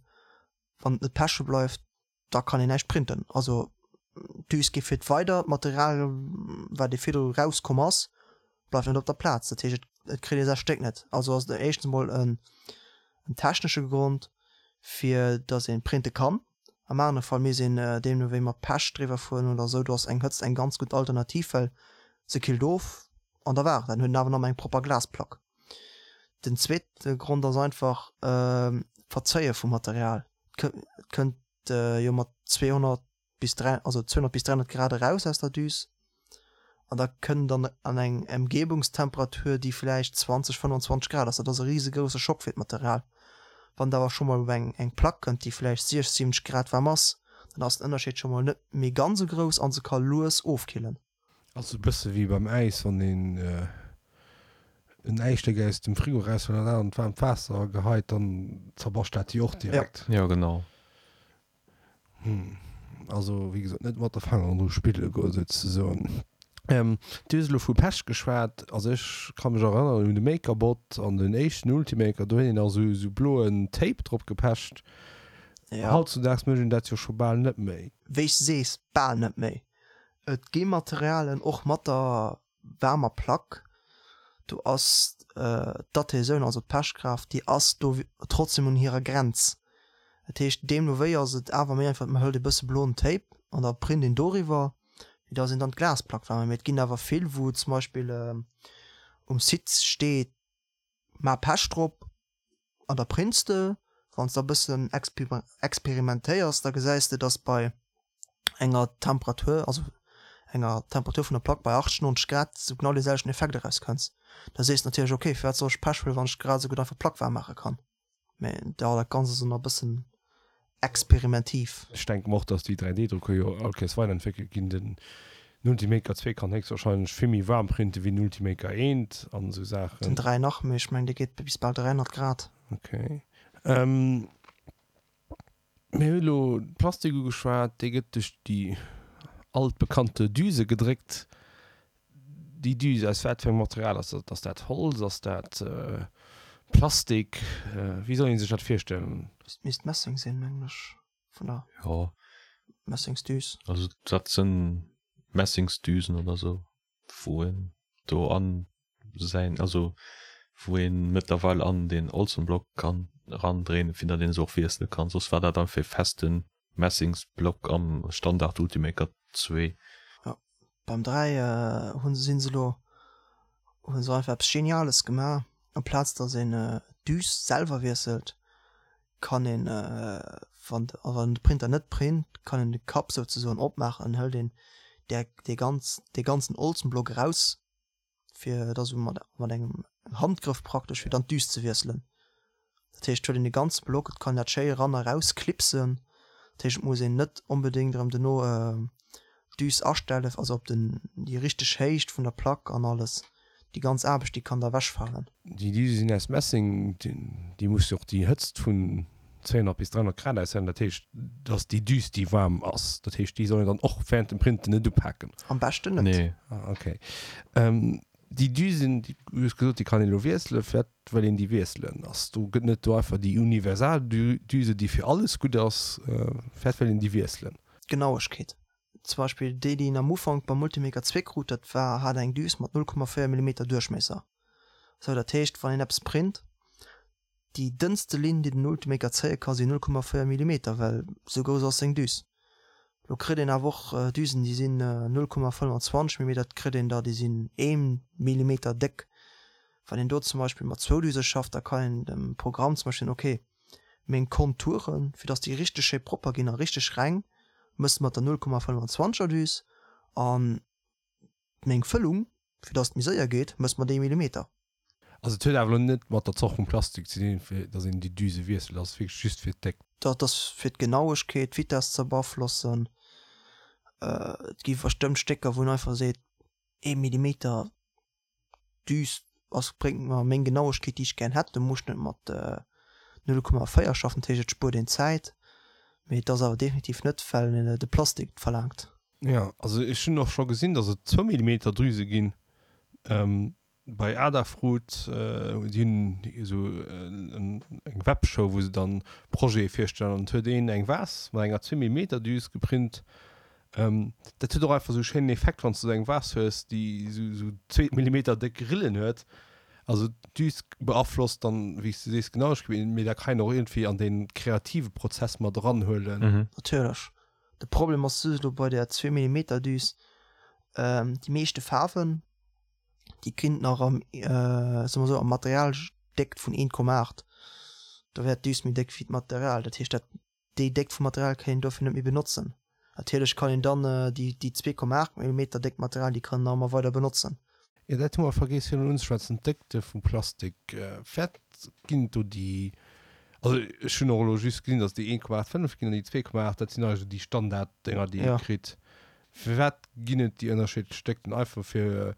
Wann et net peche bleift, da kann een näischt printen. Also d'Düs geet fiert weider, d'Material wat ee virdru rauskomm ass, bleift net op der Plaz. Dat heescht et kritt ee säi Stéck net. Also ass et éischtens emol en technesche Grond fir datt ee printe kann. Am anere Fall misst een deemno wéi mat Pech driwwer fueren oder esou. Do ass eng Hëtzt eng ganz gutt Alternativ, well se killt of an da war et dat. Dann huet een awer nach eng propper Glasplack. Den zweete Grond ass einfach d'Verzéie vum Material. Et kënnt jo mat 200 bis 3, also 200 bis 300 Grad eraus aus der Düs an da kënnt dann an eng Emgebungstemperatur, déi vläicht 20, 25 Grad ass. Dat ass e risegrousse Schock fir d'Material. Wann et awer scho mol op eng eng Plack kënnt, déi vläicht 60, 70 Grad waarm ass, dann ass den Ënnerscheed scho mol net méi ganz esou grouss a se ka lues ofkillen. Ass e bësse wéi beim Äis, wann een en Äisstéck aus dem Frigo eraushuelt an dat an d'waarmt Waasser geheit, dann zerbascht dat jo och direkt. Jo, genau. Hm, also wéi gesot, net mat de Fangeren dru spille goen, souzesoen. Du hues elo vu Pech geschwat. Also ech ka mech erënneren un de MakerBot an den éischten Ultimaker, do huet een nach esou bloen Tape drop gepecht. Hautzudaags mécht een dat jo scho bal net méi. Wéi s de sees, bal net méi. Et gi Materialen, och mat der waarmer Plack, do ass d'Adhäsioun, also d'Pechkraaft, déi ass do trotzdem un hirer Grenz. Dat heescht, deemno wéi ass et awer méi einfach, man hëlt e bësse bloen Tape an da print een doriwwer, wéi dass een dann d'Glasplack waarm. Mee et ginn awer vill, wou zum Beispill um Site steet, Maach Pech drop an da prints de. Wann s de e bëssen experimentéiers, da gesäis de, dass bei enger Temperatur, also enger Temperatur vun der Plack bei 80, 90 Grad, s du genau dee selwechten Effekt erauskënns. Da sees de natierlech, ok, firwat soll ech Pech huelen, wann ech grad esou gutt einfach d'Plack waarm maache kann. Mä jo, dat Ganzt ass ëmmer e bëssen experimentiv. Ech denken och, dass déi 3D-Drucker jo all Kéiers weiderentwéckelt ginn. Den Ultimaker 2 kann héchstwahrscheinlech vill méi waarm printen wéi den Ultimaker 1 an esou Saachen. Den 3 nach méi, ech mengen dee geet bis bal 300 Grad. Ok. Mir hu elo de Plastik ugeschwat, dee gëtt duerch déi altbekannte Düse gedréckt. Déi Düse, aus wat fir engem Material ass dat? Ass dat Holz? Ass dat Plastik? Wéi soll ee sech dat virstellen? Dat misst Messeng sinn, mengen ech, vun der Jo. Messingsdüs. Also dat sinn Messingsdüsen oder sou, wou een do an säin, also wou een mëttlerweil an den Olsenblock kann erandréinen, fir datt een se och wiessele kann. Soss war dat einfach e festen Messingsblock am Standard Ultimaker 2. Jo. Beim 3 hunn sinn se elo hunn se einfach eppes Geniales gemaach, amplaz dass een d'Düs selwer wiesselt, kann een wann wann de Printer net print, kann een de Kapp souzesoen opmaachen an hëlt een där dee ganz dee ganzen Olzenblock eraus fir da sou mat mat engem Handgrëff praktesch fir dann d'Düs ze wiesselen. Dat heescht et huet een de ganze Block, et kann een dat schéi eran a raus klipsen. Dat heescht et muss een net onbedéngt erëm duerno d'Düs astellen, also op den déi richteg Héicht vun der Plack an alles. Déi ganz Aarbecht déi kann da ewechfalen. Déi Düse sinn aus Messing, déi muss jo och déi Hëtzt vun 200 bis 300 Grad aushalen. Dat heescht, dass déi Düs déi waarm ass, dat heescht déi soll een dann och während dem Printen net upaken. Am beschten net. Nee. Ah okay. Déi Düsen, déi, du hues gesot, déi kann een elo wiesselen. Firwat wëll een déi wiesselen? Ass do, gëtt net do einfach déi universal Düse déi fir alles gutt ass? Firwat wëll een déi wiesselen? D'Genauegkeet. Zum Beispill déi, déi een am Ufank beim Multimaker 2 krut, dat war, hat eng Düs mat 0,4 Millimeter Duerchmiesser. Sou, dat heescht, wann een eppes print, déi dënnste Linn, déi den Ultimaker zéie ka sinn 0,4 Millimeter, well sou grouss ass seng Düs. Lo kritt een awer och Düsen, déi sinn 0,25 Millimeter, et kritt een der, déi sinn ee Millimeter déck. Wann een do zum Beispill mat zwou Düse schafft, da kann een dem Programm zum Beispill soen, okay, meng Konturen, fir dass déi richteg schéi propper ginn a richteg reng, mëss mat der 0,25 er Düs an meng Fëllung, fir dass et méi séier geet, mëss mat ee Millimeter. Also et huet awer elo net mat der Zort vum Plastik ze dinn, fir dass een déi Düse wiesselt, ass wierklech just fir d'Déckt. Dat ass fir d'Genauegkeet, d'Vitesse ze beaflossen. Et gi bestëmmt Stécker, wou een einfach seet, ee Millimeter Düs ass bréngt mer meng Genauegkeet déi ech gären hätt. Do muss ech net mat 0,4 schaffen, dat heescht et spuert een Zäit, mee et ass awer definitiv net well de Plastik et verlaangt. Jo, also ech hunn och scho gesinn, datt et zwou Millimeter Drüse ginn. Bei Adafruit, déi hunn esou eng Webshow wou se dann Projete virstellen an et huet een eng Vase mat enger zwee Millimeter Düs geprint Dat huet och einfach esou e schéinen Effekt, wann s de esou eng Vase hues, déi esou zwee Millimeter déck Rillen huet. Also d'Düs beaflosst dann, wéi s de sees, d'Genauegkeet, mee dat kann een och iergendwéi an dee kreative Prozess mat eranhuelen. Natierlech. De Problem ass just elo bei där zwee Millimeter Düs, déi meeschte Faarwen, déi kinnt nach am, soe mer esou, am Materialdéckt vun 1,8. Do wär d'Düs méi déck wéi d'Material. Dat heescht, dat Déi Déckt vum Material kann een dofir net méi benotzen. Natierlech kann een dann déi 2,8 Millimeter déckt Material, déi kann een nach ëmmer weider benotzen. Jo, dat hu mer vergeess virun unzeschwätzen, d'Déckte vum Plastik. Firwat ginn et do déi, also ech hunn och elo just gesinn, datt et déi 1,85 ginn an déi 2,8, dat sinn eigentlech déi Standarddinger, déi ee kritt. Firwat ginn et déi ënnerschiddlech Déckten? Einfach fir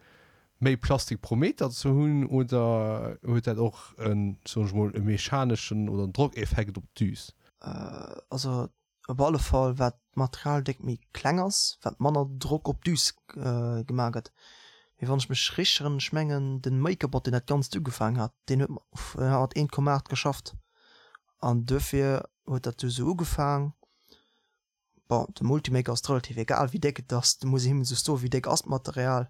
méi Plastik pro Meter ze hunn oder huet dat och en, soen ech mol, e mechaneschen oder en Drockeffekt op d'Düs? Also op alle Fall wat d'Materialdéckt méi kleng ass, wat manner Drock op d'Düs gemaach gëtt. Mee wann ech mech richteg erënneren, ech mengen den MakerBot deen dat ganzt ugefaangen hat, deen huet mat 1,8 geschafft an duerfir huet dat du sou ugefaang. Bon, dem Multimaker ass et relativ egal wéi déck et ass, do muss ee him just soen wéi déck ass d'Material,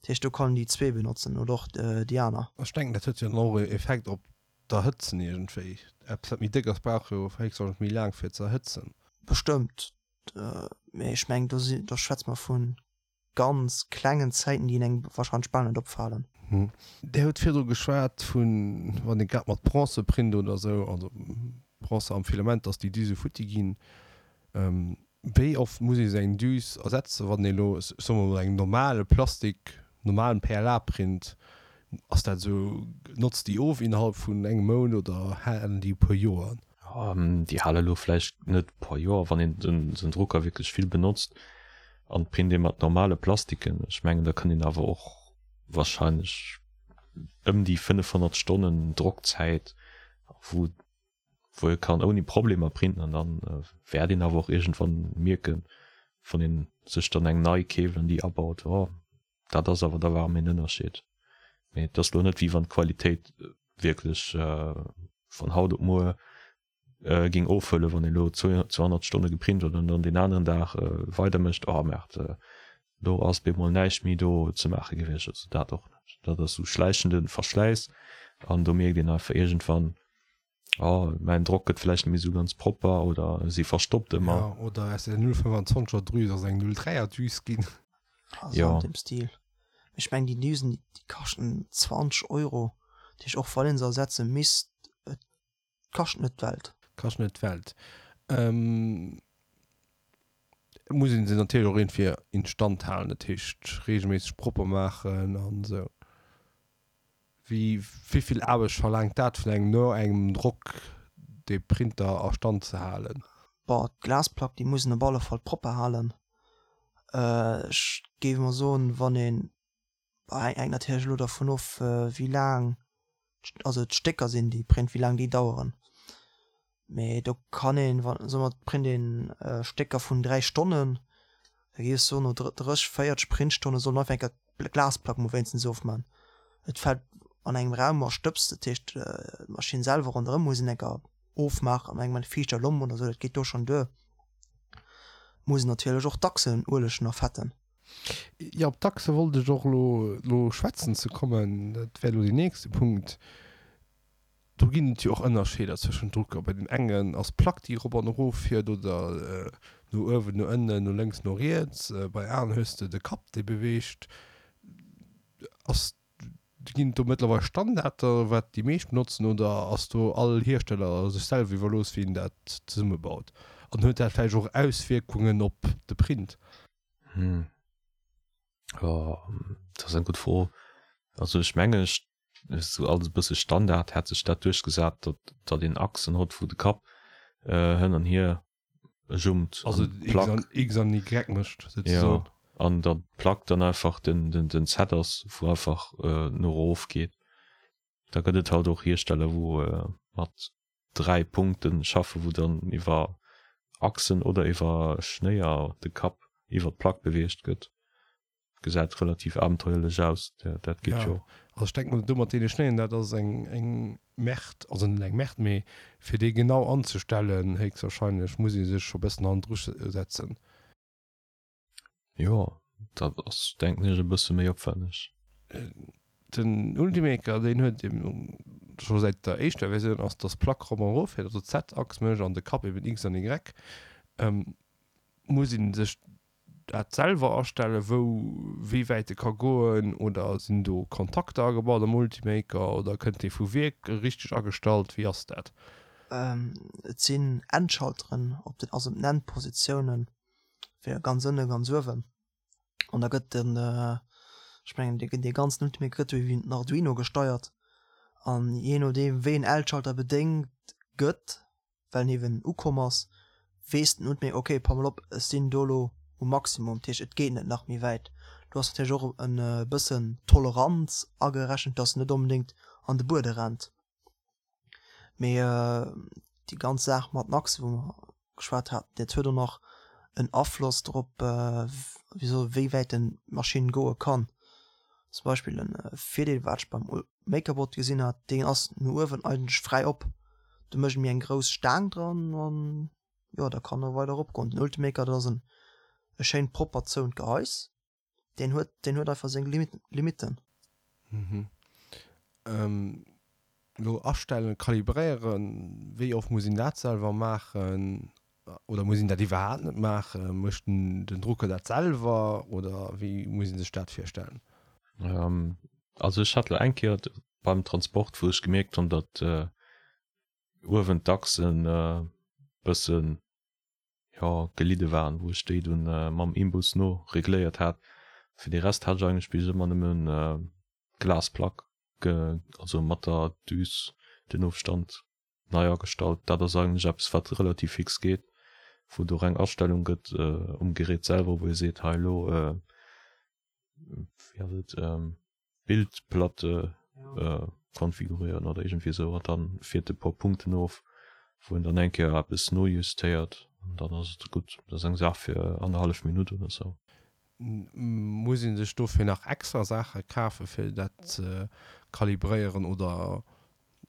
dat heescht do kann en déi zwee benotzen oder och déi aner. Ech denken dat huet jo dann och e Effekt op d'Erhëtzen iergendwéi. Eppes wat méi déck ass brauch jo héchstwahrscheinlech méi laang fir ze erhëtzen. Bestëmmt, mee ech mengen do si do schwätze mer vu ganz klengen Zäiten, déi engem wahrscheinlech bal net opfalen. Dir hutt virdru geschwat vun, wann ee grad mat Bronze print oder esou, also Bronze am Filament, dass déi Düse futti ginn. Wéi oft muss ee sou eng Düs ersetzen, wann ee elo, soe mer mol, engem normale Plastik, normalem PLA print? Ass dat esou, notzt déi of innerhalb vun engem Mount oder halen déi e puer Joer? Déi hale elo vläicht net e puer Joer, wann een den Drucker wierklech vill benotzt an print ee mat normale Plastiken. Ech mengen da kënnt een awer och wahrscheinlech ëm déi 500 Stonnen Drockzäit, wou wou ee kann ouni Problemer printen an dann wäert een awer och iergendwann mierken, wann een sech dann eng nei keeft an déi abaut, oh dat ass awer da war méi en Ënnerscheed. Mee et ass lo net wéi wann d'Qualitéit wierklech vun haut op muer géing ofhuelen, wann een elo 200 Stonne geprint huet an dann deen aneren Dag weider mécht, oh merde, do ass bemol näischt méi do ze maache gewiescht. Also dat och net. Dat ass esou schläichende Verschläiss an do mierkt een einfach iergendwann, oh mäin Drock gëtt vläicht net méi esou ganz propper oder si verstoppt ëmmer. Jo, oder aus der 0,25 er Drüs ass eng 0,3 er Düs ginn. Also Jo. an deem Stil. Ech mengen déi Düsen, déi kaschten 20 Euro. Dat heescht och wann een se ersetze misst, et kascht net d'Welt. Kascht net d'Welt. Et muss een se natierlech och iergendwéi instand halen, dat heescht reegelméisseg propper maachen an esou. Wéi vill Aarbecht verlaangt dat vun engem no engem Drock dee Printer a Stand ze halen? Bon, d'Glasplack déi muss een op alle Fall propper halen. Ech géif emol soen, wann een, hänkt natierlech elo dervun of wéi laang also d'Stécker sinn déi print, wéi laang déi daueren. Mee do kann een, wa soe mer et print een Stécker vun 3 Stonnen, da géif ech soen no 30, 40 Printstonne soll en einfach eng Kéier d'Glasplack mol wéinstens ofman. Et fält an engem Raum a Stëbs, dat heescht d'Maschinn selwer ronderëm muss een eng Kéier ofmaachen an engem fiichter Lomp oder sou, dat geet do schonn duer. Muss een natierlech och d'Achsen uelegen a fetten. Jo, op d'Achse wollt ech och elo elo schwätzen ze kommen, dat wär elo deen nächste Punkt. Do ginn et jo och Ënnerscheeder zwëschent Drucker. Bei deem engen ass d'Plack, déi erop an erof fiert oder no uewen, no ënnen, no lénks, no riets. Bei aneren hues de de Kapp, dee beweegt. Ass, ginn et do mëttlerweil Standarder, wat déi meescht benotzen, oder ass do all Hiersteller sech selwer iwwerlooss, wéi en dat zesummebaut? An huet dat vläicht och Auswierkungen op de Print? Hm. Jo, dat ass eng gutt Fro. Also ech mengen, ech sou alles e bësse Standard hat sech dat duerchgesat, datt datt een Achsen hott, wou de Kapp hënn an hier jumpt. Also X an X an Y mécht souzesoen. Jo, an datt d'Plack dann einfach den den den Z ass, wou einfach no erof geet. Da gëtt et halt och Hiersteller, wou mat 3 Punkten schaffen, wou dann iwwer Achsen oder iwwer Schnéier de Kapp iwwer d'Plack beweegt gëtt. Gesäit relativ abenteuerlech aus, dat geet jo. Also ech denken do mat deene Schnéieren, dat ass eng eng Merde, also net eng Merde, mee fir déi genau anzestellen héchstwahrscheinlech muss ee sech scho bëssen hannendru setzen. Jo, dat ass denken ech e bësse méi opwänneg. Den Ultimaker deen huet eben scho säit der éischter Versioun ass dass d'Plack rop an erof fiert, also d'Z-Achs mécht an de Kapp eben X an Y. Muss een sech dat selwer astellen wou wéi wäit e ka goen oder sinn do Kontakter agebaut am Ultimaker oder kënnt dee vu Wierk richteg agestallt, wéi ass dat? Et sinn Endschalteren op den, also op den Endpositiounen fir ganz ënne ganz uewen an da gëtt den ech mengen dee dee ganzen Ultimaker gëtt iwwer den Arduino gesteiert an jee nodeem wéi en Endschalter bedéngt gëtt, well en eeben ukomm ass, weess den Ultimaker ok pass mol op ech sinn do elo um Maximum, dat heescht et geet net nach méi wäit. Do ass natierlech och e bëssen Toleranz agerechent, dass en net onbedéngt an de Buede rennt. Mee déi ganz Saach mat den Achsen, wou mer geschwat haten, dat huet och nach en Afloss drop, wéi wäit den d'Maschinn goe kann. Zum Beispill en Virdeel wat ech beim MakerBot gesinn hat, deen ass no uewen eigentlech fräi op. Do mécht ee méi eng grouss Staang dran an jo da kann e weider eropgoen. Den Ultimaker, dat ass en e schéint propper zouent Gehais. Deen huet, deen huet einfach seng Limitten. Mhm. Elo astellen, kalibréieren, wéi oft muss een dat selwer maachen oder muss een dat iwwerhaapt net maachen? Mécht den Drucker dat selwer oder wéi muss ee sech dat virstellen? Also ech hat elo eng Kéier beim Transport, wou ech gemierkt hunn, datt uewen d'Achsen e bëssen jo, gelidde waren, wou ech déi dunn mam Imbus no regléiert hat. Fir de Rest hat ech eigentlech bis ëmmer nëmmen d'Glasplack, also mat der Düs den Ofstand nei agestallt. Dat ass eigentlech eppes wat relativ fix geet, wou et och eng Astellung gëtt um Gerät selwer, wou ee seet, hei elo, wéi ass et, Bildplatte konfigurieren oder iergendwéi esou an dann fiert e puer Punkten of, wou en dann eng Kéier eppes nojustéiert an dann ass et gutt. Dat ass eng Saach fir annerhallef Minutt oder esou. Muss ee sech dofir nach extra Saache kafe fir dat ze kalibréieren oder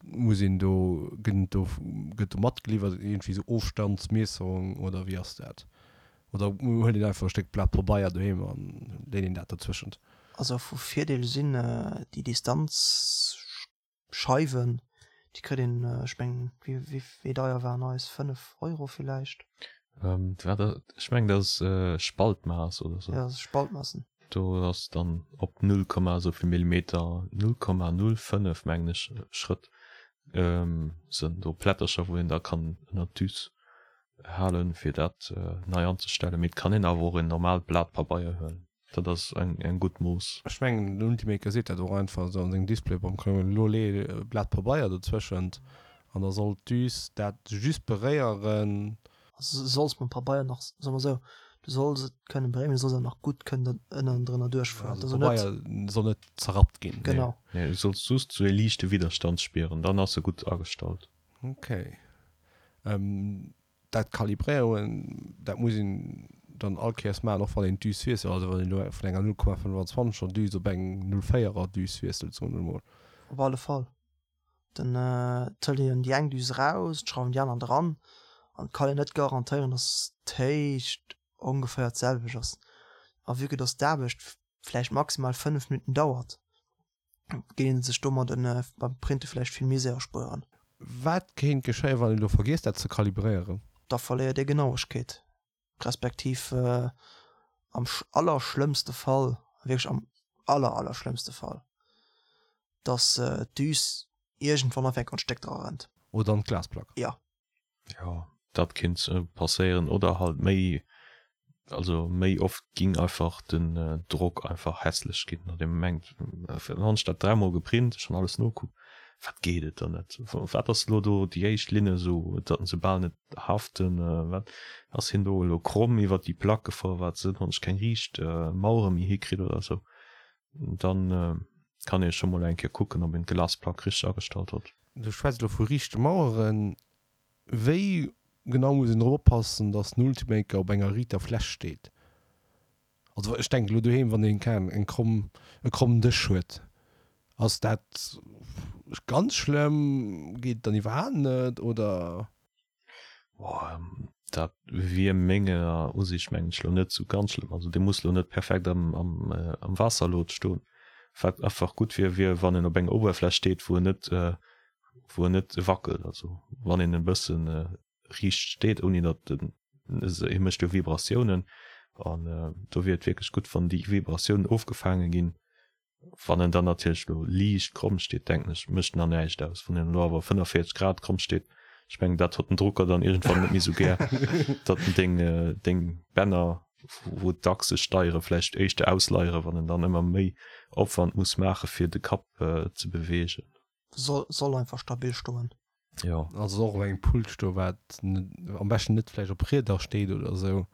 Muss een do, gëtt do, gëtt do matgeliwwert iergendwéi esou Ofstandsmiesserung oder wéi ass dat? Oder huet een einfach e Stéck Blat Pabeier doheem an leet een dat dozwëschent? Also vu Virdeel sinn déi Distanzscheiwen, déi kritt een, ech mengen, wéi wéi deier waren eis, 5 Euro villäicht? Wat, ech mengen dat ass Spaltmaass oder sou. Jo, Spaltmaassen. Do ass dann op 0, esouvill Millimeter, 0,05 mengen ech, Schrëtt sënn do Plättercher wou een da kann ënnert d'Düs halen fir dat nei anzestellen. Mee et kann een awer och en normaalt Blat Pabeier huelen. Dat ass eng eng gutt Mooss. Ech mengen den Ultimaker seet dat och einfach esou an sengem Display beim Klo, elo lee e Blat Pabeier dozwëschent an da soll d'Düs dat just beréieren. Also du solls mam Pabeier nach, soe mer esou, du solls et kënnen beréieren, mee du solls awer nach gutt kënnen ënnendrënner duerchfueren. Also de Pabeier soll net zerrappt ginn. Genau. Nee, du solls just esou e liichte Widderstand spieren, dann ass e gutt agestallt. Okay. Dat Kalibréieren, dat muss een dann all Kéiers maachen, och wann een d'Düs wiesselt, also wann een elo vun enger 0,25 er Düs op eng 0,4 er Düs wiesselt, soen wir emol. Op alle Fall. Dann hëlt een déi eng Düs eraus, schrauwen déi aner dran an et kann een net garantéieren, dass d'Héicht ongeféier d'selwecht ass. A vue que dass d'Aarbecht vläicht maximal 5 Minutten dauert, géing een sech domat beim Printe vläicht vill Misär erspueren. Wat kéint geschéien, wann een elo vergiesst dat ze kalibréieren? Da verléiert ee Genauegkeet, respektiv am allerschlëmmste Fall, wierklech am aller allerschlëmmste Fall, dass d'Düs iergendwann einfach an d'Stéck dra rennt. Oder an d'Glasplack. Jo. Jo, dat kinnt passéieren oder halt méi, also méi oft ging einfach den Drock einfach hässlech ginn, datt ee mengt, dann hunn ech dat dräimol geprint, ech hunn alles nokuckt, wat geet et dann net, wat ass elo do déi éischt Linne esou, datt se bal net haften, wat ass hien do elo kromm iwwert déi Plack gefuer, wat sinn, hunn ech keng riicht Mauere méi hikritt oder esou, dann kann ee scho mol eng Kéier kucken, ob een d'Glasplack richteg agestallt huet. Du schwätz elo vu riichte Maueren. Wéi genau muss een drop oppassen, dass den Ultimaker op enger riiter Fläch steet? Also ech denken elo doheem, wann een keng eng kromm e krommen Dësch huet, ass dat ganz schlëmm? Geet et dann iwwerhaapt net oder? Boah, dat wier menger Usiicht mengen ech lo net sou ganz schlëmm. Also dee muss lo net perfekt am, am, am Waasserlot stoen. Wat einfach gutt wier, wier wann en op enger Oberfläch steet, wou en net, wou en net wackelt. Also wann een e bëssen riicht steet, ouni datt en, hie mécht jo Vibratiounen an do wier et wierklech gutt, wann déi Vibratiounen ofgefaange ginn. Wann en dann natierlech elo liicht kromm steet, denken ech, mécht nach näischt aus. Wann en elo awer 45 Grad kromm steet, ech mengen, dat hott den Drucker dann iergendwann net méi sou gär, datt en deng, deng Bänner, wou d'Achse steiere, vläicht éischter ausleiere, wann en dann ëmmer méi Opwand muss maache fir de Kapp ze beweegen. Soll, soll einfach stabil stoen. Jo. Also och op engem Pult stoen, wat am beschten net vläicht op Rieder steet oder esou,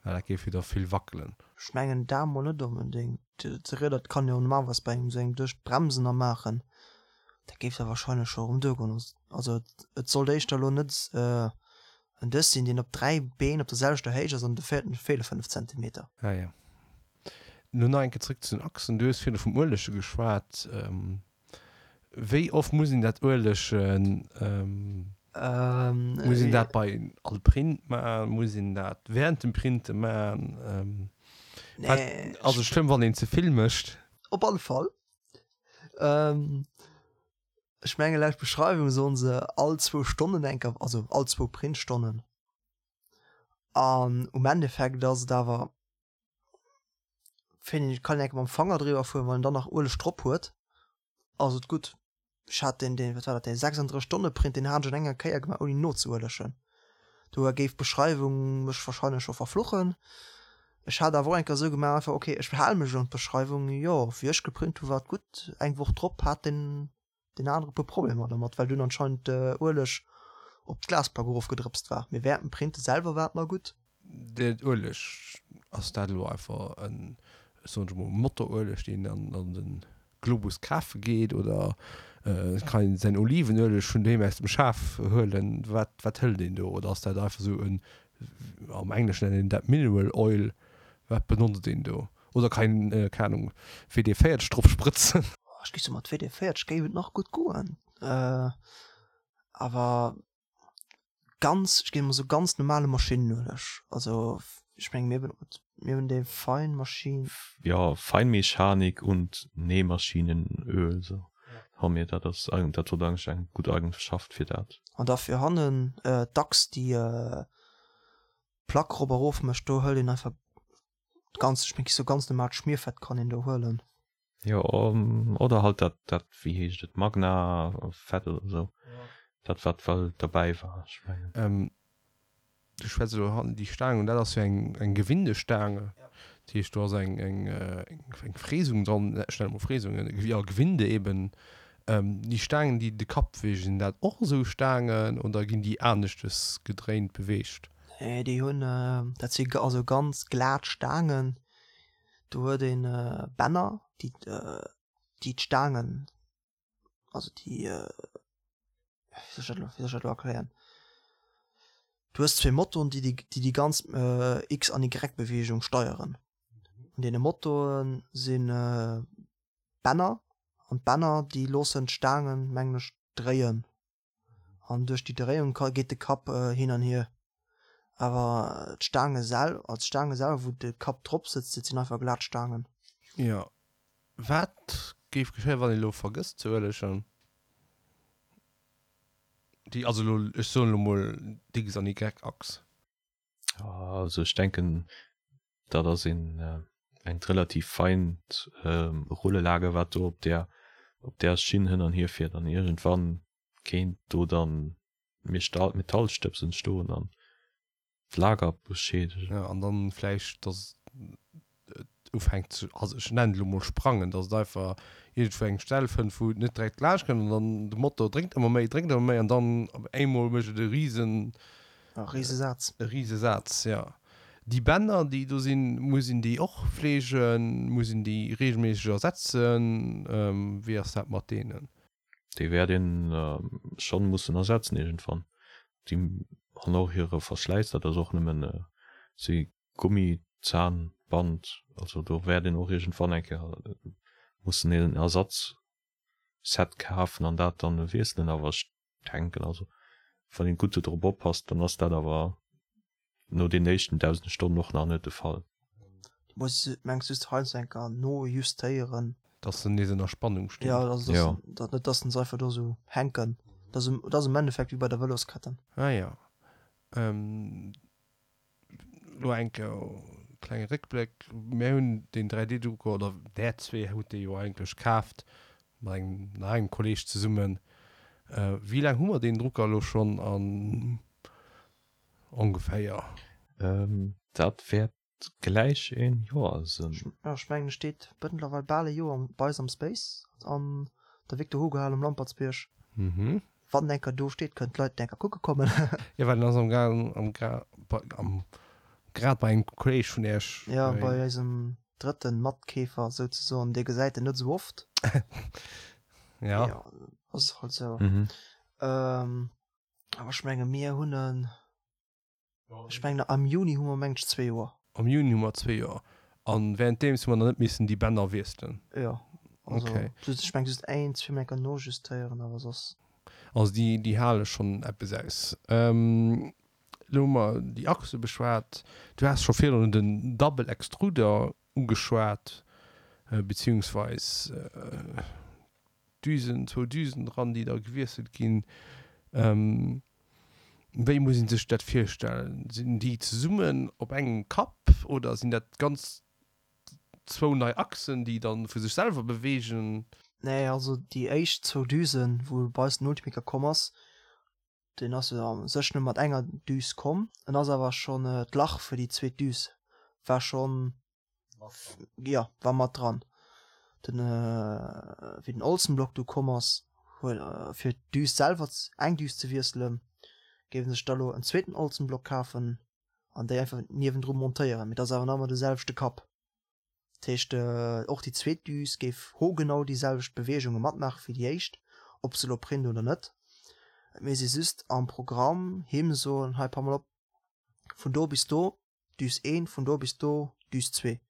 well dat géif jo da vill wackelen. Ech mengen dat mol net onbedéngt. De Rieder, dat kann jo normalerweis bei engem esou engem Dësch d'Bremsen a maachen, dat géif da wahrscheinlech scho erëm duergoen. Also et sollt éischter elo net en Dësch sinn, deen op 3 Been op der selwechter Héicht ass an de véierten feele 5 Zentimeter. Ah jo. Lo nach eng Kéier zréck zu den Achsen. Du hues virdu vum Uelege geschwat. Wéi oft muss een dat uelegen? Muss een dat bei all Print maachen? Muss een dat während dem Printe maachen? Wat ass et schlëmm, wann een ze vill mécht? Op alle Fall. Ech menge laut Beschreiwung soen se all zwou Stonnen eng Kéier, also all zwou Printstonnen. An um Endeffekt ass et awer Fannen ech, kann een enke mam Fanger driwwer fueren, wann en dann nach Ueleg drop huet ass et gutt. Ech hat deen, deen, wat war dat, deen 36 Stonne Print, deen hat ech an enger Kéier gemaach ouni nozeuelegen. Do géif d'Beschreiwung mech wahrscheinlech scho verfluchen. Ech hat awer och eng Kéier esou gemaach, einfach ok, ech hale mech un d'Beschreiwung, jo wéi ech geprint hu war et gutt. Eng Woch drop hat deen deen anere puer Problemer dermat, well dunn anscheinend de Ueleg op d'Glasplack erofgedrëpst war. Mee während dem Printe selwer war et nach gutt. Den Ueleg, ass dat elo einfach en, ech soen elo mol, Motorueleg, deen een an de Globus kafe geet, oder kann een säin Olivenueleg vun doheem aus dem Schaf huelen? Wat, wat hëlt een do? Oder ass dat einfach esou en, am Engleschen nennt een dat Mineral Oil, wat benotzt een do? Oder kann een, keng Ahnung, WD-40 drop sprëtzen? Ech géif soen, mat WD-40 géif et nach gutt goen. Awer ganz, ech géif emol soen, ganz normale Maschinenueleg. Also ech menge mir benotz, mir hunn déi Feinmaschine. Jo, Feinmechanik und Nähmaschinenöl, sou hu mir dat. Ass, dat huet eigentlech eng gutt Eigenschaft fir dat. An da fir hannen d'Achs, déi d'Plack rop a rof mécht, do hëlt een einfach. Ganz, ech mengen, sou ganz normaalt Schmierfett kann een do huelen. Jo, oder halt dat, dat, wéi heescht et, Magna-Fett oder sou. Dat wat well derbäi war, ech mengen. Du schwätz elo hannen déi Staang un, dat ass jo eng, eng Gewindestaang. Dat heescht, do ass eng, eng, eng Fräsung dran, ech nennen et mol Fräsung, jo, Gewinde eben. Déi Staangen, déi de Kapp beweegen, sinn dat och esou Staangen oder ginn déi aneschtes gedréint beweegt? Nee, déi hunn, dat si also ganz glat Staangen. Do huet een Bänner, déi déi d'Staangen, also déi, wéi soll ech dat elo, wéi soll ech dat elo erklären? Du hues zwee Motoren, déi déi déi ganz X an Y-Beweegung steieren. An deene Motoren si Bänner an d'Bänner déi loossen d'Staangen, mengen ech, dréien an duerch déi Dréiung ka geet de Kapp hin an hier. Awer d'Staange sel also d'Staange selwer wou de Kapp drop sëtzt, dat sinn einfach glat Staangen. Jo, wat géif geschéien wann een elo vergësst ze uelegen? Déi, also elo, ech soen elo mol d'X an Y-Achs. Also ech denken dat ass een engt relativ feint Rullelager wat do op där op där Schinn hënn an hier fiert an iergendwann kéint do dann Metallstëbs entstoen an d'Lager beschädegen. Jo an dann vläicht dass et ufänkt ze, also ech nennen et elo mol sprangen, dass et einfach iergendwou eng Stell fënnt wou et net direkt laanscht kënnt an dann de Motor drénkt ëmmer méi, drénkt ëmmer méi an dann op eemol mécht et e risen E Risesaz. E Risesaz, jo. Déi Bänner déi do sinn, muss een déi och fleegen, muss een déi regelméisseg ersetzen, wéi ass dat mat deenen? Déi wäert een schonn mussen ersetzen iergendwann. Déi hunn och hire Verschläiss, dat ass och nëmmen si Gummizahnband, also do wäert een och iergendwann eng Kéier mussen een Ersatzset kafen an dat dann wiesselen. Awer ech denken, also wann een gutt dodrop oppasst, dann ass dat awer no den éischten 1.000 Stonnen och nach net de Fall. Du muss mengs just heiansdo eng Kéier nojustéieren. Dass se nees ënner Spannung stinn. Jo, also dass dat net, dass se einfach do sou hänken. Dat ass am Endeffekt wéi bei der Vëlosketten. Ah jo. Lo eng Kéier klenge Réckbléck, Mär hunn deen 3D-Drucker, oder där zwee hutt dee jo eigentlech kaaft, mat engem nach engem Kolleeg zesummen. Wéi laang hu mer deen Drucker elo schonn an ongeféier? Dat wäert gläich een Joer sinn. Jo, ech mengen e steet mëttlerweil bal e Joer bei eis am Space an der Victor Hugo Hal um Lampertsbierg. Wann en enker do steet, kënnen d'Leit en enker kucke kommen. Jo, well en ass am Gaang, am Gra, bei, am, grad bei engem Kolleg vun Iech. Jo, bei eisem drëtten Matkeefer souzesoen. Dee gesäit en net esou oft. Ja. Jo, ass halt esou. Awer ech menge mir hunn en. Ech mengen am Juni hu mer mengen ech zwee Joer. Am Juni hu mer zwee Joer. An währenddeems hu mer nach net missen déi Bänner wiesselen? Jo. Also okay. Just, ech mengen just een, zwee Mol enker nojustéieren, awer soss. Also déi, déi hale schonn eppes aus. Elo hu mer déi Achse beschwat. Du has scho virdrun den Double Extruder ugeschwat, beziehungsweis Düsen, zwou Düsen dran, déi da gewiesselt ginn. Wéi muss ee sech dat virstellen? Sinn déi zesummen op engem Kapp oder sinn dat ganz zwou nei Achsen, déi da vu sech selwer beweegen? Nee, also déi éischt zwou Düsen, wou bei eis den Ultimaker komm ass, deen ass jo a sech nëmme mat enger Düs komm. En ass awer schonn, d'Lach fir déi zweet Düs war schonn Jo, war mat dran. Den, wéi den Olsenblock du komm ass, huet fir d'Düs selwer, eng Düs ze wiesselen, géif en sech da lo en zweeten Olsenblock kafen an déi einfach niewendru montéieren. Mee dat ass awer nach ëmmer de selwechte Kapp. Dat heescht, och déi zweet Düs géif hogenau déi selwecht Beweegunge matmaache wéi déi éischt, ob se lo print oder net. Et misst ee just am Programm him soen, hei pass mol op, vun do bis do Düs een, vun do bis do Düs zwee.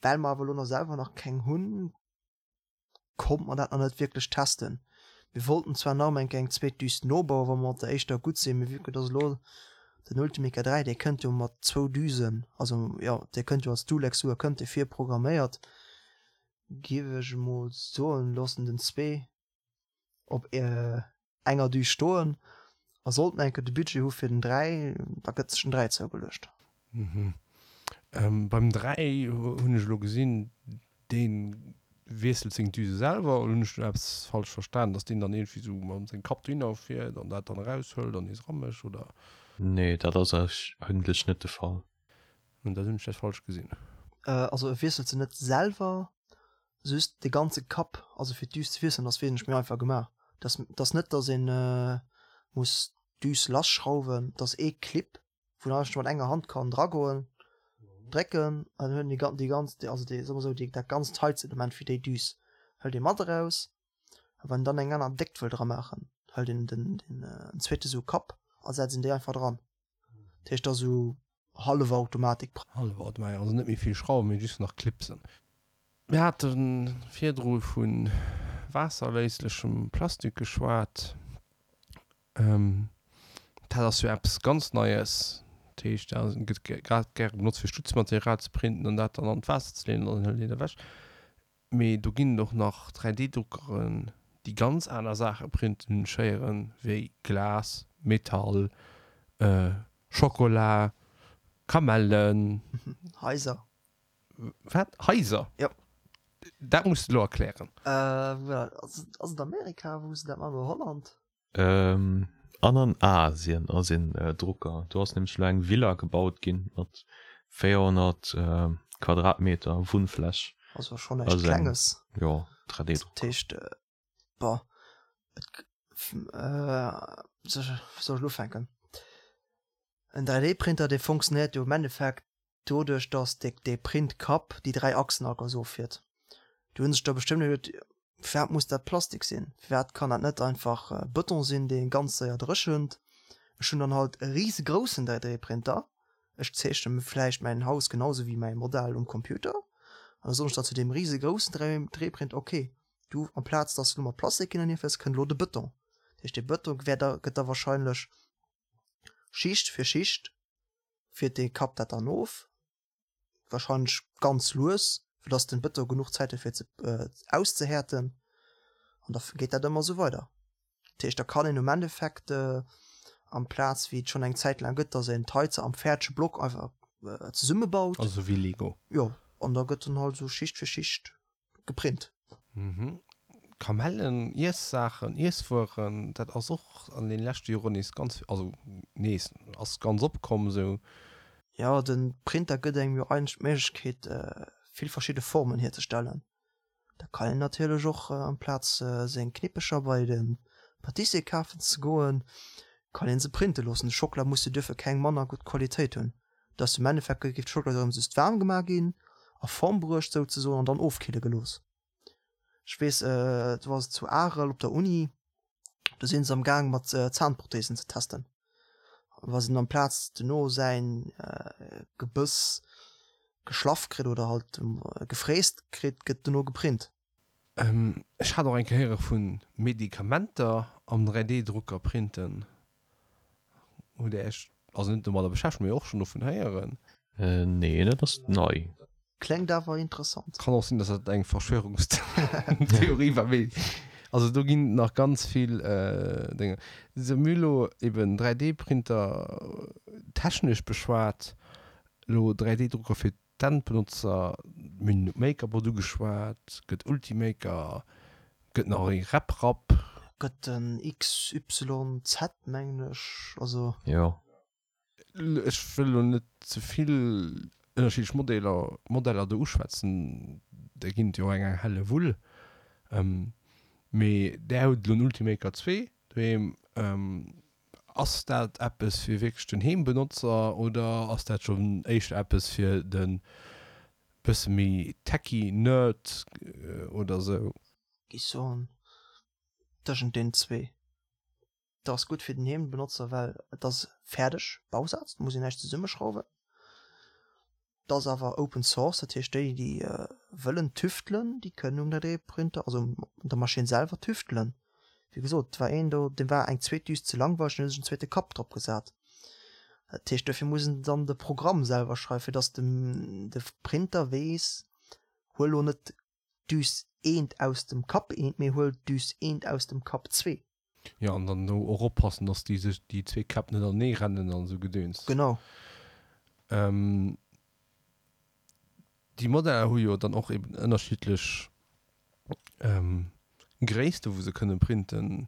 Well mer awer elo nach selwer nach keng hunn, konnte mer dat nach net wierklech testen. Mir wollten zwar nach eng Kéier eng zweet Düs nobauen, wa mer mat der éischter gutt sinn, mee vue que dass elo den Ultimaker 3, dee kënnt jo mat zwou Düsen, also jo, dee kënnt jo als Dual-Extruder, kënnt dee virprogramméiert, géif ech emol soen, loossen den zwee op enger Düs stoen a sollten enke de Budget hu fir den 3, da gëtt sech den 3 zougeluecht. Mhm. Beim 3 hunn ech elo gesinn, dee wiesselt seng Düse selwer, oder hunn ech do eppes falsch verstan, dass deen dann iergendwéi sou mam sengem Kapp dohinner fiert an dat dann eraushëlt an nees eramécht, oder? Nee, dat ass eigentlech net de Fall. Dann hunn ech dat falsch gesinn. Also e wiesselt se net selwer, just de ganze Kapp, also fir d'Düs ze wiesselen ass wesentlech méi einfach gemaach. Dass dass net dass een muss d'Düs lasschrauwen, dass ee Clip wou een eigentlech mat enger Hand kann dragoen, drécken an dann huet een déi ganz also déi soe mer esou déi dat ganzt Heizelement fir déi Düs hëlt ee mat eraus. A wann een dann eng aner Déckt wëll dra maachen, hëlt een den den zweete sou Kapp a setzt een déi einfach dran. Dat heescht, dat ass esou hallef Automatik. Hallef Automatik, also net méi vill Schrauwen, mee just nach Clipsen. Mir hate virdru vu waasserléislechem Plastik geschwat. Dat ass jo eppes ganz Neies. Dat heescht, dat gëtt grad gäre benotzt, fir Stutzmaterial ze printen an dat dann an d'Waasser ze leeën an dann hëlt een dat ewech. Mee do ginn et och nach 3D-Druckeren, déi ganz aner Saache printen, Schéieren, wéi Glas, Metall, Schokola, Kamellen. Haiser. Wat? Haiser? Jo. Dat muss de elo erklären. Ass et Amerika, wou se dat maachen, oder Holland? An an Asien ass een Drucker. Do ass nämlech elo eng Villa gebaut ginn mat 400 Quadratmeter Wunnfläch. Also schonn näischt Klenges. Jo, 3D-Drucker. Dat heescht, bon, et, wéi soll ech elo ufänken? En 3D-Printer, dee funktionéiert jo am Endeffekt doduerch dass de dee Printkapp déi 3 Achsen all ganz offiert. Do hunn sech der bestëmmt iwwerluet, firwat muss dat Plastik sinn, firwat kann dat net einfach Bëton sinn, dee ganz séier dréchent. Ech hunn dann halt e risegroussen 3D-Printer, ech zeechne mir vläicht mäin Haus genau sou wéi mäi Modell um Computer an da soen ech dann zu deem risegroussen 3D-Printer, ok, du amplaz dass du elo mat Plastik hin an hier fiers, kënnt elo de Bëton. Dat heescht dee Bëton wäert da gëtt da wahrscheinlech Schicht fir Schicht fiert dee Kapp dat dann of, wahrscheinlech ganz lues, fir dass den Bëton genuch Zäit huet fir ze auszehäerten an da geet dat ëmmer esou weider. Dat heescht da kann een um Endeffekt amplaz wéi et schonn eng Zäit laang gëtt, dass een d'Haizer am fäerdege Block einfach zesummebaut. Also wéi Lego. Jo, an da gëtt dann halt esou Schicht fir Schicht geprint. Mhm. Kamellen, Iessaachen, Iesswueren, dat ass och an den leschte Joren nees ganz, also nees, ass ganz opkomm esou. Jo, den Printer gëtt engem jo eigentlech d'Méiglechkeet vill verschidde Formen hierzestellen. Da kann een natierlech och amplaz seng Knippecher bei de Patissier kafen ze goen, kann een se printe loossen. De Schockela muss jo duerfir keng manner gutt Qualitéit hunn. Dass am Endeffekt géif d'Schockela erëm just waarm gemaach ginn, a Form bruecht souzesoen an dann ofkille gelooss. Ech weess, do ass et zu Arel op der Uni, do si se am Gaang mat Zahnprothesen ze testen. Wa se amplaz duerno säin Gebëss geschlaff kritt oder halt gefräst kritt, gëtt duerno geprint. Ech hat och eng Kéier héiere vu Medikamenter am 3D-Drucker printen. Hutt Där Iech, also net domadder beschäftegt, mee och schonn dovun héieren? Nee, dat ass nei. Klengt awer interessant. Kann och sinn, dass dat eng Verschwörungstheorie war, mee also do ginn et nach ganz vill Dénge. Sou, mir hu lo eben 3D-Printer technesch beschwat, elo 3D-Drucker fir D'Endbenotzer, mir hunn MakerBot ugeschwat, gëtt Ultimaker, gëtt nach ee RepRap. Gëtt den XYZ mengen ech, also. Jo. Ech wëll elo net ze vill ënnerschiddlech Modeller, Modeller do uschwätzen, der ginn et jo eng eng helle Wull, mee där hutt elo en Ultimaker 2 doheem. Ass dat eppes fir wierklech den Heembenotzer oder ass dat schonn éischter eppes fir de bësse méi techy Nerd oder sou? Géif soen tëschent den zwee. Et ass gutt fir den Heembenotzer, well et ass fäerdeg Bausaz, et muss een näischt zesummeschrauwen. Et ass awer Open Source, dat heescht déi déi wëllen tüftelen, déi kënnen um 3D-Printer, also un der Maschinn selwer tüftelen. Wéi gesot, et war een do, deem war eng zweet Düs ze langweileg, deen huet sech en zweete Kapp drop gesat. Dat heescht, dofir muss en dann de Programm selwer schreiwen, fir datt de Printer weess, huel lo net Düs eent aus dem Kapp eent, mee huel Düs eent aus dem Kapp zwee. Jo, an dann do och oppassen, dass déi sech, déi zwee Käpp net anenee rennen an esou Gedöns. Genau. Déi Modeller hu jo dann och eben ënnerschiddlech Gréisste wou se kënne printen.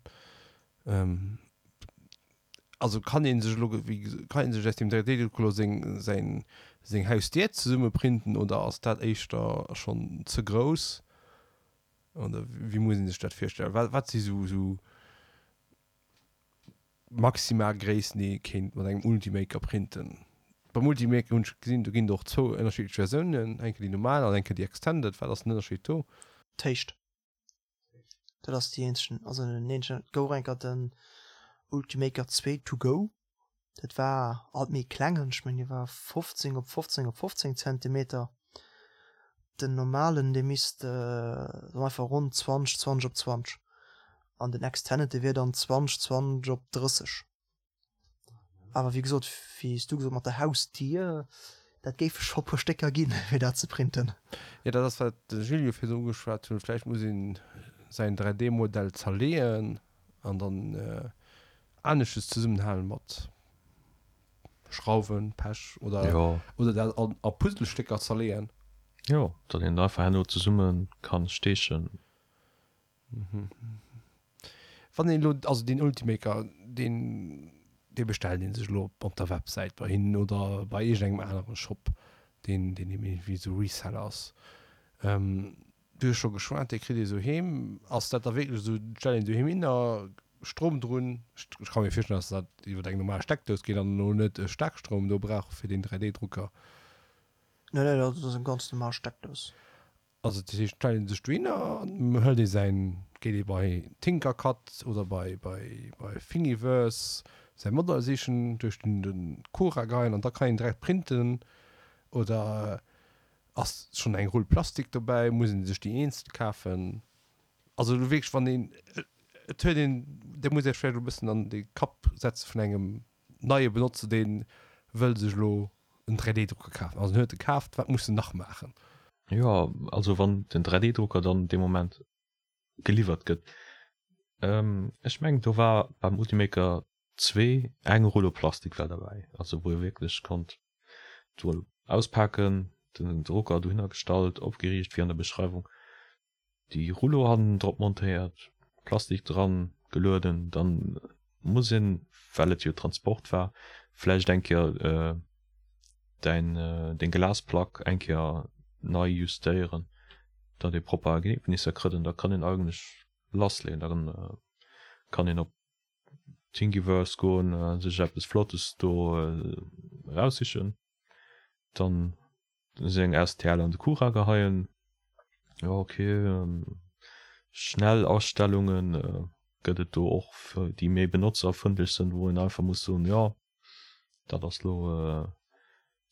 Also kann ee sech elo, wéi kann ee sech aus deem 3D-Drucker elo seng säin seng Hausdier zesumme printen oder ass dat éischter schonn ze grouss? Oder wéi muss ee sech dat virstellen? Wat wat si sou sou maximal Gréissten déi ee kéint mat engem Ultimaker printen? Beim Ultimaker hunn ech gesinn, do ginn et och zwou ënnerschiddlech Versiounen, eng Kéier déi normal an eng Kéier déi extended. Wat ass den Ënnerscheed do? D'Héicht. Dat ass déi eenzegen, also den eenzegen, et gouf och eng Kéier den Ultimaker 2 to go, dat war alt méi klengen, ech mengen dee war 15 op 15 op 15 Zentimeter. Den normalen dee misst einfach ronn 20, 20 op 20 an den Extended dee wier dann 20, 20 op 30. Awer wéi gesot, wéi s du gesot mat der Hausdier, dat géife scho puer Stécker ginn, fir dat ze printen. Jo, dat ass wat de Gilles jo virdru ugeschwat huet. Vläicht muss een säin 3D-Modell zerleeën an dann aneschtes zesummenhalen mat Schrauwen, Pech oder Jo. oder dat an a Puzzlestécker zerleeën. Jo, datt een einfach herno zesumme kann steechen. Wann een elo, also deen Ultimaker, deen, dee bestellt een sech elo op der Websäit bei hinnen oder bei iergendengem anere Shop, deen, deen eben iergendwéi esou Reseller ass. Du hues scho geschwat, dee kritt ee sou heem. Ass dat da wierklech esou, et stellt een doheem hin a Strom drun? Ech ka mir virstellen, datt dat iwwer eng normal Steckdous geet an elo net e Staarkstroum do brauch fir deen 3D-Drucker. Nee, nee, dat ass eng ganz normal Steckdous. Also dat heescht, stellt een sech dohinner an hëlt ee säin, geet ee bei Tinkercad oder bei bei bei Thingiverse säi Modell sichen, duerch den den Cura geien an da kann een direkt printen oder Ass schon eng Rull Plastik dobäi? Muss een sech déi eenzel kafen? Also elo wierklech wann een, et huet een, dir musst iech vläicht elo e bëssen an de Kapp setze vun engem neie Benotzer, dee wëll sech elo en 3D-Drucker kafen. Also en huet e kaaft, wat muss en nach maachen? Jo, also wann den 3D-Drucker dann dee Moment geliwwert gëtt, ech mengen do war beim Ultimaker 2 eng Rullo Plastik war derbäi, also wou ee wierklech konnt d'Rull auspaken, den Drucker dohinner gestallt, opgeriicht wéi an der Beschreiwung, déi Rullo hannen drop montéiert, Plastik dran gelueden, dann muss een, well et jo Transport war, vläicht eng Kéier däin deng Glasplack eng Kéier nei justéieren, datt ee propper Ergebnisser kritt an da kann een eigentlech lassleeën, da kann een op Thingiverse goen a sech eppes Flottes do eraussichen, dann seng STL an de Cura geheien. Jo ok, schnell Astellunge gëtt et do och déi méi benotzerfrëndlech sënn, wou een einfach muss soen, jo dat ass lo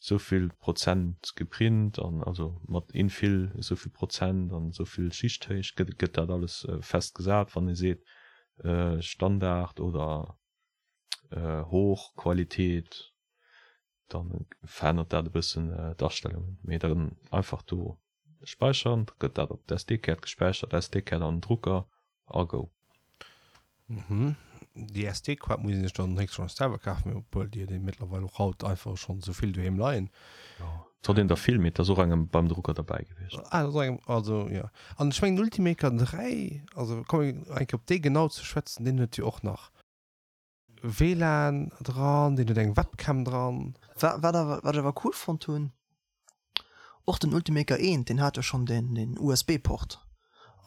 souvill Prozent geprint an also mat Infill esouvill Prozent an esouvill Schichthéicht gëtt gëtt dat alles fest gesat, wann ee seet Standard oder Hochqualität, da verännert dat e bëssen d'Astellungen, mee dann einfach do späichern, da gëtt dat op d'SD-Kaart gespäichert, SD-Kaart an den Drucker a go. Mhm. Déi SD-Kaart muss een sech dann héchstwahrscheinlech selwer kafen, mee obwuel déi huet ee mëttlerweil och haut einfach schonn esou vill doheem leien. Jo, et huet een der vill, mee et ass och engem beim Drucker derbäi gewiescht. Ah, et ass och engem, also jo. An ech mengen den Ultimaker 3, also komme mir eng Kéier op dee genau ze schwätzen, deen huet jo och nach WLAN dran, deen huet eng Webcam dran. Wat awer, wat ech awer cool fonnt hunn, Och den Ultimaker 1, deen hat jo schonn den USB-Port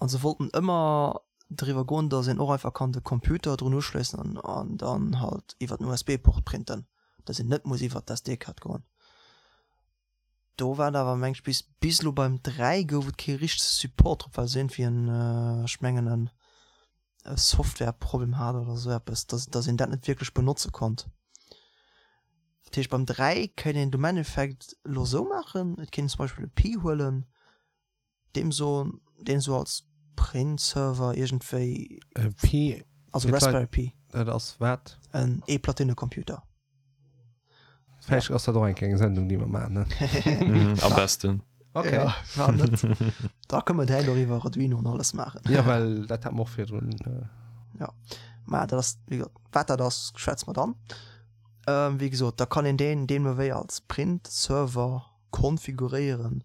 an se wollten ëmmer driwwer goen, dass een och einfach kann de Computer drun uschléissen an dann halt iwwer den USB-Port printen, dass een net muss iwwer d'SD-Kaart goen. Do war et awer meng ech bis bis elo beim 3 gouf et kee richtege Support drop, well se iergendwéi en, ech mengen en e Softwareproblem hat oder esou eppes, dass dass een dat net wierklech benotze konnt. Dat heescht beim 3 kéint een et um Endeffekt elo esou maachen, et kéint een zum Beispill e Pi huelen, deem soen, deen esou als Print-Server iergendwéi, E Pi, also Raspberry Pi. Dat ass wat? En Eeplatine-Computer. Vläicht ass dat och eng kleng Sendung, déi mer maachen, ne? Am besten. Okay. Ja, war net. Da kënne mer direkt och iwwer Arduino an alles maachen. Ja, well dat hat mer och virdrun. Ja, mä dat ass, wéi gesot, wat dat ass, schwätze mer dann. Wéi gesot, da kann een deen deemno wéi als Print-Server konfiguréieren.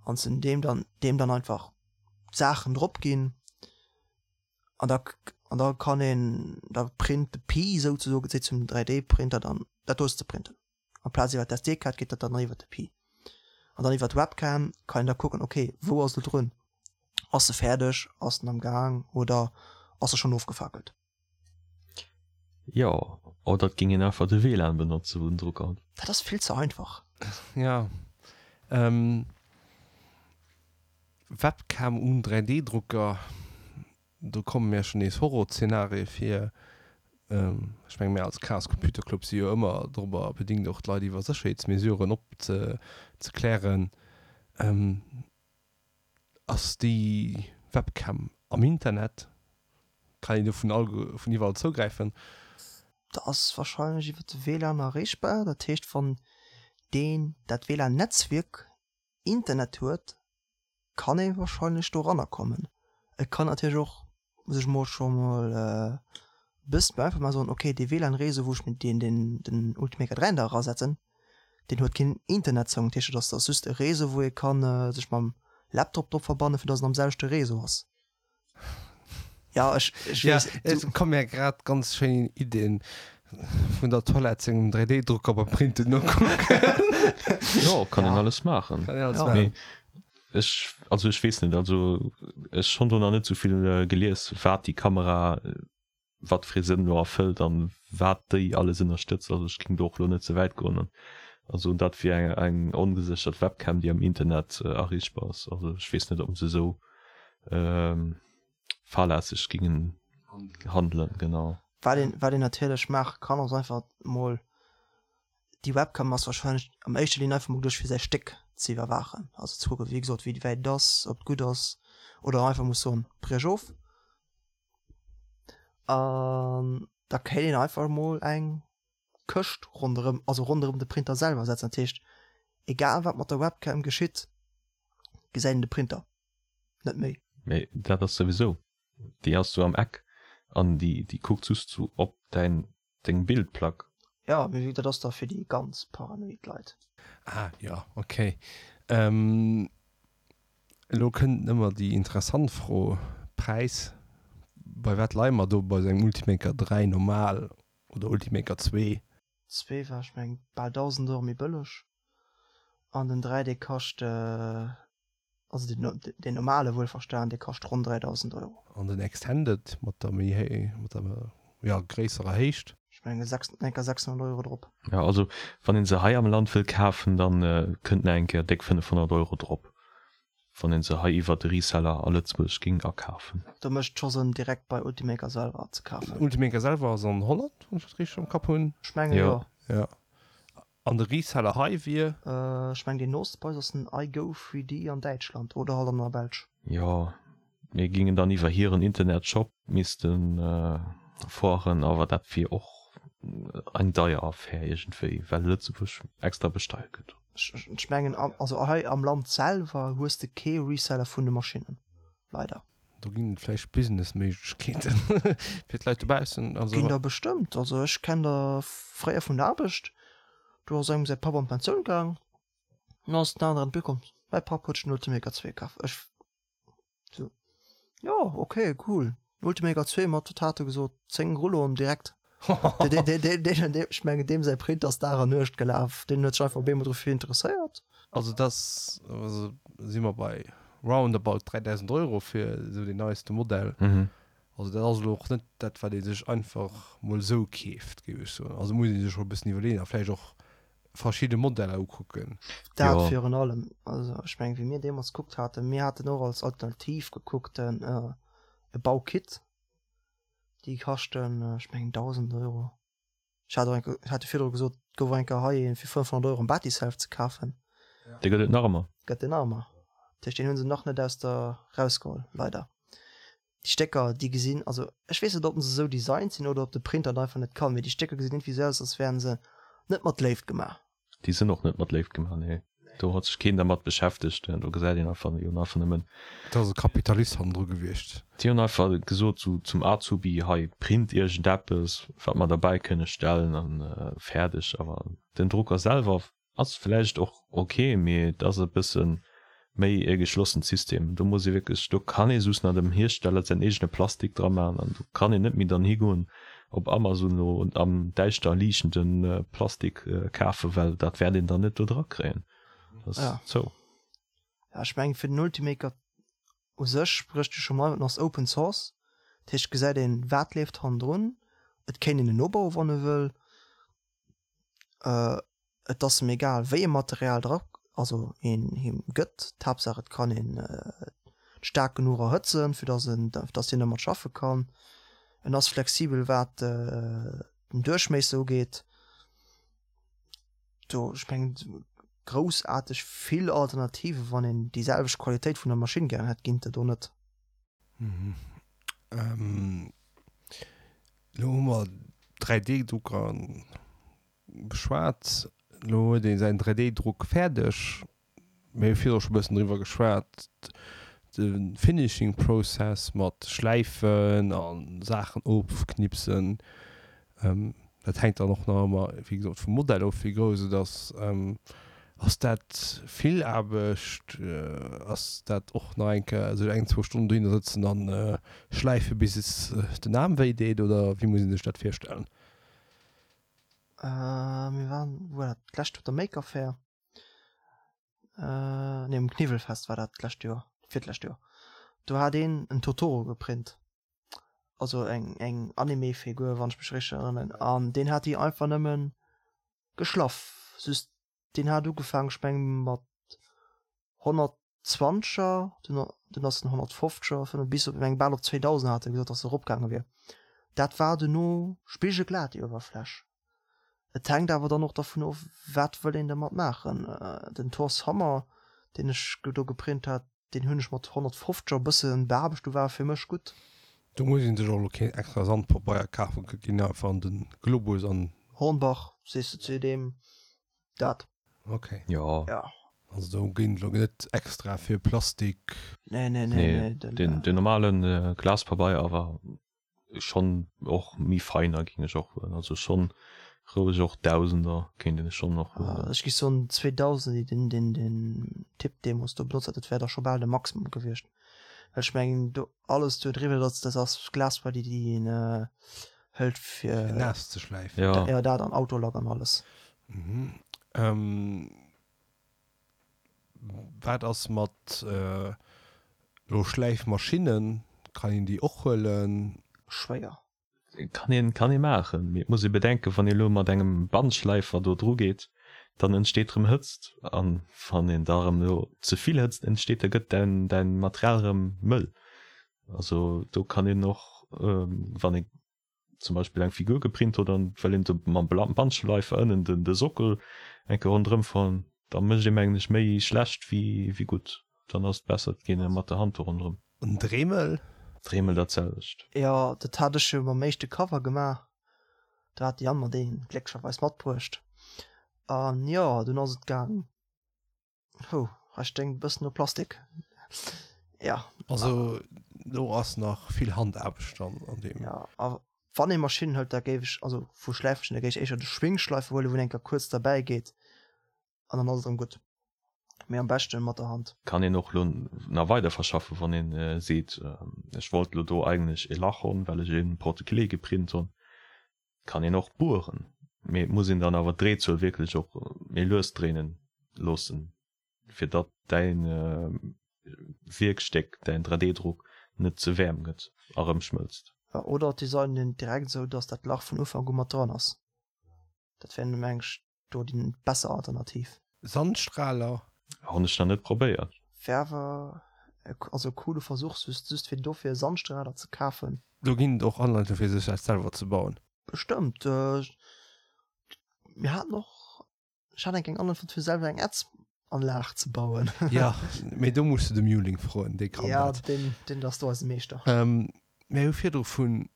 An se deem dann deem dann einfach d'Saachen drop ginn an da an da kann een da print de Pi souzesoen seet zum 3D-Printer dann dat do ass ze printen. Amplaz iwwer d'SD-Kaart geet dat dann iwwer de Pi. An dann iwwer d'Webcam kann een da kucken, okay, wou ass e drun? Ass e fäerdeg? Ass en am Gaang oder ass e schonn ofgefakelt? Jo, oder et géing een einfach de WLAN benotze wou den Drucker huet. Dat ass vill ze einfach. Ja. Webcam um 3D-Drucker, do komme mir schonn nees Horrorzenarie vir. Ech menge mir als Chaos Computer Club si jo ëmmer dorobber bedingt och d'Leit iwwer Sécherheetsmesuren opzeklären. Ass déi Webcam am Internet? Kann een do vun all vun iwwerall zougräifen? Dat ass wahrscheinlech iwwer de WLAN erreechbar. Dat heescht wann deen dat WLAN-Netzwierk Internet huet, kann ee wahrscheinlech doranner kommen. Et kann natierlech och sech mol scho mol e bëssen einfach mal soen, ok dee WLAN-Réseau wou ech mir deen den den Ultimaker 3 da erasetzen, deen huet keen Internetzougang, dat heescht dat ass dat ass just e Réseau wou ee kann sech mam Laptop drop verbannen, fir datt en am selwechte Réseau ass. Ja ech ech Ja, weess et komme mir grad ganz schéin Iddien vun der Toilette sengem 3D-Drucker beim Printen nokucken. Jo, kann een alles maachen. Kann een alles maachen. Mee ech, also ech weess net, also ech hunn do nach net esou vill gelies, wat déi Kamera, wat fir ee Sënn elo erfëllt an wat déi alles ënnerstëtzt. Also ech géing do och elo net ze wäit goen an soen, dat wier eng eng ongeséchert Webcam, déi am Internet erreechbar ass. Also ech weess net, ob se esou fahrlässeg gingen handelen, genau. Wat een, wat een natierlech maache kann, ass einfach mol, déi Webcam ass wahrscheinlech am éischter Linn einfach mol geduecht fir säi Stéck ze iwwerwaachen, also ze kucken, wéi gesot, wéi wäit et ass, ob et gutt ass, oder einfach muss soen, briech of. An da kéint een einfach mol eng Këscht ronderëm, also ronderëm de Printer selwer setzen. Dat heescht, egal wat mat der Webcam geschitt, gesäit een de Printer net méi. Mee dat ass souwisou, déi ass sou am Eck an déi déi kuckt just sou op däin deng Bildplack. Jo, mee wéi dat ass da fir déi ganz paranoid Leit. Ah jo, ok. Elo kënnt ëmmer déi interessant Fro, Präis, bei wat leie mer do bei sou engem Ultimaker 3 normal oder Ultimaker 2? Zwee war ech mengen bal 1000 Euro méi bëlleg an den 3 dee kascht also den deen normale wuelverstan dee kascht ronn 3000 Euro. An den Extended mat der méi héi mat der jo gréisserer Héicht? Ech mengen enker 600 Euro drop. Jo also wann een se hei am Land wëll kafen dann kënnt nach eng Kéier déck 500 Euro drop wann een se hei iwwert de Reseller a Lëtzebuerg ging akafen. Do mécht et scho Sënn direkt bei Ultimaker selwer ze kafen. Ultimaker selwer ass an Holland, wann ech dat richteg am Kapp hunn. Ech mengen jo. Jo. An de Reseller hei wier? Ech mengen deen nooste bei eis ass den iGo 3D an Däitschland oder halt an der Belsch. Jo, mir gingen dann iwwer hiren Internetshop missten fueren, awer dat wier och eng deier Affär iergendwéi, well Lëtzebuerg extra besteiert gëtt. Ech mengen also hei am Land selwer hues de kee Reseller vun de Maschinnen, leider. Do ginn et vläicht Businessméiglechkeeten fir d'Leit dobaussen. Also. Ginn der bestëmmt. Also ech kenn der fréier vun der Aarbecht, do ass engem säi Papp an d'Pensioun gaang, an ass den aneren komm, mäi Papp huet sech den Ultimaker 2 kaf. Ech sou, jo ok cool, Ultimaker 2 mat, wat hat e gesot, 10 Rulloen direkt. Ech mengen deem säi Print ass Dag an Nuecht gelaf, deen huet sech einfach op eemol dofir interesséiert. Also dat ass, also si mer bei roundabout 3.000 Euro fir esou deen neiste Modell. Also dat ass elo och net dat wat ee sech einfach mol esou keeft, géif ech soen. Also muss ee sech scho e bëssen iwwerleeën a vläicht och verschidde Modeller ukucken. Dat virun allem. Also ech mengen wéi mir deemools gekuckt haten, mir haten och als Alternativ gekuckt e Baukit. Déi kaschten, ech mengen 1.000 Euro. Ech hat och eng, ech hat jo virdru gesot, et gouf och eng Kéier hei een fir 500 Euro am Batiself ze kafen. Dee gëtt et nach ëmmer. Gëtt et nach ëmmer. Dat heescht, deen hu se nach net aus der rausgeholl, leider. Déi Stécker, déi gesinn, also ech weess net, ob se esou designt sinn oder ob de Printer et einfach net kann, mee déi Stécker gesinn iergendwéi esou aus, als wären se net mat Léift gemaach. Déi sinn och net mat Léift gemaach, nee. Do huet sech keen dermat beschäftegt. Do gesäit een einfach, déi hunn einfach nëmmen. Do ass e Kapitalist hannendru gewiescht. Déi hunn einfach gesot sou zum Azubi, hei print iergendeppes, wat mer derbäi kënne stellen an fäerdeg. Awer den Drucker selwer ass vläicht och ok, mee et ass e bëssen. Méi e geschlossent System. Do muss ee wierklech, do kann ee soss nach dem Hiersteller säin eegene Plastik dra maachen an do kann een net méi dann higoen op Amazon elo am däischter liichtende Plastik kafen, well dat wäert een dann net do dra kréien. Dat ass zou. Ja, ech mengen fir den Ultimaker u sech sprécht jo scho mol, en ass Open Source, dat heescht gesäit een wat leeft hannendrun, et kéint een en nobauen wann e wëll. Et ass em egal wéi e Material dra also een him gëtt, d'Haaptsaach et kann een et staark genuch erhëtzen fir datt en datt hien dermat schaffe kann. En ass flexibel wat den Duerchméisser ugeet. Do ech mengen groussaarteg vill Alternative wann een déi selwecht Qualitéit vun der Maschinn gären hätt ginn et der do net. Elo hu mer 3D-Drucker beschwat. Elo huet ee säin 3D-Druck fäerdeg. Mir hu virdru scho e bëssen driwwer geschwat, de Finishing Process mat Schläifen a Saachen ofknipsen. Dat hänkt dann och nach ëmmer, wéi gesot, vum Modell of, wéi grouss et ass. Ass dat vill Aarbecht? Ass dat och nach eng Kéier sech eng, zwou Stonnen dohinner sëtzen a schläife bis et den Aarm wéi deet oder wéi muss ee sech dat virstellen? Mir waren, wou war dat, d'lescht op der Maker Faire, nee um Kniwwelfest war dat d'lescht Joer, virtlescht Joer, do hat een en Totoro geprint. also eng eng Anime Figur wann ech mech richteg erënneren an deen hat déi einfach nëmmen geschlaff just deen hat ugefaangen ech mengen mat 120er dunn dunn ass en 150er bis op eng bal op 2000 hat e gesot dass e eropgaange wier dat war duerno spigelglat déi Uewerfläch et hänkt awer dann och dervun of wat wëll een dermat maachen den Thor's Hammer deen ech do geprint hat Deen hunn ech mat 150 e bëssen beaarbecht, do war e fir mech gutt. Do muss een sech och elo keen extra Sandpabeier kafen, et ginn einfach an den Globus an. Hornbach, sees de zu deem dat? Ok. Jo. Ja. Also do ginn et elo net extra fir Plastik. Nee, nee, nee, nee. Den normalen Glaspabeier awer Schon och méi feiner ging ech och huelen, also schon roueg och Dausender kéint een schon och huelen. Ech gi soen 2000, deen deen den Typ deemols do benotzt hat, dat wär da scho bal de Maximum gewiescht, well ech mengen do alles do driwwer dat dat ass Glasfaser déi déi een hëlt fir Fir naass ze schläifen. Jo. Jo dat an Autolack an alles. Mhm. Wat ass mat elo Schläifmaschinnen? Kann een déi och huelen? Schwéier. Kann een, kann ee maachen, mee et muss ee bedenken, wann ee elo mat engem Bandschläifer do dru geet, dann entsteet erëm Hëtzt an wann een da erëm elo ze vill Hëtzt entsteet, da gëtt däin, däin Material erëm mëll. Also do kann een och, wann ee zum Beispill eng Figur geprint huet an well een de mam Bandschleifer ënnen den de Sockel eng Kéier ronderëm fahren, da mécht ee mengen ech méi schlecht wéi wéi gutt. Dann ass et besser et geet ee mat der Hand do ronderëm. En Dremel? Dremel dat selwecht. Jo, dat hat ech jo mam éischte Cover gemaach. Do hat de Yann mer deen glécklecherweis matbruecht. An jo, dunn ass et gaang. Hou, hei sténkt e bëssen no Plastik. Ja. Also do ass nach vill Handaarbecht dann an deem. Ja, a wann ee Maschinn hëlt, da géif ech, also vu Schläifmaschinn, da géif ech éischter de Schwingschleifer huelen, wou een eng Kéier kuerz derbäi geet an dann ass et erëm gutt. Mee am beschte mat der Hand. Kann een och lo nach weider verschaffen, wann een seet, ech wollt lo do eigentlech e Lach honn, well ech e Porte-clés geprint honn. Kann een och bueren, mee et muss een dann awer d'Dréizuel wierklech och méi lues dréinen loossen, fir datt däin Wierkstéck, däin 3D-Druck net ze waarm gëtt a rëm schmëlzt. Oder et designen een direkt esou, datt dat Lach vun Ufank u mat dran ass. Dat wär meng ech do déi besser Alternativ. Sandstrahler? Honn ech nach net probéiert. Wär awer also e coole Versuch, just just fir dofir e Sandstrahler ze kafen. Do ginn et och Anleitungen fir sech dat selwer ze bauen. Bestëmmt. Mir haten och, ech hat eng eng Anleitung fonnt fir selwer eng Ätzanlag ze bauen. Jo, mee do muss de de Muling froen, dee kann dat. Ja, deen deen ass do eise Meeschter. Mir hu virdru vun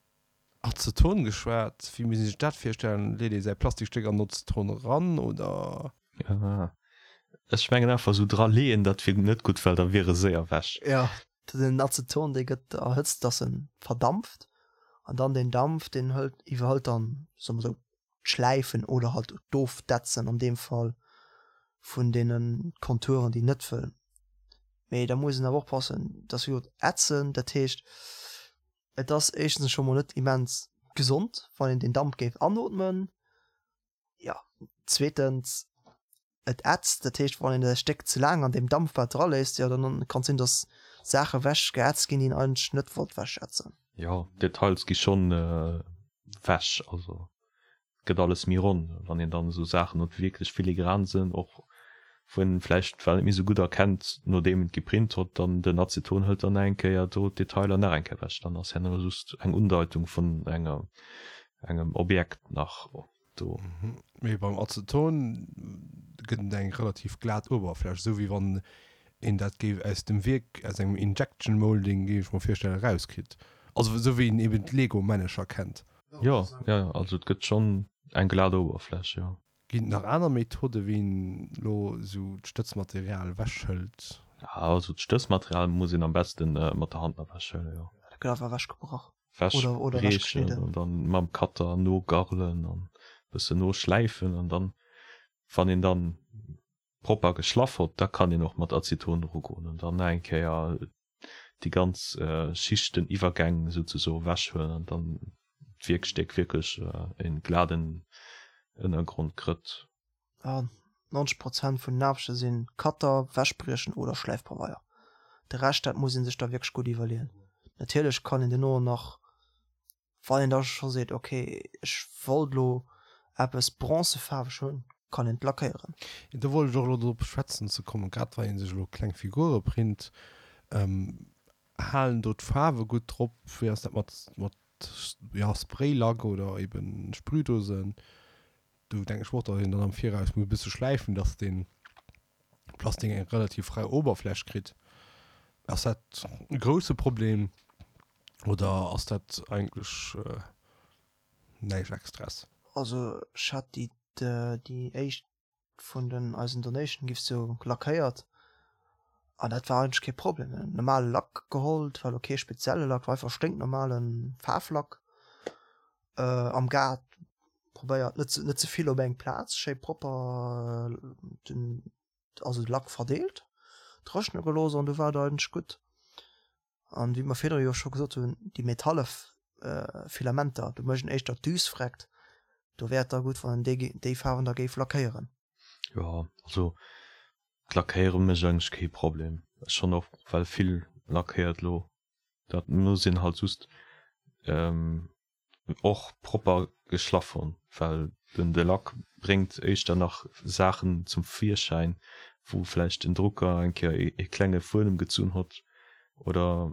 Azeton geschwat. Wéi muss ee sech dat virstellen? Leet ee säi Plastikstéck an Azeton eran oder? Ech mengen einfach esou dra leeën, dat wier net gutt, well da wier e séier wech. Jo, den Azeton dee gëtt erhëtzt, dass en verdampft an dann deen Dampf deen hëlt iwwerhëlt dann, soe mer esou, d'Schläifen oder halt d'Ofdetzen an deem Fall vun deene Konturen déi net wëll. Mee da muss een awer oppassen, dass wéi gesot ätzen, dat heescht et ass éischtens scho mol net immens gesond, wann een deen Damp géif anootmen. Jo, zweetens et ätzt, dat heescht wann een e Stéck ze laang an deem Dampbad dra léisst, jo dann kann et sinn, dass Saache wech geätzt ginn, déi een eigentlech net wollt wechätzen. Jo, d'Details gi schonn wech, also gëtt alles méi ronn, wann een dann esou Saachen huet, déi wierklech filigran sinn, och wou een vläicht well net méi esou gutt erkennt, nodeem en et geprint hott, dann den Aceton hëlt dann nach eng Kéier do d'Detailer nach eng Kéier ewech, dann ass herno just eng Undeitung vun enger engem Objekt nach do. Mee beim Aceton gëtt et eng relativ glat Uewerfläch, esou wéi wann een dat géif aus dem Wierk, aus engem Injection Molding, géif ech mer virstellen, erauskritt. Also esou wéi een eben d'Lego-Männecher kennt. Jo, jo, also et gëtt schonn eng glat Oberfläch, jo. Ginn et nach aner Methode wéi een elo esou d'Stëtzmaterial ewechhëlt? Also d'Stëtzmaterial muss een am besten mat der Hand ewechhëllen, jo. Dat gëtt einfach ewechgebrach oder ewechgeschnidden. An dann mam Cutter nogarlen an bëssen noschläifen an dann, wann een dann propper geschlaff hott, da kann een och mat Aceton erugoen an dann nach eng Kéier déi ganz Schichteniwwergäng souzesoe wechhuelen an dann d'Wierkstéck wierklech e gladen Ënnergrond krëtt. 90 Prozent vun den Aarbechte sinn Cutter, Wäschbriechen oder Schläifpabeier. De Rescht, dat muss ee sech da wierklech gutt iwwerleeën. Natierlech kann een duerno nach Wann een da scho seet, ok, ech wollt elo eppes bronzefaarweg hunn, kann een et lackéieren. Do wollt ech och elo drop schwätzen ze kommen, grad wann ee sech elo kleng Figure print, halen do d'Faarwe gutt drop? Wéi ass dat mat, mat, jo, Spraylack oder eben Sprühdosen? Do denken ech mer och, datt een dann am Viraus muss e bësse schläifen, datt dee Plastik eng relativ rau Oberfläch kritt. Ass dat e grousse Problem oder ass dat eigentlech näischt Extraes? Also ech hat déi déi éischt vun den eisen Donation Gifts jo lackéiert an dat war eigentlech kee Problem. En normale Lack geholl, et war elo kee spezielle Lack, war einfach sténknormale Faarflack am Gaart probéiert net net ze vill op eng Plaz, schéi propper den also de Lack verdeelt, dréchne gelooss an du war et eigentlech gutt. An wéi mer virdru jo scho gesot hunn, déi metalle Filamenter, do mécht een éischter d'Düs vreckt, do wär et da gutt, wann een déi déi Faarwen da géif lackéieren. Jo, also d'Lackéiere mécht eigentlech kee Problem. Ech hunn och well vill lackéiert elo, dat muss een halt just och propper geschlaff hunn, well den de Lack bréngt éischter nach Saachen zum Virschäin, wou vläicht den Drucker eng Kéier ee klenge Fuedem gezunn hott oder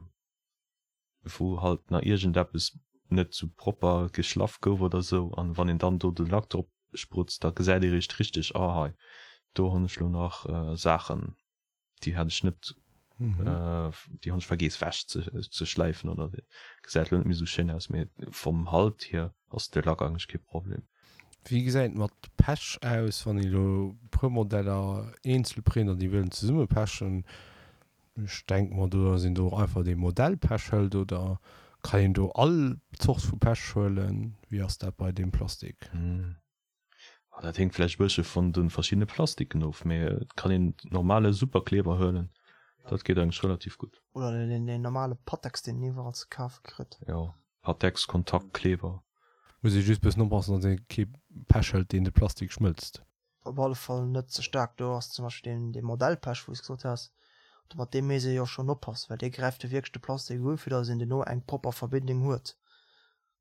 wou halt nach iergendeppes net sou propper geschlaff gouf oder sou. An wann een dann do de Lack drop sprutzt, da gesäit ee riicht richteg, ah hei do hunn ech lo nach Saachen. Déi hat ech net, déi hunn ech vergeess wech ze schläifen oder gesäit lo net méi sou schéin aus, mee vom Halt hier ass de Lack eigentlech kee Problem. Wéi gesäit et mat Pech aus, wann ee lo e puer Modeller eenzel print an déi wëllen zesumme pechen? Ech denke mer do, dass een do och einfach dee Modellpech hëlt oder kann een do all Zort vu Pech huelen? Wéi ass dat bei deem Plastik? Dat héngt vläicht e bëssche vun de verschiddene Plastiken of, mee et kann een normale Superkleber huelen, dat geet eigentlech relativ gutt. Oder deen normale Pattex, deen een iwwerall ze kafe kritt. Jo, Pattex, Kontaktkleber. Muss ee just bëssen oppassen, datt ee kee Pech hëlt, deen de Plastik schmëlzt. Op alle Fall net ze staark. Do ass zum Beispill deen dee Modellpech, wou s gesot has, do mat deem misst ee jo schonn oppassen, well dee gräift jo wierklech de Plastik u, fir datt een duerno eng propper Verbindung huet.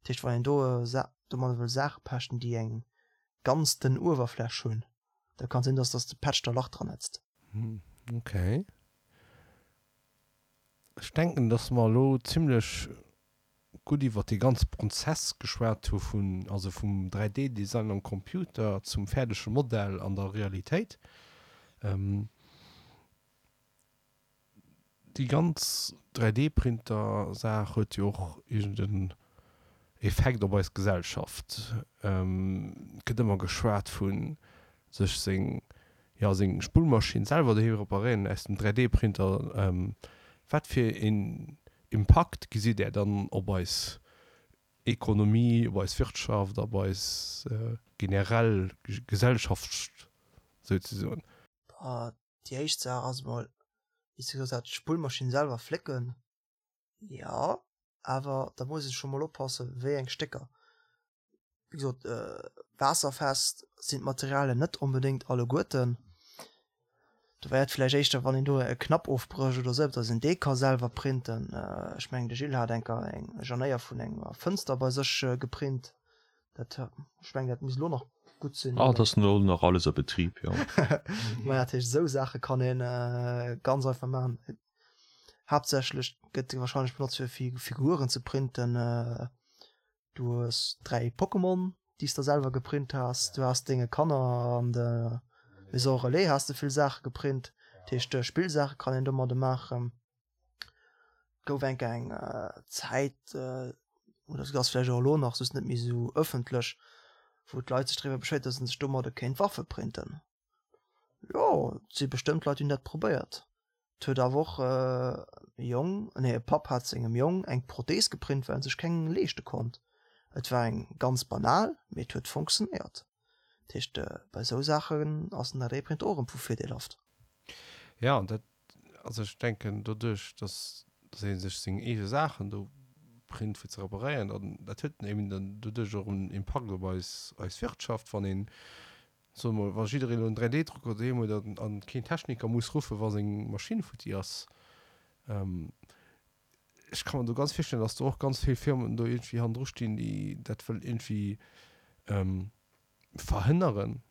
Dat heescht, wann een do domadder wëll Saache pechten, déi eng ganz dënn Uewerfläch hunn, da kann et sinn, dass dass de Patch da Lach dran ätzt. Ok. Ech denken, dass mer elo zimlech gutt iwwert dee ganze Prozess geschwat hu vun, also vum 3D-Design am Computer zum fäerdege Modell an der Realitéit. Déi ganz 3D-Printer-Saach huet jo och iergend en Effekt op eis Gesellschaft. Et gëtt ëmmer geschwat vu sech seng, jo, seng Spullmaschinn selwer doheem reparéieren aus dem 3D-Printer. Wat fir een Impakt gesitt Där dann op eis Ekonomie, op eis Wirtschaft, op eis generell Gesellschaft souzesoen? Déi éischt Saach ass emol. Wéi s de gesot has, d'Spullmaschinn selwer flécken, jo, awer da muss ee scho mol oppassen, wéi eng Stécker. Wéi gesot, waasserfest sinn d'Materialien net onbedéngt alleguerten. Do wär et vläicht éischter, wann een do e Knapp ofbrécht oder esou, datt een dee ka selwer printen. Ech mengen, de Gilles hat enker eng Janéier vun enger Fënster bei sech geprint. Dat, ech mengen, dat misst elo nach gutt sinn. Ah, dat ass elo nach alles a Betrib, jo. Maja, dat heescht, esou Saache kann ee ganz einfach maachen. Haaptsächlech gëtt e warscheinlech benotzt, fir Figuren ze printen. Du hues 3 Pokémon, déi s de selwer geprint has. Du has denge Kanner an der Maison Relais has de vill Saache geprint. Dat heescht, Spillsaache kann een domadde maachen. Et gouf enk eng Zäit, oder se ass vläicht och elo nach, just net méi esou ëffentlech, wou d'Leit sech driwwer beschwéiert, datt se sech domadde kéint Waffe printen. Jo, et si bestëmmt Leit, déi hunn dat probéiert. Et huet awer och e Jong, nee e Papp hat sengem Jong eng Prothees geprint, well en sech keng leeschte konnt. Et war eng ganz banal, mee et huet funktionéiert. Dat heescht, bei esou Saachen ass den 3D-Printer och erëm vu virdeelhaft. Jo, an dat, also ech denken doduerch, dass dass ee sech seng eege Saachen do print fir ze reparéieren, dann dat huet eben dann doduerch och en Impakt op eis eis Wirtschaft, wann een Soe mol, wa jiddereen elo en 3D-Drucker doheem huet an, an keen Techniker muss ruffen, wa seng Maschinn futti ass. Ech ka mer do ganz virstellen, dass do och ganz vill Firmen do iergendwéi hannendru stinn, déi dat wëllen iergendwéi verhënneren.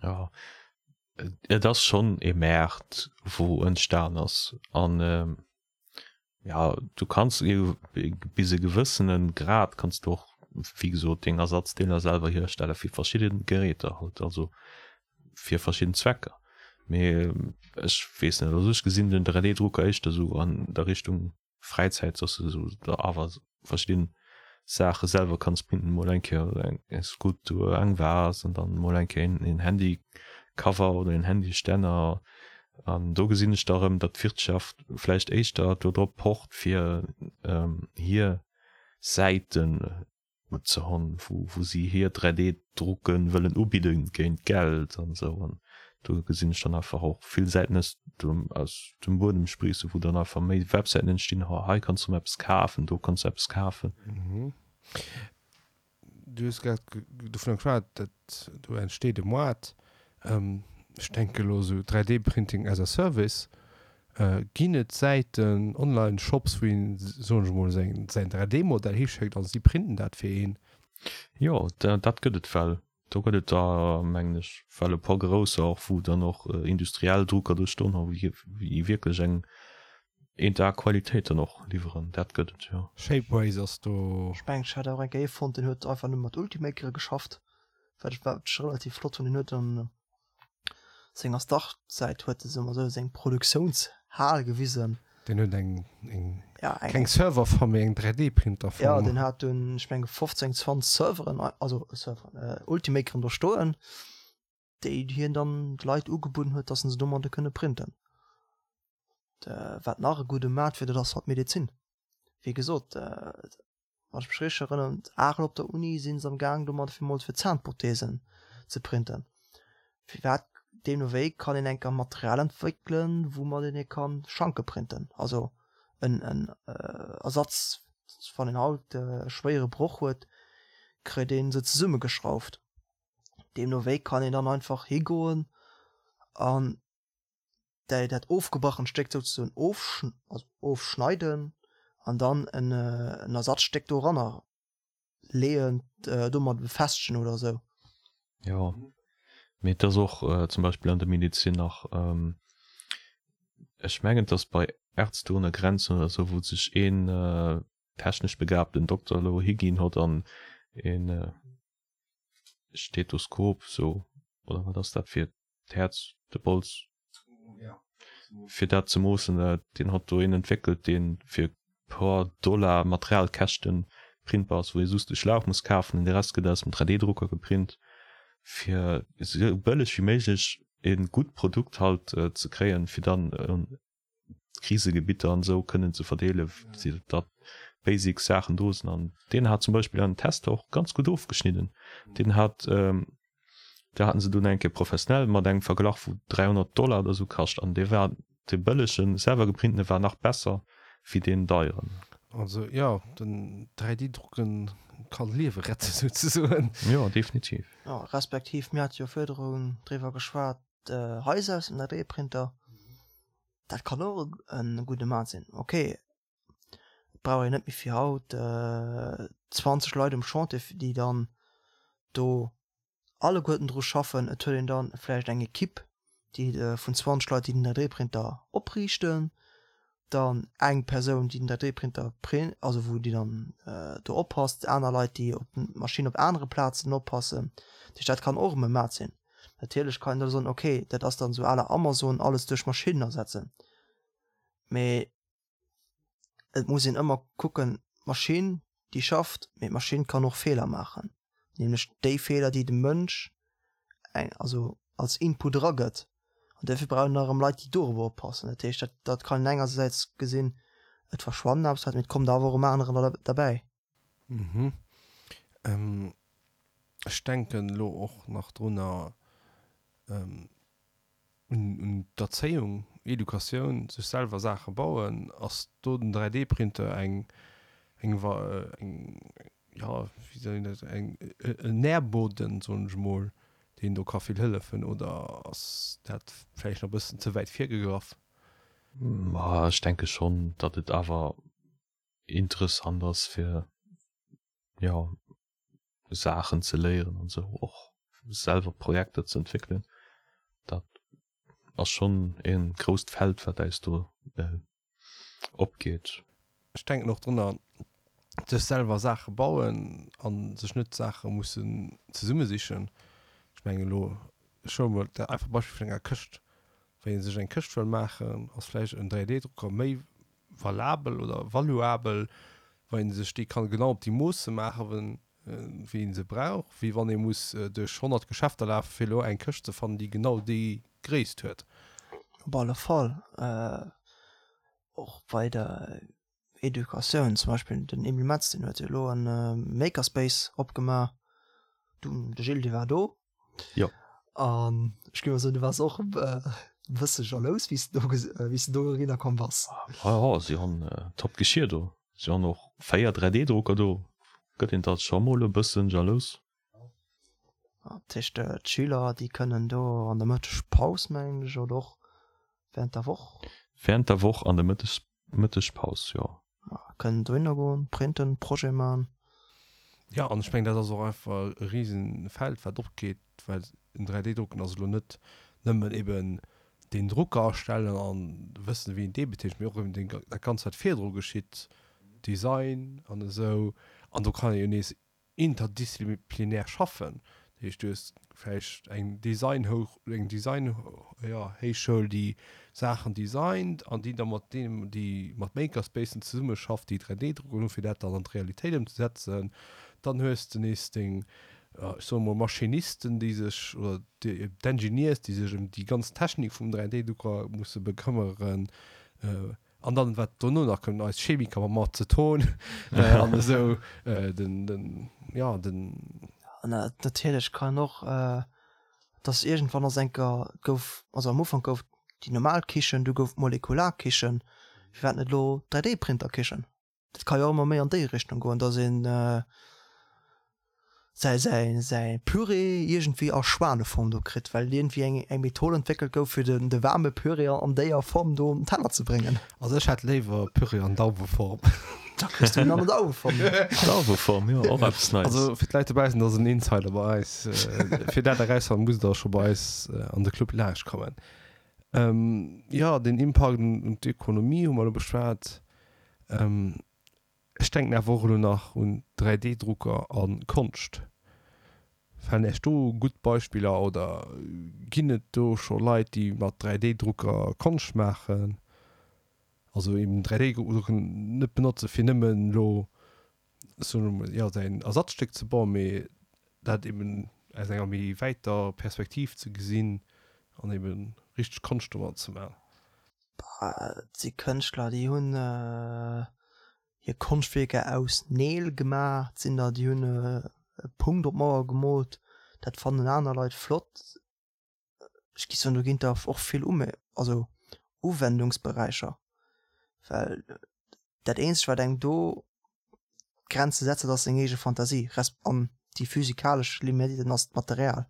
Jo, et ass schonn e Maart, wou entstan ass. An Ja, du kanns bis e gewëssene Grad kanns du och, wéi gesot, deng Ersatzdeeler selwer hierstelle fir verschidde Geräter halt, also fir verschidden Zwecker. Mee ech weess net, also ech gesinn den 3D-Drucker éischter esou an der Richtung Fräizäit, dass du esou der awer verschidden Saache selwer kanns printen, mol eng Kéier eng Skulptur, eng Vase an dann mol eng Kéier een Handycover oder een Handystänner. An do gesinn ech da erëm, datt d'Wirtschaft vläicht éischter do drop pocht fir hir Säiten ze honn, wou si hir 3D-Drucke wëllen ubidde géint Geld an esou. An do gesinn ech dann einfach och vill Säiten aus dem, aus dem Buedem spriissen, wou dann einfach méi Websäiten entstinn, ho hei kanns du erëm eppes kafen, do kanns du eppes kafen. Du hues grad dovunner geschwat, dat do entsteet e Moart. Ech denke elo esou 3D-Printing as a Service. Ginn et Säiten, Online-Shops, wou een, soen ech emol, säin 3D-Modell hischéckt a si printen dat fir een? Jo, dat gëtt et well. Do gëtt et der, mengen ech, well e puer grousser och, wou dann och industriell Drucker do stoen hu, wéi wierklech eng eent A Qualitéit dann och liwweren. Dat gëtt et, jo. Shapeways ass do. Ech mengen, ech hat och eng Kéier ee fonnt, deen huet einfach nëmme mat Ultimakere geschafft, wat ech wat ech relativ flott hunn. Deen huet dann senger Startsäit huet e soe mer esou seng Produktiounshal gewisen. Deen huet eng, eng, ja, eng keng Serverfarm, mee eng 3D-Printerfarm. Ja, deen hat dunn, ech menge 15, 20 Serveren, also Serveren, äh, Ultimakeren do stoen, déi hien dann de Leit ugebudden huet, dass se domadde kënne printen. De, wat nach e gudde Maart wier, dat ass halt d'Medezin. Wéi gesot, äh, Wann ech mech richteg erënneren, Arel op der Uni sinn se am gaang domat fir mol fir Zahnprothesen ze printen. Firwat deemno wéi kann een enker Material entwéckelen, woumat een ee kann Schanke printen, also en en Ersatz, wann een haut e schwéiere Broch huet, kritt een se zesummegeschrauft. Deemno wéi kann een dann einfach higoen an däi dat ofgebrachent Stéck souzesoen also ofschneiden an dann en en Ersatzstéck doranner leeën, domat befestegen oder esou. Jo, mee et ass och zum Beispill an der Medezin nach, ech mengen et ass bei Ärzte ohne Grenzen oder esou, wou sech een technesch begabten Dokter elo higinn hott an een Stethoskop sou, oder wat ass dat fir d'Häerz, de Bols, fir dat ze moossen. Deen hott do een entwéckelt, deen fir puer Dollar Materialkäschten printbar ass, wou ee just de Schlauch muss kafen an de Rest gëtt aus dem 3D-Drucker geprint, fir esou bëlleg wéi méiglech e gutt Produkt halt ze kréien, fir dann un Krisegebitter an esou kënnen ze verdeelen, datt basic Saachen do sinn. An deen hat zum Beispill an Tester och ganz gutt ofgeschnidden. Deen hat, do haten se dunn eng Kéier professionell mat engem verglach, wou 300 Dollar oder esou kascht an dee war. De bëllegen selwer geprintene war nach besser wéi deen deieren. Also jo, den 3D drucken kann Liewe retten souzesoen. Jo, definitiv. Jo, respektiv mir hate jo virdrun driwwer geschwat, Haiser aus dem 3D Printer, dat kann och e gudde Maat sinn. Ok, et brauch een net méi fir haut 20 Leit um Chantier, déi dann do alleguerten dru schaffen. Et huet een dann vläicht eng Equipe, déi vun 20 Leit, déi den 3D-Printer opriichten, dann eng Persoun, déi den 3D-Printer print, also wou déi dann do oppasst, aner Leit, déi op d'Maschinn op anere Plazen oppassen. Dat heescht, dat kann och erëm e Maat sinn. Natierlech kann een da soen, okay, dat ass dann esou à la Amazon, alles duerch Maschinnen ersetzen. Mee et muss een ëmmer kucken, d'Maschinn déi schafft, mee d'Maschinn kann och Feeler maachen, nämlech déi Feeler déi de Mënsch eng also als Input eragëtt an duerfir brauch een erëm Leit déi dorobber oppassen. Dat heescht dat dat kann een engersäits gesinn, et verschwannen Aarbechtsplätz, mee et kommt awer och erëm anerer derbäi. Mhm. Ech denken elo och nach drunner, un d'Erzéiung, Educatioun, sech selwer Saache bauen. Ass do den 3D-Printer eng, eng, eng, jo, wéi soll een dat, eng, en Nährboden, soen ech emol, deen do ka vill hëllefen? Oder ass dat vläicht nach e bëssen ze wäit virgegraff? Ma ech denke schonn, datt et awer interessant ass fir jo Saachen ze léieren an sou och selwer Projekter ze entwéckelen. Dat ass schonn e grousst Feld wat äis do opgeet. Ech denken och drunner, sech selwer Saache bauen an sech net Saache mussen zesummesichen. Ech mengen elo, ech huele mol dat einfach Beispill vun enger Këscht. Wann ee sech eng Këscht wëll maachen, ass vläicht en 3D-Drucker méi valabel oder valuabel, wa een sech déi kann genau op déi Moosse maachen, wéi een se brauch, wéi wann ee muss duerch 100 Geschäfter lafen, fir elo eng Këscht ze fannen, déi genau déi Gréisst huet. Op alle Fall. Och bei der Educatioun, zum Beispill den Emile Metz, deen huet jo elo e Makerspace opgemaach. Du, de Gilles, dee war do. Jo. An ech géif mol soen, du waars och e bësse jalous, wéi s de do, wéi s de do erinner komm bass. Ja, ja, si hunn top Geschir do. Si hunn och 4 3D-Drucker do. Gëtt een da scho mol e bëssen jalous. Dat heescht, d'Schüler, déi kënnen do an der Mëttegpaus, mengen ech, oder och während der Woch? Während der Woch an der Mëttes, Mëttegpaus, jo. Kënnen dohinner goen, printen, Projet man. Jo, an ech mengen, dat ass och einfach e Risenfeld, wat opgeet, well en 3D-Drucken ass elo net nëmmen eben deen Drucker astellen an wëssen, wéi een dee betätigt, mee och eben deen, dat Ganzt, wat virdru geschitt, Design an esou. An do kann ee jo nees interdisziplinär schaffen. Dat heescht, du hues vläicht eng Designhouch, eng Design, jo, Héichschoul, déi Saachen designt an déi da mat deenen, déi mat Makerspacen zesummeschafft, déi 3D-Drucken hunn, fir dat dann an d'Realitéit ëmzesetzen. Dann hues de nees deng, ech soe mol, Maschinisten, déi sech, oder d'Engineers, déi sech ëm déi ganz Technik vum 3D-Drucker musse bekëmmeren. An dann, wat dono nach kënnt, eis Chemiker mam Aceton an esou, den, den, ja, den. An natierlech kann och, dass iergendwann ass enker, gouf, also am Ufank gouf déi normal Kichen, du gouf d'Molekularkichen, firwat net elo d'Dräidéiprinterkichen? Dat ka jo och ëmmer méi an déi Richtung goen, dass een säi säi säi Püree iergendwéi a Schwaneform do kritt, well iergendwéi eng eng Method entwéckelt gouf, fir den de waarme Püree an déier Form do op den Teller ze bréngen. Also ech hätt léiwer Püree an Dauweform. Da kriss du en an der Dauweform. Dauweform, jo, och eppes Neies. Also fir d'Leit dobaussen, dat ass en Insider bei eis. Fir dat erausfannen, musst der scho bei eis an de Club laanscht kommen. Jo, den Impakt un d'Ökonomie hu mer elo beschwat. Ech denken awer och elo nach un 3D-Drucker a Konscht. Falen Iech do gutt Beispiller oder ginn et do scho Leit, déi mat 3D-Drucker Konscht maachen? Also eben 3D-Drucken net benotze fir nëmmen elo, soen ech mol, jo säin Ersatzstéck ze bauen, mee dat eben aus enger méi wäiter Perspektiv ze gesinn an eben richteg Konscht domat ze maachen. Et si Kënschtler, déi hunn hir Konschtwierker aus Neel gemaach. Et sinn der, déi hunn e Punkt op d'Mauer gemoolt. Dat fannen aner Leit flott. Ech géif soen, do ginn der och vill Ume also. Uwendungsberäicher, well dat eenzegt wat engem do Grenze setzt, dat ass seng eege Fantasie resp. An déi physikalesch Limiten ass d'Material.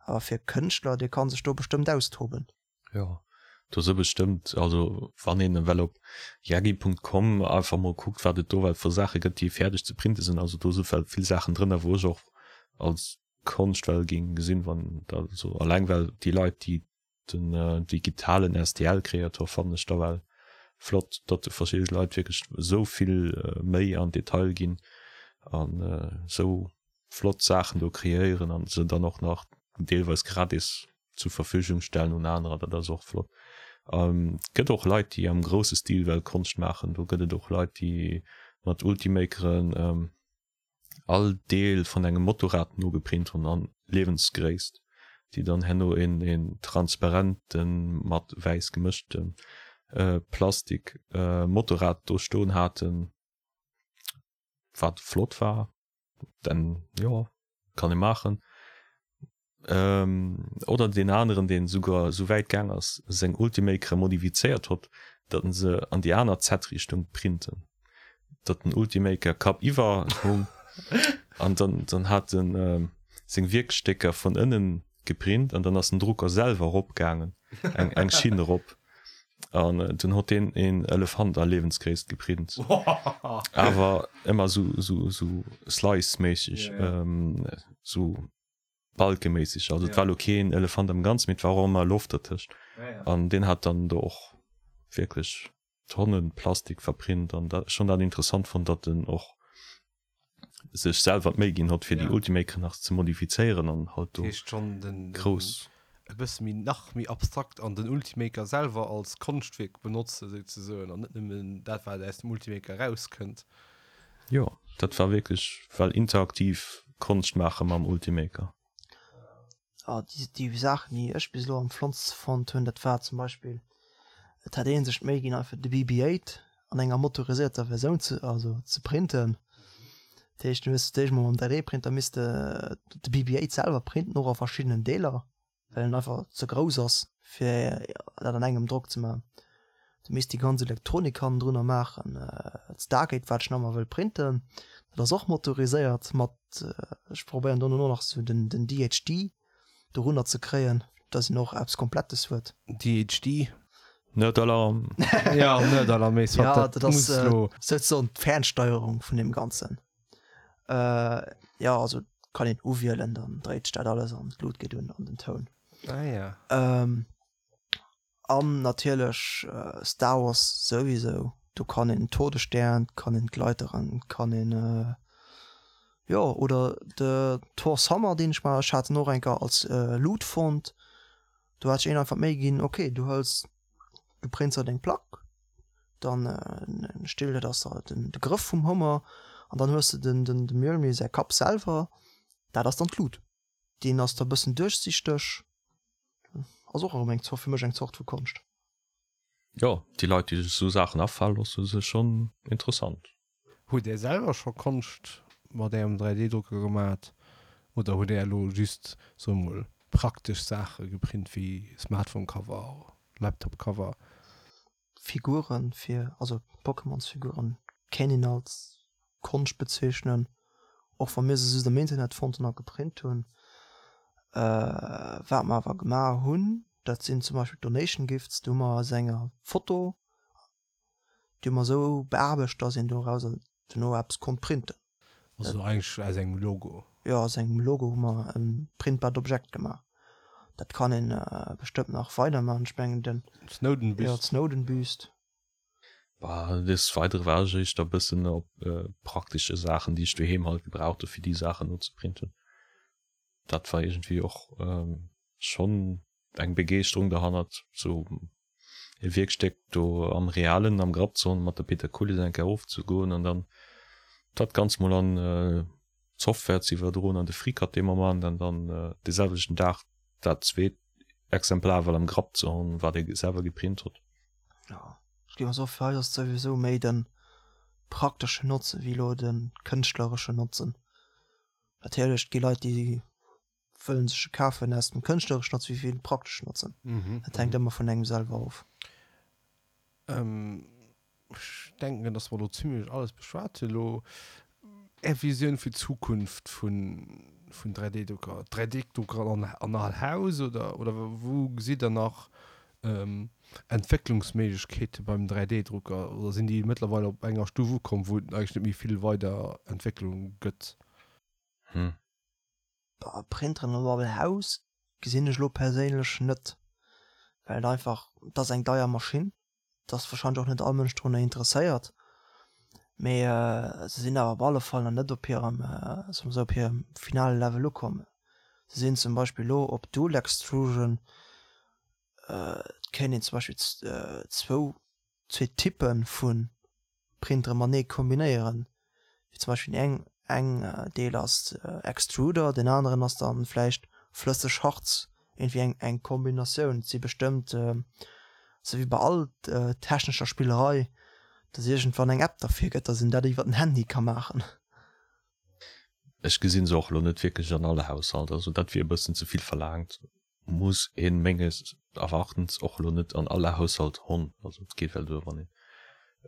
Awer fir e Kënschtler, dee ka sech do bestëmmt austoben. Jo, do si bestëmmt, also wann een ewell op yagi.com einfach mol kuckt, wat et do well vu Saache gëtt, déi fäerdeg ze printe sinn, also do si well vill Saachen drënner, wou ech och als Konscht well géing gesinn, wann da also alleng well déi Leit, déi den digitalen STL-Kreator fannen ech da well flott, datt do verschidde Leit wierklech esou vill méi an Detail ginn an esou flott Saachen do kreéieren an se dann och nach deelweis gratis zur Verfügung stellen un anerer, dat ass och flott. Et gëtt och Leit, déi am grousse Stil well Konscht maachen. Do gëtt et och Leit, déi mat Ultimakeren all Deel vun engem Motorrad nogeprint hunn an Liewensgréisst, déi dann herno een een transparenten, mat wäiss gemëschten Plastik Motorrad do stoen haten, wat flott war. Denn jo, kann ee maachen. Oder deen aneren, deen esouguer esou wäit gaang ass, seng Ultimakere modifizéiert hott, datt en se an déi aner Z-Richtung printen, datt den Ultimaker kappiwwer hung an dann dann hat en seng Wierkstécker vun ënnen geprint an dann ass den Drucker selwer erop gaangen, eng eng Schinn erop an dunn hott deen een Elefant a Liewensgréisst geprint, awer ëmmer esou esou esou slice-méisseg, esou. Balkeméisseg, also et war lo keen Elefant am Ganzen, mee et war och ëmmer Loft dertëscht. An deen hat dann do och wierklech Tonnen Plastik verprint an dat, ech hunn dat interessant fonnt, datt en och sech selwer d'Méi ginn hott fir déi Ultimakeren nach ze modifizéieren an halt do grouss. E bësse méi, nach méi abstrakt an den Ultimaker selwer als Konschtwierk benotzen souzesoen an net nëmmen dat wat aus dem Ultimaker erauskënnt. Jo, dat war wierklech well interaktiv Konscht maache mam Ultimaker. Ah, déi, déi Saachen, déi ech bis elo am flottste fonnt hunn, dat war zum Beispill, et hat ee sech d'Méi ginn, einfach de BB-8 an enger motorisierter Versioun ze, also ze printen. Dat heescht, du hues d'éischt mol mam 3D-Printer misste de BB-8 selwer printen, och a verschiddenen Deeler. well en einfach ze grouss ass fir dat an engem Drock ze maachen. Du misst déi ganz Elektronik hannendrunner maachen. D'Stargate wat ech nach emmer wëll printen, dat ass och motoriséiert mat, ech probéieren do elo nach sou den den DHD dorunner ze kréien, dass een och eppes Komplettes huet. DHD? Nerd-Alarm! Ja, Nerd-Alarm, mee soit, Ja, dat ass souzesoen d'Fernsteierung vun deem Ganzen. Jo, also kann een uwielen, dann dréit sech dat alles an d'Lut geet un an den Toun. Ah ja. An natierlech Star Wars souwisou, do kann een Todesstern, kann een d'Leiteren, kann een jo oder de Thor's Hammer deen ech mar, ech hat en och eng Kéier als Loot fonnt, do hat sech een einfach d'Méi ginn, ok du hëls, du prints der deng Plack, dann Still dat ass da den de Grëff vum Hummer an dann hues de den den de Mjölnir säi Kapp selwer, dat ass dann d'Lut. Deen ass da bëssen duerchsichteg, ass och erëm eng Zort fir mech eng Zort vu Konscht. Jo, déi Leit déi sech esou Saachen afale loossen, si schonn interessant. Hutt Är selwer scho Konscht mat Ärem 3D-Drucker gemat oder hutt Är elo just, soe mol, praktesch Saache geprint wéi Smartphone-Cover, Laptop-Cover? Figuren fir, also Pokémonsfiguren kéint een als Konscht bezeechnen, och wa mir se just am Internet fonnt hunn a geprint hunn. Wat mer awer gemaach hunn, dat sinn zum Beispill Donation Gifts, do hu mer aus enger Foto, déi hu mer esou beaarbecht, dass een dorauser duerno eppes konnt printen. Also eigentlech aus engem Logo? Jo, aus engem Logo hu mer e printbart Objekt gemaach. Dat kann een bestëmmt nach weider maachen. Ech mengen den. D'Snowden-Büst. Jo, d'Snowden-Büst. Bah, des Weidere war ech éischter e bëssen op praktesche Saachen, déi ech doheem halt gebraucht hu fir déi Saachen nozeprinten. Dat war iergendwéi och schonn eng Begeeschterung derhannert, sou e Wierkstéck do am Realen am Grapp ze hunn, mat der Peter Kulis eng Kéier ofzegoen an dann dat Ganzt mol an d'Software ze iwwerdroen an de FreeCAD dee Moment an dann dee selwechten Dag dat zweet Exemplar well am Grapp ze hunn, wat ee selwer geprint huet. Jo, ech géif och soen, fir eis ass et souwisou méi de prakteschen Notzen wéi elo de kënschtlereschen Notzen. Natierlech, et gi Leit, déi wëllen sech e kafen aus dem kënschtlereschen Notzen wéi fir den prakteschen Notzen. Dat hänkt ëmmer vun engem selwer of. Ech denken, dass mer do zimlech alles beschwat hunn elo. Är Visioun fir d'Zukunft vun 3D-Drucker? 3D-Drucker an all Haus oder oder wou gesitt Der nach Entwécklungsméiglechkeete beim 3D-Drucker? Oder sinn déi mëttlerweil op enger Stuf ukomm, wou et eigentlech net méi vill weider Entwécklung gëtt? Hm. Printeren an all Haus gesinn ech elo perséinlech net, well et einfach, et ass eng deier Maschinn. Et ass wahrscheinlech och net all Mënsch drunner interesséiert, mee se sinn awer op alle Fall nach net op hirem, soe mer esou, op hirem finale Level ukomm. Se sinn zum Beispill elo op Dual Extrusion, et kéint een zum Beispill zwou, zwee Typpe vu Printere matenee kombinéieren, wéi zum Beispill eng eng Deel ass Extruder, deen aneren ass dann vläicht flësseg Harz, iergendwéi eng eng Kombinatioun. Et si bestëmmt, sou wéi bei all technescher Spillerei, dass iergendwann eng App derfir gëtt, dass een dat iwwer den Handy ka maachen. Ech gesinn se och elo net wierklech an all Haushalt, also dat wier e bëssen ze vill verlaangt. Muss een menges Erwartens och elo net an alle Haushalt honn. Also et geet well duer wann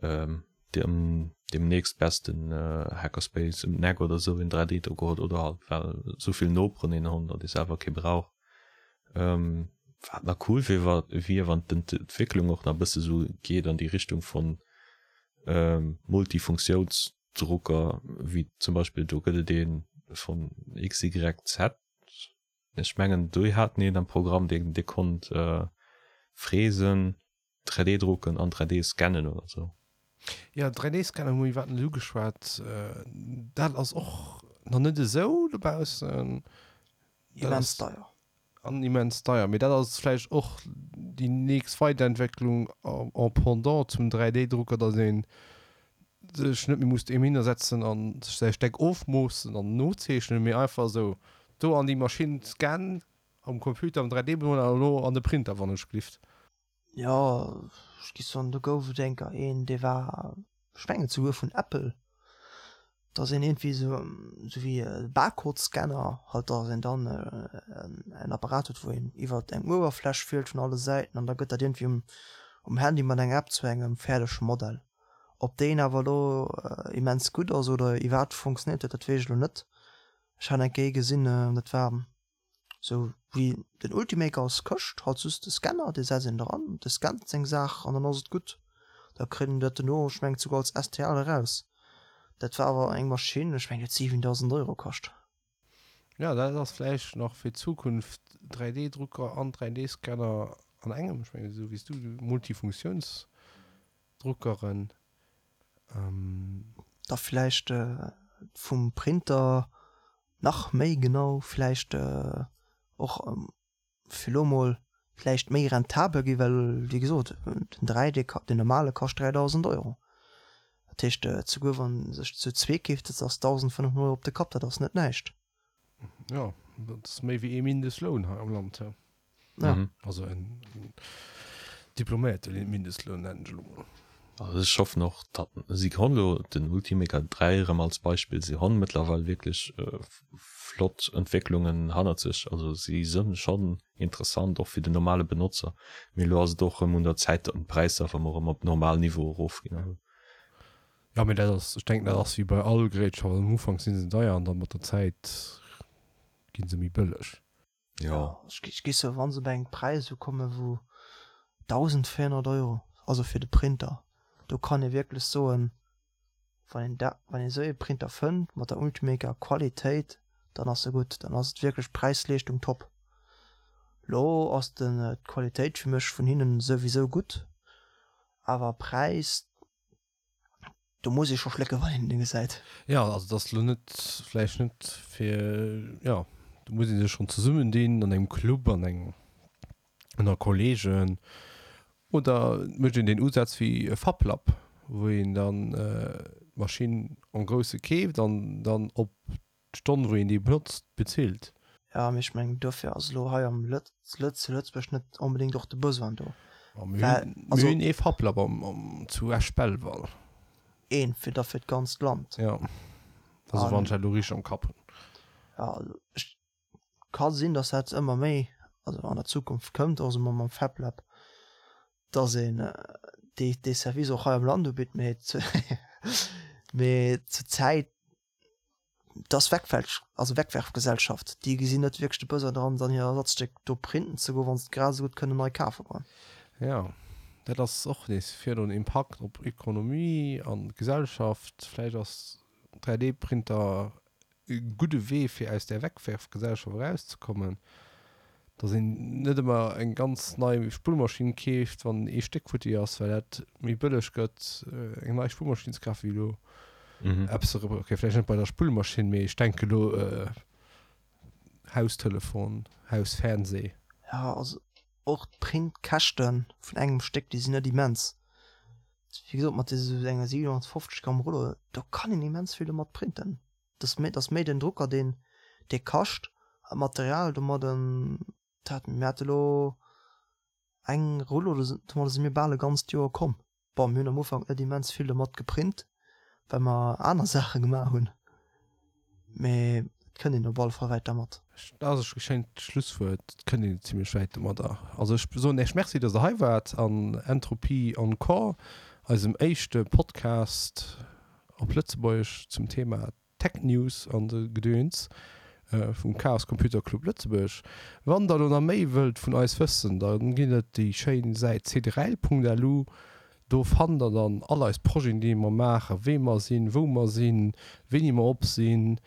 een dem dem nächstbesten Hackerspace em d'Neck oder sou een 3D Drucker huet oder halt well souvill Noperen een honn datt ee selwer kee brauch. Wat nach cool wier wier wann d'Entwécklung och nach bësse sou geet an déi Richtung von Multifunktiounsdrucker wéi zum Beispill do gëtt et ee von XYZ Ech mengen déi haten een am Programm deen dee konnt fräsen, 3D drucken an 3D scannen oder sou. Jo, 3D scannen hu mir iwwerhaapt net ugeschwat. Dat ass och nach net esou dobaussen. Immens deier. An immens deier. Mee dat ass vläicht och déi nächst Weiderentwécklung en pendant zum 3D Drucker, datt een sech net méi muss dohinner setzen an sech säi Steck ofmoossen an nozeechnen, mee einfach esou do an déi Maschinn scannen am Computer am 3D-Moler an elo an de Printer wann ech glift. Jo, ech gi soen, do gouf et enker een, dee war, ech mengen souguer vun Apple, dass een iergendwéi esou, esou wéi e Barcode-Scanner halt, dass een dann en Apparat huet, wou een iwwert eng Uewerfläch fielt vun alle Säiten an da gëtt dat iergendwéi um, um Handy mat enger App zu engem fäerdege Modell. Ob deen awer elo immens gutt ass oder iwwerhaapt funktionéiert huet, dat weess ech elo net. Ech hat eng Kéier ee gesinn, dat war sou wéi den Ultimaker als Këscht, halt just de Scanner, dee setzt een dran, dee scannt seng Saach an dann ass et gutt. Da kritt een dat dono, ech mengen souguer als STL eraus. Dat war awer eng Maschinn, ech mengen déi huet 7.000 Euro kascht. Jo, dat ass vläicht nach fir d'Zukunft, 3D-Drucker an 3D-Scanner an engem, ech mengen esou wéi s du, Multifunktiouns. Druckeren. Da vläicht vum Printer nach méi genau, vläicht och fir elo mol vläicht méi rentabel gi well wéi gesot den 3D, den normale kascht 3.000 Euro. Dat heescht souguer wann sech zu zweek keeft, dat ass 1.500 Euro op de Kapp, dat ass net näischt. Jo, dat ass méi wéi ee Mindestloun hei am Land. Ja. Mhm. Also en diploméierte Mindestloun nennen ech elo mol. Also ech hoffen och, datt si honn elo den Ultimaker 3 erëm als Beispill, si honn mëttlerweil wierklech flott Entwécklungen hannert sech. Also si sënn schonn interessant och fir den normale Benotzer. Mee elo ass et och erëm un der Zäit, datt d'Präisser erëm erëm op normal Niveau erofginn. Jo, mee dat ass, ech denken dat ass wéi bei all Gerätschaften, am Ufank si se deier an da mat der Zäit gi se méi bëlleg. Jo. Ech gi sou, wann se op eng Präis ukomme wou 1.400 Euro, also fir de Printer, do kann ee wierklech soen, wann een dat, wann een esou ee Printer fënnt mat der Ultimaker Qualitéit, dann ass e gutt, dann ass et wierklech Präis-Leeschtung top. Lo ass den d'Qualitéit fir mech vun hinnen souwisou gutt, awer Präis, Do muss ee scho schlécke wann een en gesäit. Jo, also et ass elo net, vläicht net fir, jo, do muss ee sech schonn zesummendinn an engem Club, an engem, ënner Kollegen oder et mécht een deen Usaz wéi e Fablab, wou een dann d'Maschinn en grousse keeft an dann op d'Stonn wou een déi benotzt bezilt. Jo, mee ech mengen dofir ass elo hei am Lëtz, zu Lëtzebuerg net onbedéngt och de Besoin do. Ma mir hunn, mir hunn ee Fablab am, am, zu Esch-Belval. Een fir da fir d'ganzt Land. Jo, also wann ech dat elo richteg am Kapp hunn. Jo, also ech, ka sinn, datt dat ëmmer méi, also an der Zukunft kënnt, och esou mam Fablab, datt een. dee, dee Service och hei am Land ubitt, mee mee zur Zäit, et ass Wegwelch, also Wegwerfgesellschaft. Déi gesinn net wierklech de Besoin dran, dann hir Ersatzstéck do printen ze goen, wa se et grad esou gutt kënnen nei kafe goen. Jo, dat ass och nees virun Impakt op Ökonomie an Gesellschaft. Vläicht ass 3D-Printer e gudde Wee fir aus där Wegwerfgesellschaft erauszekommen, dass een net ëmmer eng ganz nei Spullmaschinn keeft, wann ee Stéck futti ass, well dat méi bëlleg gëtt eng nei Spullmaschinn ze kafen, wéi elo eppes ze reparéieren. Ok, vläicht net bei der Spullmaschinn, mee ech denke elo Haustelefon, Hausfernseh. Jo, also och d'Printkäschte vun engem Stéck, déi sinn net immens. Wéi gesot, mat esou enger 750 Gramm Rullo, do kann een immens vill domat printen. Dat ass méi den Drucker, deen dee kascht, an d'Material domadden, dat mir hate lo eng Rullo, domadde si mir bal e ganzt Joer komm. Bon, mir hunn am Ufank net immens vill domat geprint, well mer aner Saache gemaach hunn, mee et kënnt een op alle Fall wäit dermat. Dat ass e schéint Schlusswuert, et kënnt een zimlech wäit domadder. Also ech soen Iech Merci, dass Der hei waart an Entropie Encore, eisem éischte Podcast op Lëtzebuergesch zum Thema Tech News an de Gedöns vum Chaos Computer Club Lëtzebuerg. Wann der elo nach méi wëllt vun eis wëssen, da ginn et déi schéin Säit cdrel.lu. Do fannt der dann all eis Projeten déi mer maachen, wee mer sinn, wou mer sinn, wéini mer op sinn.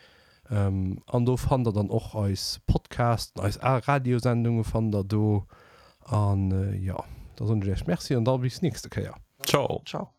An do fannt der dann och eis Podcasten, eis al Radiosendunge fannt der do. An jo, da soen ech iech Merci an da bis nächste Kéier. Ciao. Ciao.